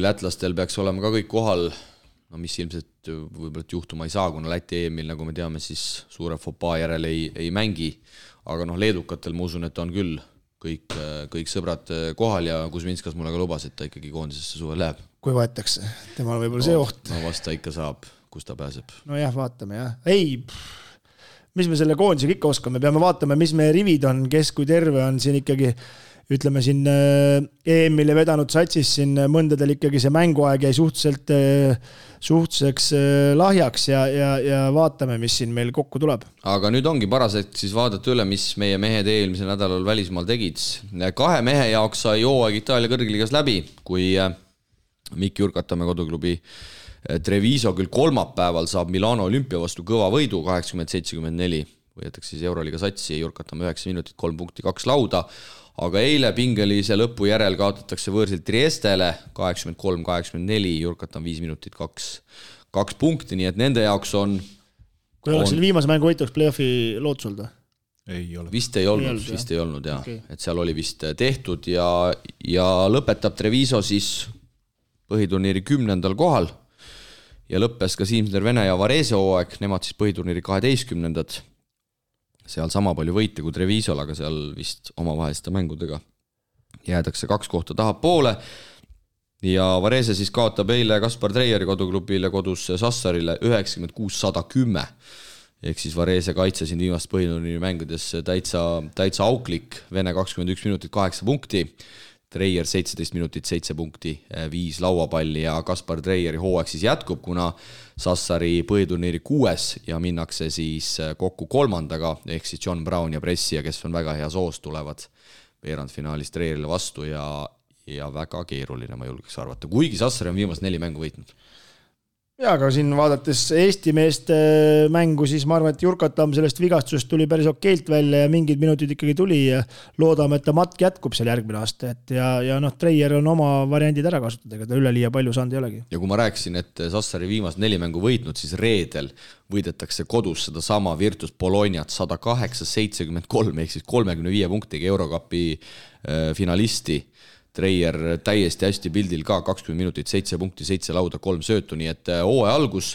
lätlastel peaks olema ka kõik kohal, no mis ilmselt võib-olla juhtuma ei saa, kuna Läti EM-il, nagu me teame, siis suure fopaa järel ei mängi, aga noh, leedukatel ma usun, et on küll kõik sõbrad kohal ja Kuzminskas mulle ka lubas, et ta ikkagi koondisesse suve läheb. Kui võetakse, temal võib-olla see oht. No vast ta ikka saab, kus ta pääseb. No jah, vaatame jah. Mis me selle koondisega ikka oskame, peame vaatama, mis meie rivid on, kes kui terve on siin ikkagi, ütleme siin EM-ile vedanud satsis siin mõndadel ikkagi see mänguaeg jäi suhtuseks lahjaks ja vaatame, mis siin meil kokku tuleb. Aga nüüd ongi paraseks siis vaadata üle, mis meie mehed eelmisel nädalal välismaal tegid. 2 mehe jaoks sai hooaeg Itaalia kõrgliigas läbi, kui Mikk Jurkatamäe koduklubi Treviso küll kolmapäeval saab Milano Olümpia vastu kõva võidu 80-74, võetakse siis Euroliiga satsi, Jurkatamäe 9 minutit, 3 punkti, 2 lauda, aga eile pingelise lõpu järel kaotatakse võõrsilt Triestele 83-84, Jurkatamäe 5 minutit, 2 punkti, nii et nende jaoks on... Kui oleks selle viimase mängu võitu, oleks play-offi lootsulda? Ei ole. Vist ei olnud, jah. Okay. Et seal oli vist tehtud ja lõpetab Treviso siis põhiturniiri 10. kohal ja lõppes ka Siimsner Vene ja Varese hooaeg, nemad siis põhiturniiri 12. Seal sama palju võite kui Trevisol, aga seal vist omavaheliste mängudega jäädakse 2 kohta taha poole. ja Varese siis kaotab eile Kaspar Treieri koduklubile kodus Sassarile 96-110. Ehk siis Varese kaitse siin viimast põhiturniiri mängudes täitsa auklik. Vene 21 minutit 8 punkti, Treier 17 minutit 7 punkti, 5 lauapalli ja Kaspar Treieri hooaeg siis jätkub, kuna Sassari põhiturniiri 6 ja minnakse siis kokku 3. ehk siis John Brown ja Pressia, kes on väga hea soos, tulevad veerandfinaalis Treierile vastu ja väga keeruline, ma julgeks arvata, kuigi Sassari on viimast 4 mängu võitnud. Ja, aga siin vaadates Eesti meeste mängu, siis ma arvan, et Jurkatam sellest vigastusest tuli päris okeilt välja ja mingid minutid ikkagi tuli ja loodame, et ta matk jätkub seal järgmine aasta. Ja Treier on oma variandid ära kasutada, ega ta üleliia palju saanud ei olegi. Ja kui ma rääkisin, et Sassari viimast 4 mängu võitnud, siis reedel võidetakse kodus seda sama Virtus Bolognat 108-73 ehk siis 35 punktiga Eurocupi finalisti. Treier täiesti hästi pildil ka, 20 minutit, 7 punkti, 7 lauda, 3 söötu, nii et hooaja algus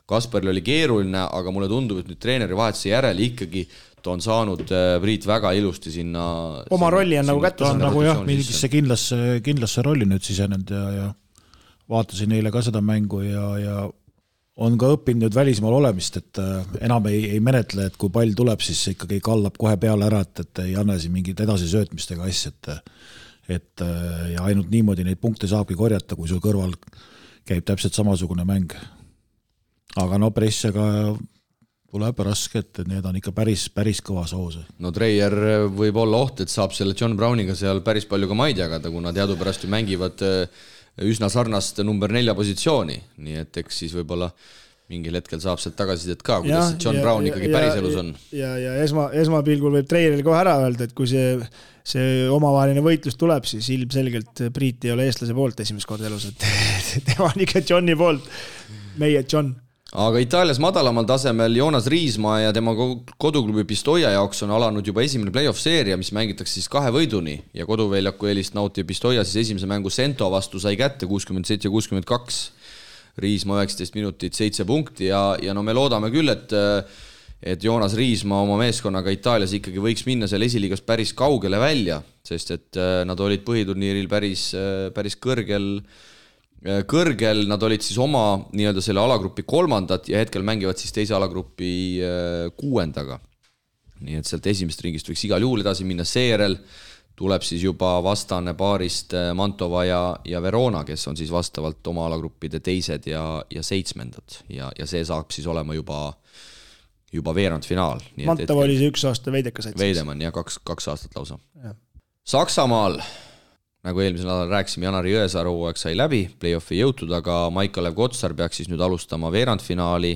Kasparil oli keeruline, aga mulle tundub, et nüüd treeneri vahetuse järel ikkagi ta on saanud Priit väga ilusti sinna oma rolli on nagu kätte saanud. Nagu jah, mingisse kindlasse rolli nüüd sisenenud ja vaatasin eile ka seda mängu ja on ka õppinud nüüd välismaal olemist, et enam ei menetle, et kui pall tuleb, siis ikkagi kallab kohe peale ära, et ei anna siin mingit edasi söötmistega asja, et ja ainult niimoodi neid punkte saabki korjata, kui sul kõrval käib täpselt samasugune mäng. Aga Pressiaga tuleb raske, et need on ikka päris kõva soos. No Treier võib olla oht, et saab selle John Browniga seal päris palju ka maid jagada, kuna teadupärast ju mängivad üsna sarnast number 4 positsiooni, nii et eks siis võib-olla mingil hetkel saab sealt tagasisidet ka, kuidas John Brown ikkagi päris elus on. Ja esmapilgul võib Treieril kohe ära öelda, et kui see omavaheline võitlus tuleb, siis ilmselgelt Priit ei ole eestlase poolt esimest korda elus, et tema on ikka Johni poolt, meie John. Aga Itaalias madalamal tasemel Joonas Riismaa ja tema koduklubi Pistoia jaoks on alanud juba esimene play-off seeria, mis mängitakse siis 2 võiduni ja koduväljaku eelist nauti Pistoia siis esimese mängu Sento vastu sai kätte 67-62. Riismaa 19 minutit, 7 punkti ja no me loodame küll, et Joonas Riismaa oma meeskonnaga Itaalias ikkagi võiks minna seal esiliigas päris kaugele välja, sest et nad olid põhiturniiril päris kõrgel, nad olid siis oma nii-öelda selle alagrupi 3. ja hetkel mängivad siis teise alagrupi 6. Nii et sealt esimest ringist võiks igal juhul edasi minna, seejärel tuleb siis juba vastane paarist Mantova ja Verona, kes on siis vastavalt oma alagruppide 2. ja 7. ja see saab siis olema juba veerandfinaal. Mantova oli see 1 aasta veidekas. Veidemann ja 2 aastat lausa. Ja. Saksamaal, nagu eelmisel nädalal rääkisime, Janari Jõesaar hooaeg sai läbi, play-offi jõutud, aga Maik-Kalev Kotsar peaks siis nüüd alustama veerandfinaali.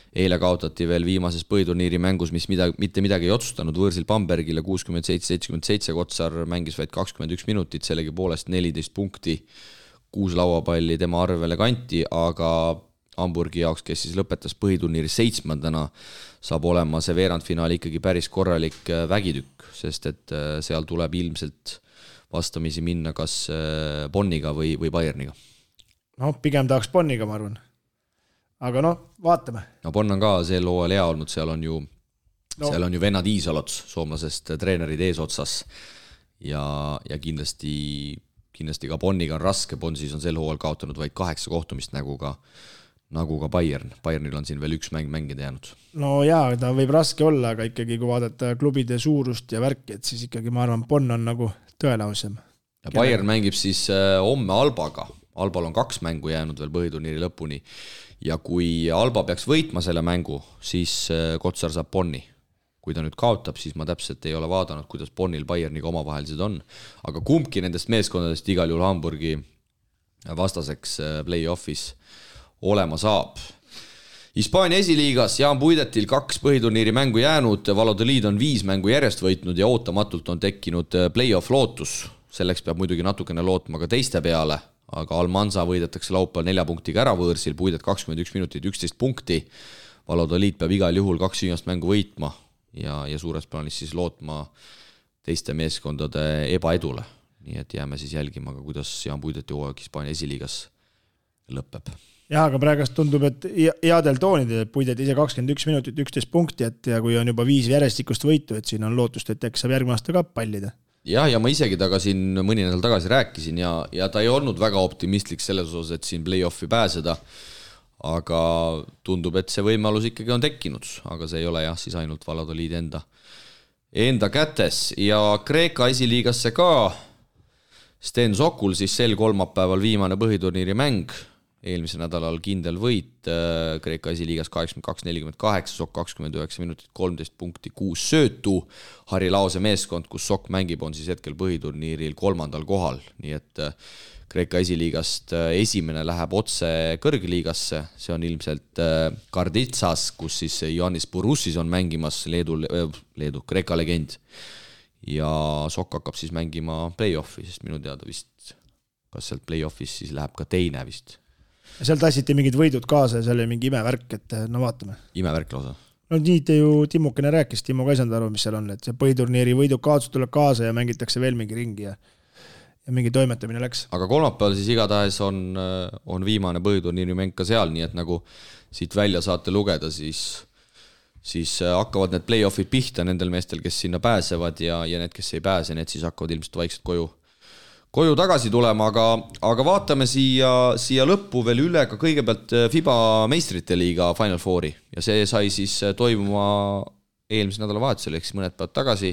Eile kaotati veel viimases põhiturniiri mängus, mis mitte midagi ei otsustanud võõrsil Bambergile 67-77, Kotsar mängis vaid 21 minutit, sellegi poolest 14 punkti, 6 lauapalli tema arvele kanti, aga Hamburgi jaoks, kes siis lõpetas põhiturniiri 7. saab olema see veerandfinaal ikkagi päris korralik vägitükk, sest et seal tuleb ilmselt vastamisi minna kas Bonniga või Bayerniga. No, pigem tahaks Bonniga, ma arvan. Aga vaatame. No Bonn on ka sel hooajal hea olnud, seal on ju vennad Iisalots, soomlasest treenerid eesotsas ja kindlasti ka Bonniga on raske, Bonn siis on sel hooajal kaotanud vaid 8 kohtumist nagu ka Bayern. Bayernil on siin veel 1 mäng mängida jäänud. No jaa, ta võib raske olla, aga ikkagi kui vaadata klubide suurust ja värki, et siis ikkagi ma arvan, Bonn on nagu tõelausem. Ja Bayern mängib siis homme Albaga. Albal on 2 mängu jäänud veel põhiturniiri lõpuni ja kui Alba peaks võitma selle mängu, siis Kotsar saab Bonni. Kui ta nüüd kaotab, siis ma täpselt ei ole vaadanud, kuidas Bonnil Bayerniga omavahelised on. Aga kumbki nendest meeskondadest igal juhul Hamburgi vastaseks play-offis olema saab. Hispaania esiliigas Jaan Puidetil 2 põhiturniiri mängu jäänud, Valladolid on 5 mängu järjest võitnud ja ootamatult on tekkinud play-off lootus. Selleks peab muidugi natukene lootma ka teiste peale, aga Almanza võidetakse laupäeval 4 punktiga ära võõrsil, Puidet 21 minutit, 11 punkti. Valladolid peab igal juhul 2 viimast mängu võitma ja suures plaanis siis lootma teiste meeskondade ebaedule. Nii et jääme siis jälgima, kuidas Jaan Puideti hooaeg Hispaania esiliigas lõpeb. Jah, aga praegast tundub, et headel toonidel Puidet ise 21 minutit, 11 punkti, ja kui on juba 5 järjestikust võitu, et siin on lootust, et äkki saab järgmine aasta ka pallida. ja ma isegi taga siin mõni nädal tagasi rääkisin ja ta ei olnud väga optimistlik selles osas, et siin play-offi pääseda, aga tundub, et see võimalus ikkagi on tekkinud, aga see ei ole jah, siis ainult Valladolid enda kätes ja Kreeka esiliigasse ka Sten Sokul siis sel kolmapäeval viimane põhiturniiri mäng, eelmisel nädalal kindel võit Kreeka esiliigas 82-48, Sok 29 minutit, 13 punkti, 6 söötu. Harri Laose meeskond, kus Sok mängib, on siis hetkel põhiturniiril 3. kohal, nii et Kreeka esiliigast esimene läheb otse kõrgliigasse, see on ilmselt Karditsas, kus siis Ioannis Bourussis on mängimas Leedu Kreeka legend ja Sok hakkab siis mängima play-offi, sest minu teada vist, kas sealt play-offis siis läheb ka teine vist. Seal tassiti mingid võidud kaasa ja seal oli mingi imevärk, et no vaatame. Imevärk lausa. No nii te ju Timmukene rääkis, Timmo ka ei saanud aru, mis seal on, et see põhiturniiri võidud kaotus tuleb kaasa ja mängitakse veel mingi ringi ja mingi toimetamine läks. Aga kolmapäeval siis igatahes on viimane põhiturniiri mäng ka seal, nii et nagu siit välja saate lugeda, siis hakkavad need play-offid pihta nendel meestel, kes sinna pääsevad ja need, kes ei pääse, need siis hakkavad ilmselt vaikselt koju tagasi tulema, aga vaatame siia lõppu veel üle ka kõigepealt FIBA meistrite liiga Final Fouri ja see sai siis toimuma eelmise nädala vahetusel, ehk siis mõned päevad tagasi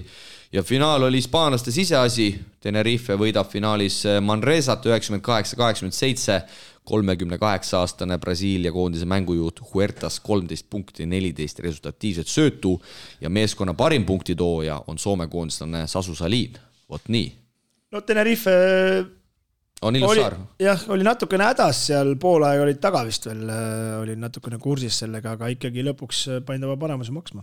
ja finaal oli hispaanlaste siseasi, Tenerife võidab finaalis Manresat 98-87, 38-aastane Brasiilia koondise mängujuht Huertas 13 punkti, 14 resultatiivset söötu ja meeskonna parim punktitooja on Soome koondislane Sasu Salin, vot nii. No Tenerife on ilus saar. Jah, oli natukene hädas seal, poolaeg olid taga vist veel, oli natukene kursis sellega, aga ikkagi lõpuks paindava paremusi maksma.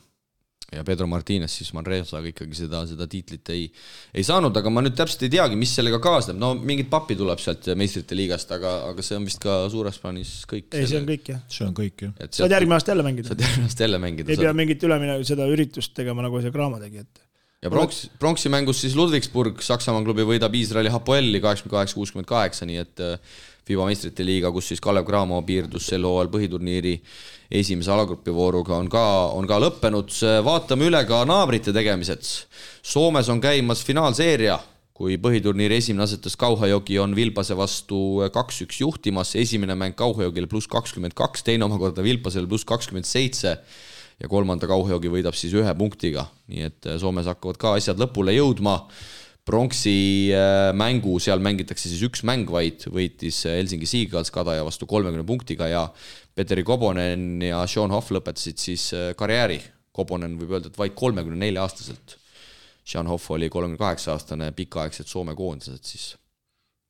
Ja Pedro Martínez siis Manresaga ikkagi seda tiitlit ei saanud, aga ma nüüd täpselt ei teagi, mis sellega kaasneb. No mingid pappi tuleb sealt meistrite liigast, aga see on vist ka suures plaanis kõik. Ei, see on kõik, jah. See on kõik, jah. Saad järgmine aasta jälle mängida. Saad järgmine aasta jälle mängida. Ei pea mingit ülemine seda üritust tegema, nagu see Kraama tegi, et ja pronksi mängus siis Ludwigsburg, Saksamaa klubi võidab Iisraeli Hapoeli 88-68, nii et FIBA meistrite liiga, kus siis Kalev Cramo piirdus sel hooajal põhiturniiri esimese alagrupivooruga on ka lõppenud. Vaatame üle ka naabrite tegemised. Soomes on käimas finaalseeria, kui põhiturniiri esimene asetas Kauhajoki on Vilpase vastu 2-1 juhtimas. Esimene mäng Kauhajokile +22, teine omakorda Vilpasele +27 ja kolmanda Kauhajoki võidab siis 1 punktiga. Nii et Soomes hakkavad ka asjad lõpule jõudma. Pronksi mängu, seal mängitakse siis 1 mäng vaid, võitis Helsingi Seagulls Kadaja vastu 30 punktiga ja Petteri Kobonen ja Sean Hoff lõpetasid siis karjääri. Kobonen võib öelda, et vaid 34-aastaselt. Sean Hoff oli 38-aastane pikaaegselt Soome koondised siis.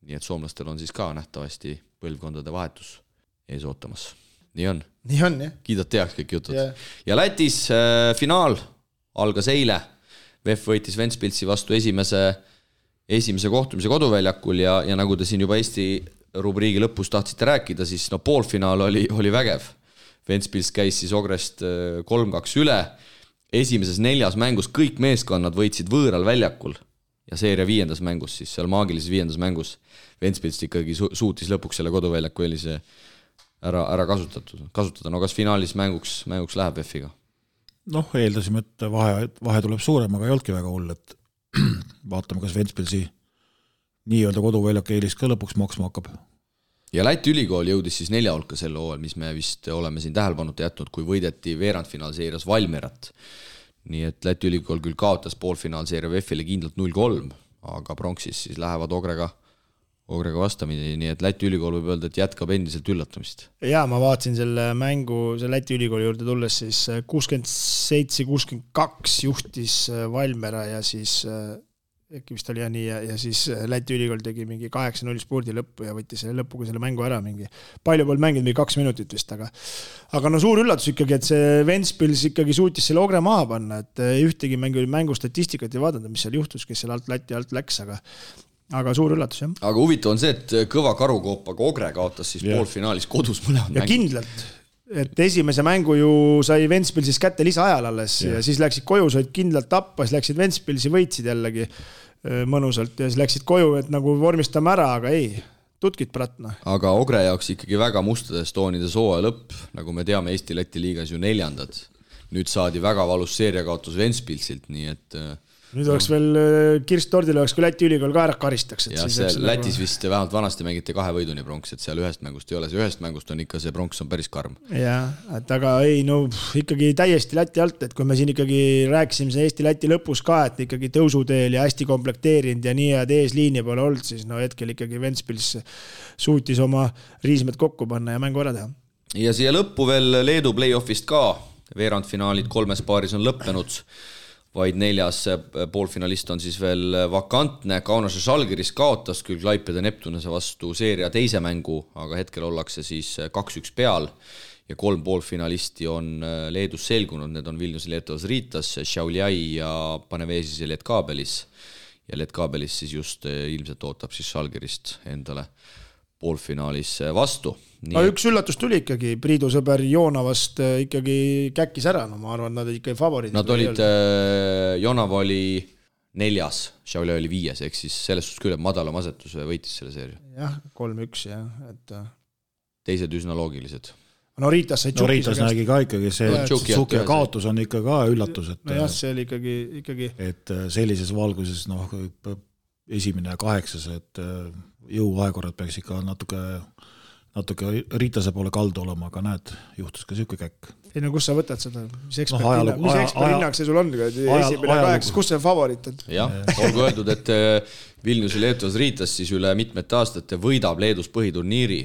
Nii et soomlastel on siis ka nähtavasti põlvkondade vahetus ees ootamas. Nii on, jah. Kiidad teaks kõik jutud. Yeah. Ja Lätis finaal algas eile. VEF võitis Ventspilsi vastu esimese kohtumise koduväljakul ja nagu te siin juba Eesti rubriigi lõpus tahtsite rääkida, siis poolfinaal oli vägev. Ventspils käis siis Ogrest 3-2 üle. Esimeses 4 mängus kõik meeskonnad võitsid võõral väljakul ja seeria 5. mängus, siis seal maagilises 5. mängus Ventspils ikkagi suutis lõpuks selle koduväljaku eelise ära kasutada. No kas finaalis mänguks läheb VEF-iga? Eeldasime, et vahe tuleb suurem, aga ei olnudki väga hull, et vaatame, kas Ventspilsi nii-öelda koduväljak eelis ka lõpuks maksma hakkab. Ja Läti ülikool jõudis siis 4 hulka sel hooajal, mis me vist oleme siin tähelepanuta jätnud, kui võideti veerandfinaalseerias Valmerat. Nii et Läti ülikool küll kaotas poolfinaalseeria VEF-ile kindlalt 0-3, aga pronksis siis lähevad Ogrega vastamine, nii et Läti ülikool võib öelda, et jätkab endiselt üllatamist. Ja ma vaatasin selle mängu, see Läti ülikooli juurde tulles, siis 67-62 juhtis Valmera ja siis äkki vist oli nii ja siis Läti ülikool tegi mingi 8-0 spurdi lõppu ja võttis selle lõpuga selle mängu ära mingi. Palju pool mängid mingi 2 minutit vist, aga suur üllatus ikkagi, et see Ventspils ikkagi suutis selle Ogre maha panna, et ühtegi mängu statistikat ei vaadanud, mis seal juhtus, kes seal Läti alt läks, aga suur üllatus, jah. Aga huvitav on see, et kõva karukoopaga Ogre kaotas siis poolfinaalis kodus mõlemad ja kindlalt, et esimese mängu ju sai Ventspilsis kätte lisaajal alles ja siis läksid koju, said kindlalt tappa, siis läksid Ventspilsi, võitsid jällegi mõnusalt ja siis läksid koju, et nagu vormistame ära, aga ei, tutkid pratna. Aga Ogre jaoks ikkagi väga mustades toonides hooaja lõpp, nagu me teame Eesti-Läti liigas ju 4. nüüd saadi väga valus seeriakaotus Ventspilsilt, nii et nüüd oleks veel kirst tordil oleks, kui Läti ülikool ka ära karistaks. Ja see Lätis vist vähemalt vanasti mängiti 2 võiduni pronks, et seal ühest mängust ei ole, see ühest mängust on ikka, see pronks on päris karm. Jah, et aga ei, no ikkagi täiesti Läti alt, et kui me siin ikkagi rääkisime see Eesti-Läti lõpus ka, et ikkagi tõusuteel ja hästi komplekteerinud ja nii, et eesliini pole olnud, siis no hetkel ikkagi Ventspils suutis oma riismed kokku panna ja mängu ära teha. Ja siia lõppu veel Leedu play-offist ka, veerandfinaalid 3 paaris on lõppenud, vaid 4. poolfinalist on siis veel vakantne. Kaunase Žalgiris kaotas küll Klaipeda Neptunese vastu seeria teise mängu, aga hetkel ollakse siis 2-1 peal ja 3 poolfinalisti on Leedus selgunud. Need on Vilnius Lietuvas Ritas, Šiauliai ja Panevežis ja Lietkabelis. Ja Lietkabelis siis just ilmselt ootab siis Žalgirist endale poolfinaalis vastu. Üks üllatus tuli ikkagi, Priidu sõber Joonavast ikkagi käkkis ära, no ma arvan, nad ikkagi favoriidid. Nad olid, Joonava oli 4, Šiauliai oli 5, ehk siis selles suhtes küll, et madalam asetus võitis selle seeria. Jah, 3-1 jah, et teised üsna loogilised. No Riitas sai Riitas nägi ka ikkagi see Tšuki kaotus on ikka ka üllatus, et no jah, see oli ikkagi et sellises valguses esimene ja 8, et jõuvahekorrad peaks ikka natuke Riitase poole kaldu olema, aga näed, juhtus ka siuke käkk. Ei no kus sa võtad seda? Mis eksperthinnang see sul on? Esimene 8, kus see favoriit on? Jah, olgu öeldud, et Vilnius Lietuvas Riitas siis üle mitmete aastate võidab Leedus põhiturniiri,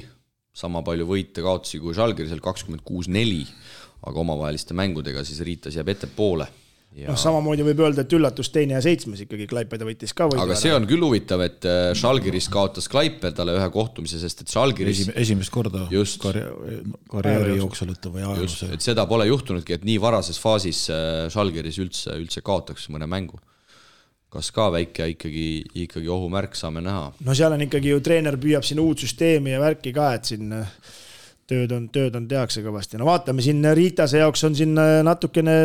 sama palju võite kaotusi kui Žalgirisel 26-4, aga omavaheliste mängudega siis Riitas jääb ette poole. Ja... No, samamoodi võib öelda, et üllatus 2. ja 7 ikkagi Klaipeda võitis ka võidu. Aga see on küll huvitav, et Žalgiris kaotas Klaipedale ühe kohtumise, sest et Žalgiris esimest korda karjääri jooksul või ajaloos. Et seda pole juhtunudki, et nii varases faasis Žalgiris üldse kaotaks mõne mängu. Kas ka väike ikkagi ohumärk saame näha? No seal on ikkagi ju treener püüab siin uut süsteemi ja värki ka, et siin tööd on tehakse kõvasti. No vaatame, siin Riitase jaoks on siin natukene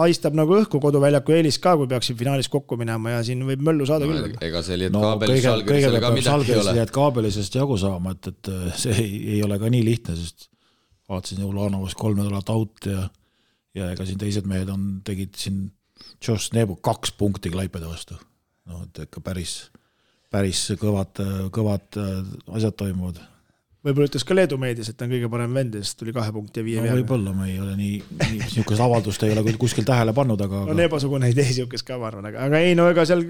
haistab nagu õhku koduväljaku eelis ka, kui peaks siin finaalis kokku minema ja siin võib möllu saada küll. Ega see Lietkabelis Žalgirisele ka midagi ei ole. Lietkabelisest jagu saama, et see ei ole ka nii lihtne, sest vaatasin Ulanovas 3 nädalat out ja ega siin teised mehed tegid siin Josh Nebu 2 punkti Klaipeda vastu. No, et ikka päris kõvad asjad toimuvad. Võib-olla ütles ka Leedu meedias, et ta on kõige parem vend, sest tuli 2 punkti ja 5 no, võib-olla ma ei ole nii niisugust avaldust ei ole kuskil tähele pannud, aga... No Nebasugune ei tee niisugust ka, ma arvan, aga ei, no ega seal...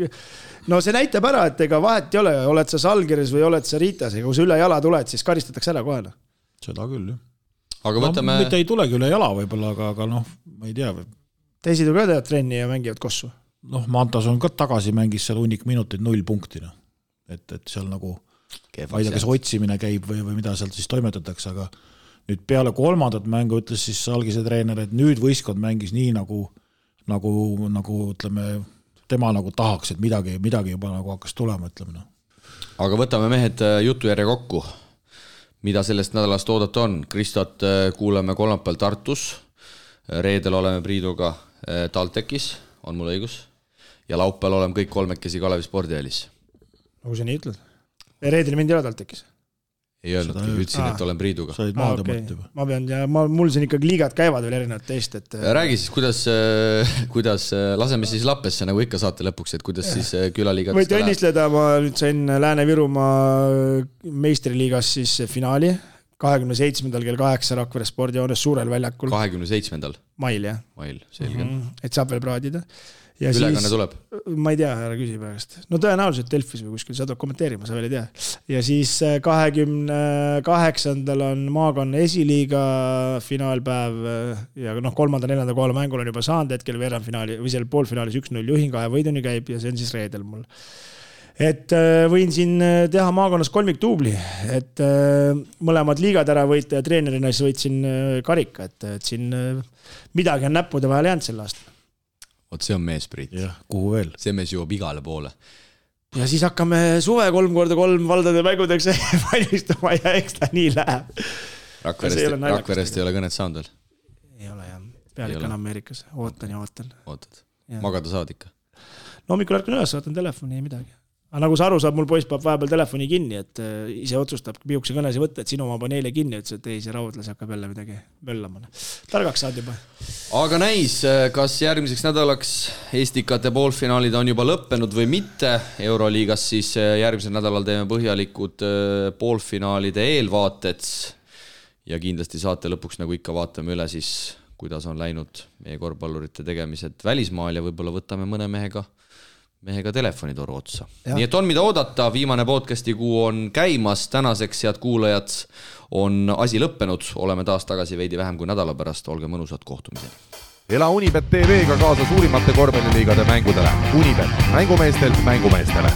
No see näitab ära, et ega vahet ei ole, oled sa Žalgiris või oled sa Riitas, ega kui sa üle jala tuled, siis karistatakse ära kohe. Seda küll, jah. Aga võtame... Mitte ei tulegi üle jala võib-olla, aga noh, ma ei tea. Teised ju ka teevad trenni ja mängivad kossu. Noh, Mantas on ka tagasi mängis seal hunnik minutit 0 punktina. Et seal nagu... ma ei tea, kas otsimine käib või mida sealt siis toimetatakse, aga nüüd peale 3. mängu ütles siis Salgise treener, et nüüd võistkond mängis nii nagu ütleme, tema nagu tahaks, et midagi juba nagu hakkas tulema, ütleme. Aga võtame mehed jutujärje kokku. Mida sellest nädalast oodata on? Kristot kuuleme kolmapäeval Tartus, reedel oleme Priiduga TalTechis, on mul õigus, ja laupäeval oleme kõik 3 Kalevi spordielis. Nagu sa nii ütled? Reedel mind ei ole TalTechis? Ei öelnudki, ütlesin, et olen Priiduga. Sa olid maad tõmmata juba. Ma pean, ja mul siin ikkagi liigad käivad veel erinevad teist. Et... Räägi siis, kuidas laseme siis Lappesse, nagu ikka saate lõpuks, et kuidas siis külaliigad... Võite õnnisleda, ma nüüd sain Lääne-Virumaa meistriliigas siis finaali 27. kell 8 Rakvere spordijoones suurel väljakul. 27. Mail, jah. Mail, selge. Et saab veel praadida. Ja ülekanne siis, tuleb? Ma ei tea, ära küsi pärast. No tõenäoliselt Delfis või kuskil, sa tuleb kommenteerima, sa veel ei tea. Ja siis 28. on maakonna esiliiga finaalpäev ja 3. ja 4. kohale mängul on juba saanud hetkel veerandfinaali või seal poolfinaalis 1-0 juhin 2 võiduni käib ja see on siis reedel mul. Et võin siin teha maakonnas 3 tuubli, et mõlemad liigad ära võita ja treenerina siis võitsin karika, et siin midagi on näppude vahel jäänud sel aastal. Oot, see on mees, Priit. Jah, kuhu veel? See mees jõuab igale poole. Ja siis hakkame suve 3x3 valdade mängudeks valmistuma ja eks ta nii läheb. Rakverest ei ole kõnet saanud veel? Ei ole, jah. Pealik on Ameerikas. Ootan ja ootan. Ootad. Magada saad ikka? No hommikul ärkan üles, vaatan telefoni ja midagi. Aga nagu sa aru saab, mul poiss peab vahepeal telefoni kinni, et ise otsustab pihukese kõnesi võtta, et sinu oma pani eile kinni, ütles, et ei, see raudlas hakkab jälle midagi möllama. Targaks saad juba. Aga näis, kas järgmiseks nädalaks Estikate poolfinaalid on juba lõppenud või mitte. Euroliigas siis järgmisel nädalal teeme põhjalikud poolfinaalide eelvaated ja kindlasti saate lõpuks, nagu ikka, vaatame üle siis, kuidas on läinud meie korvpallurite tegemised välismaal ja võib-olla võtame mõne mehega telefonitoru otsa. Ja. Nii et on mida oodata, viimane podcasti kuu on käimas, tänaseks, head kuulajad, on asi lõppenud, oleme taas tagasi veidi vähem kui nädala pärast, olge mõnusad, kohtumiseni. Ela Unibet TV-ga kaasa suurimate korvpalliliigade mängudele. Unibet, mängumeestelt mängumeestele.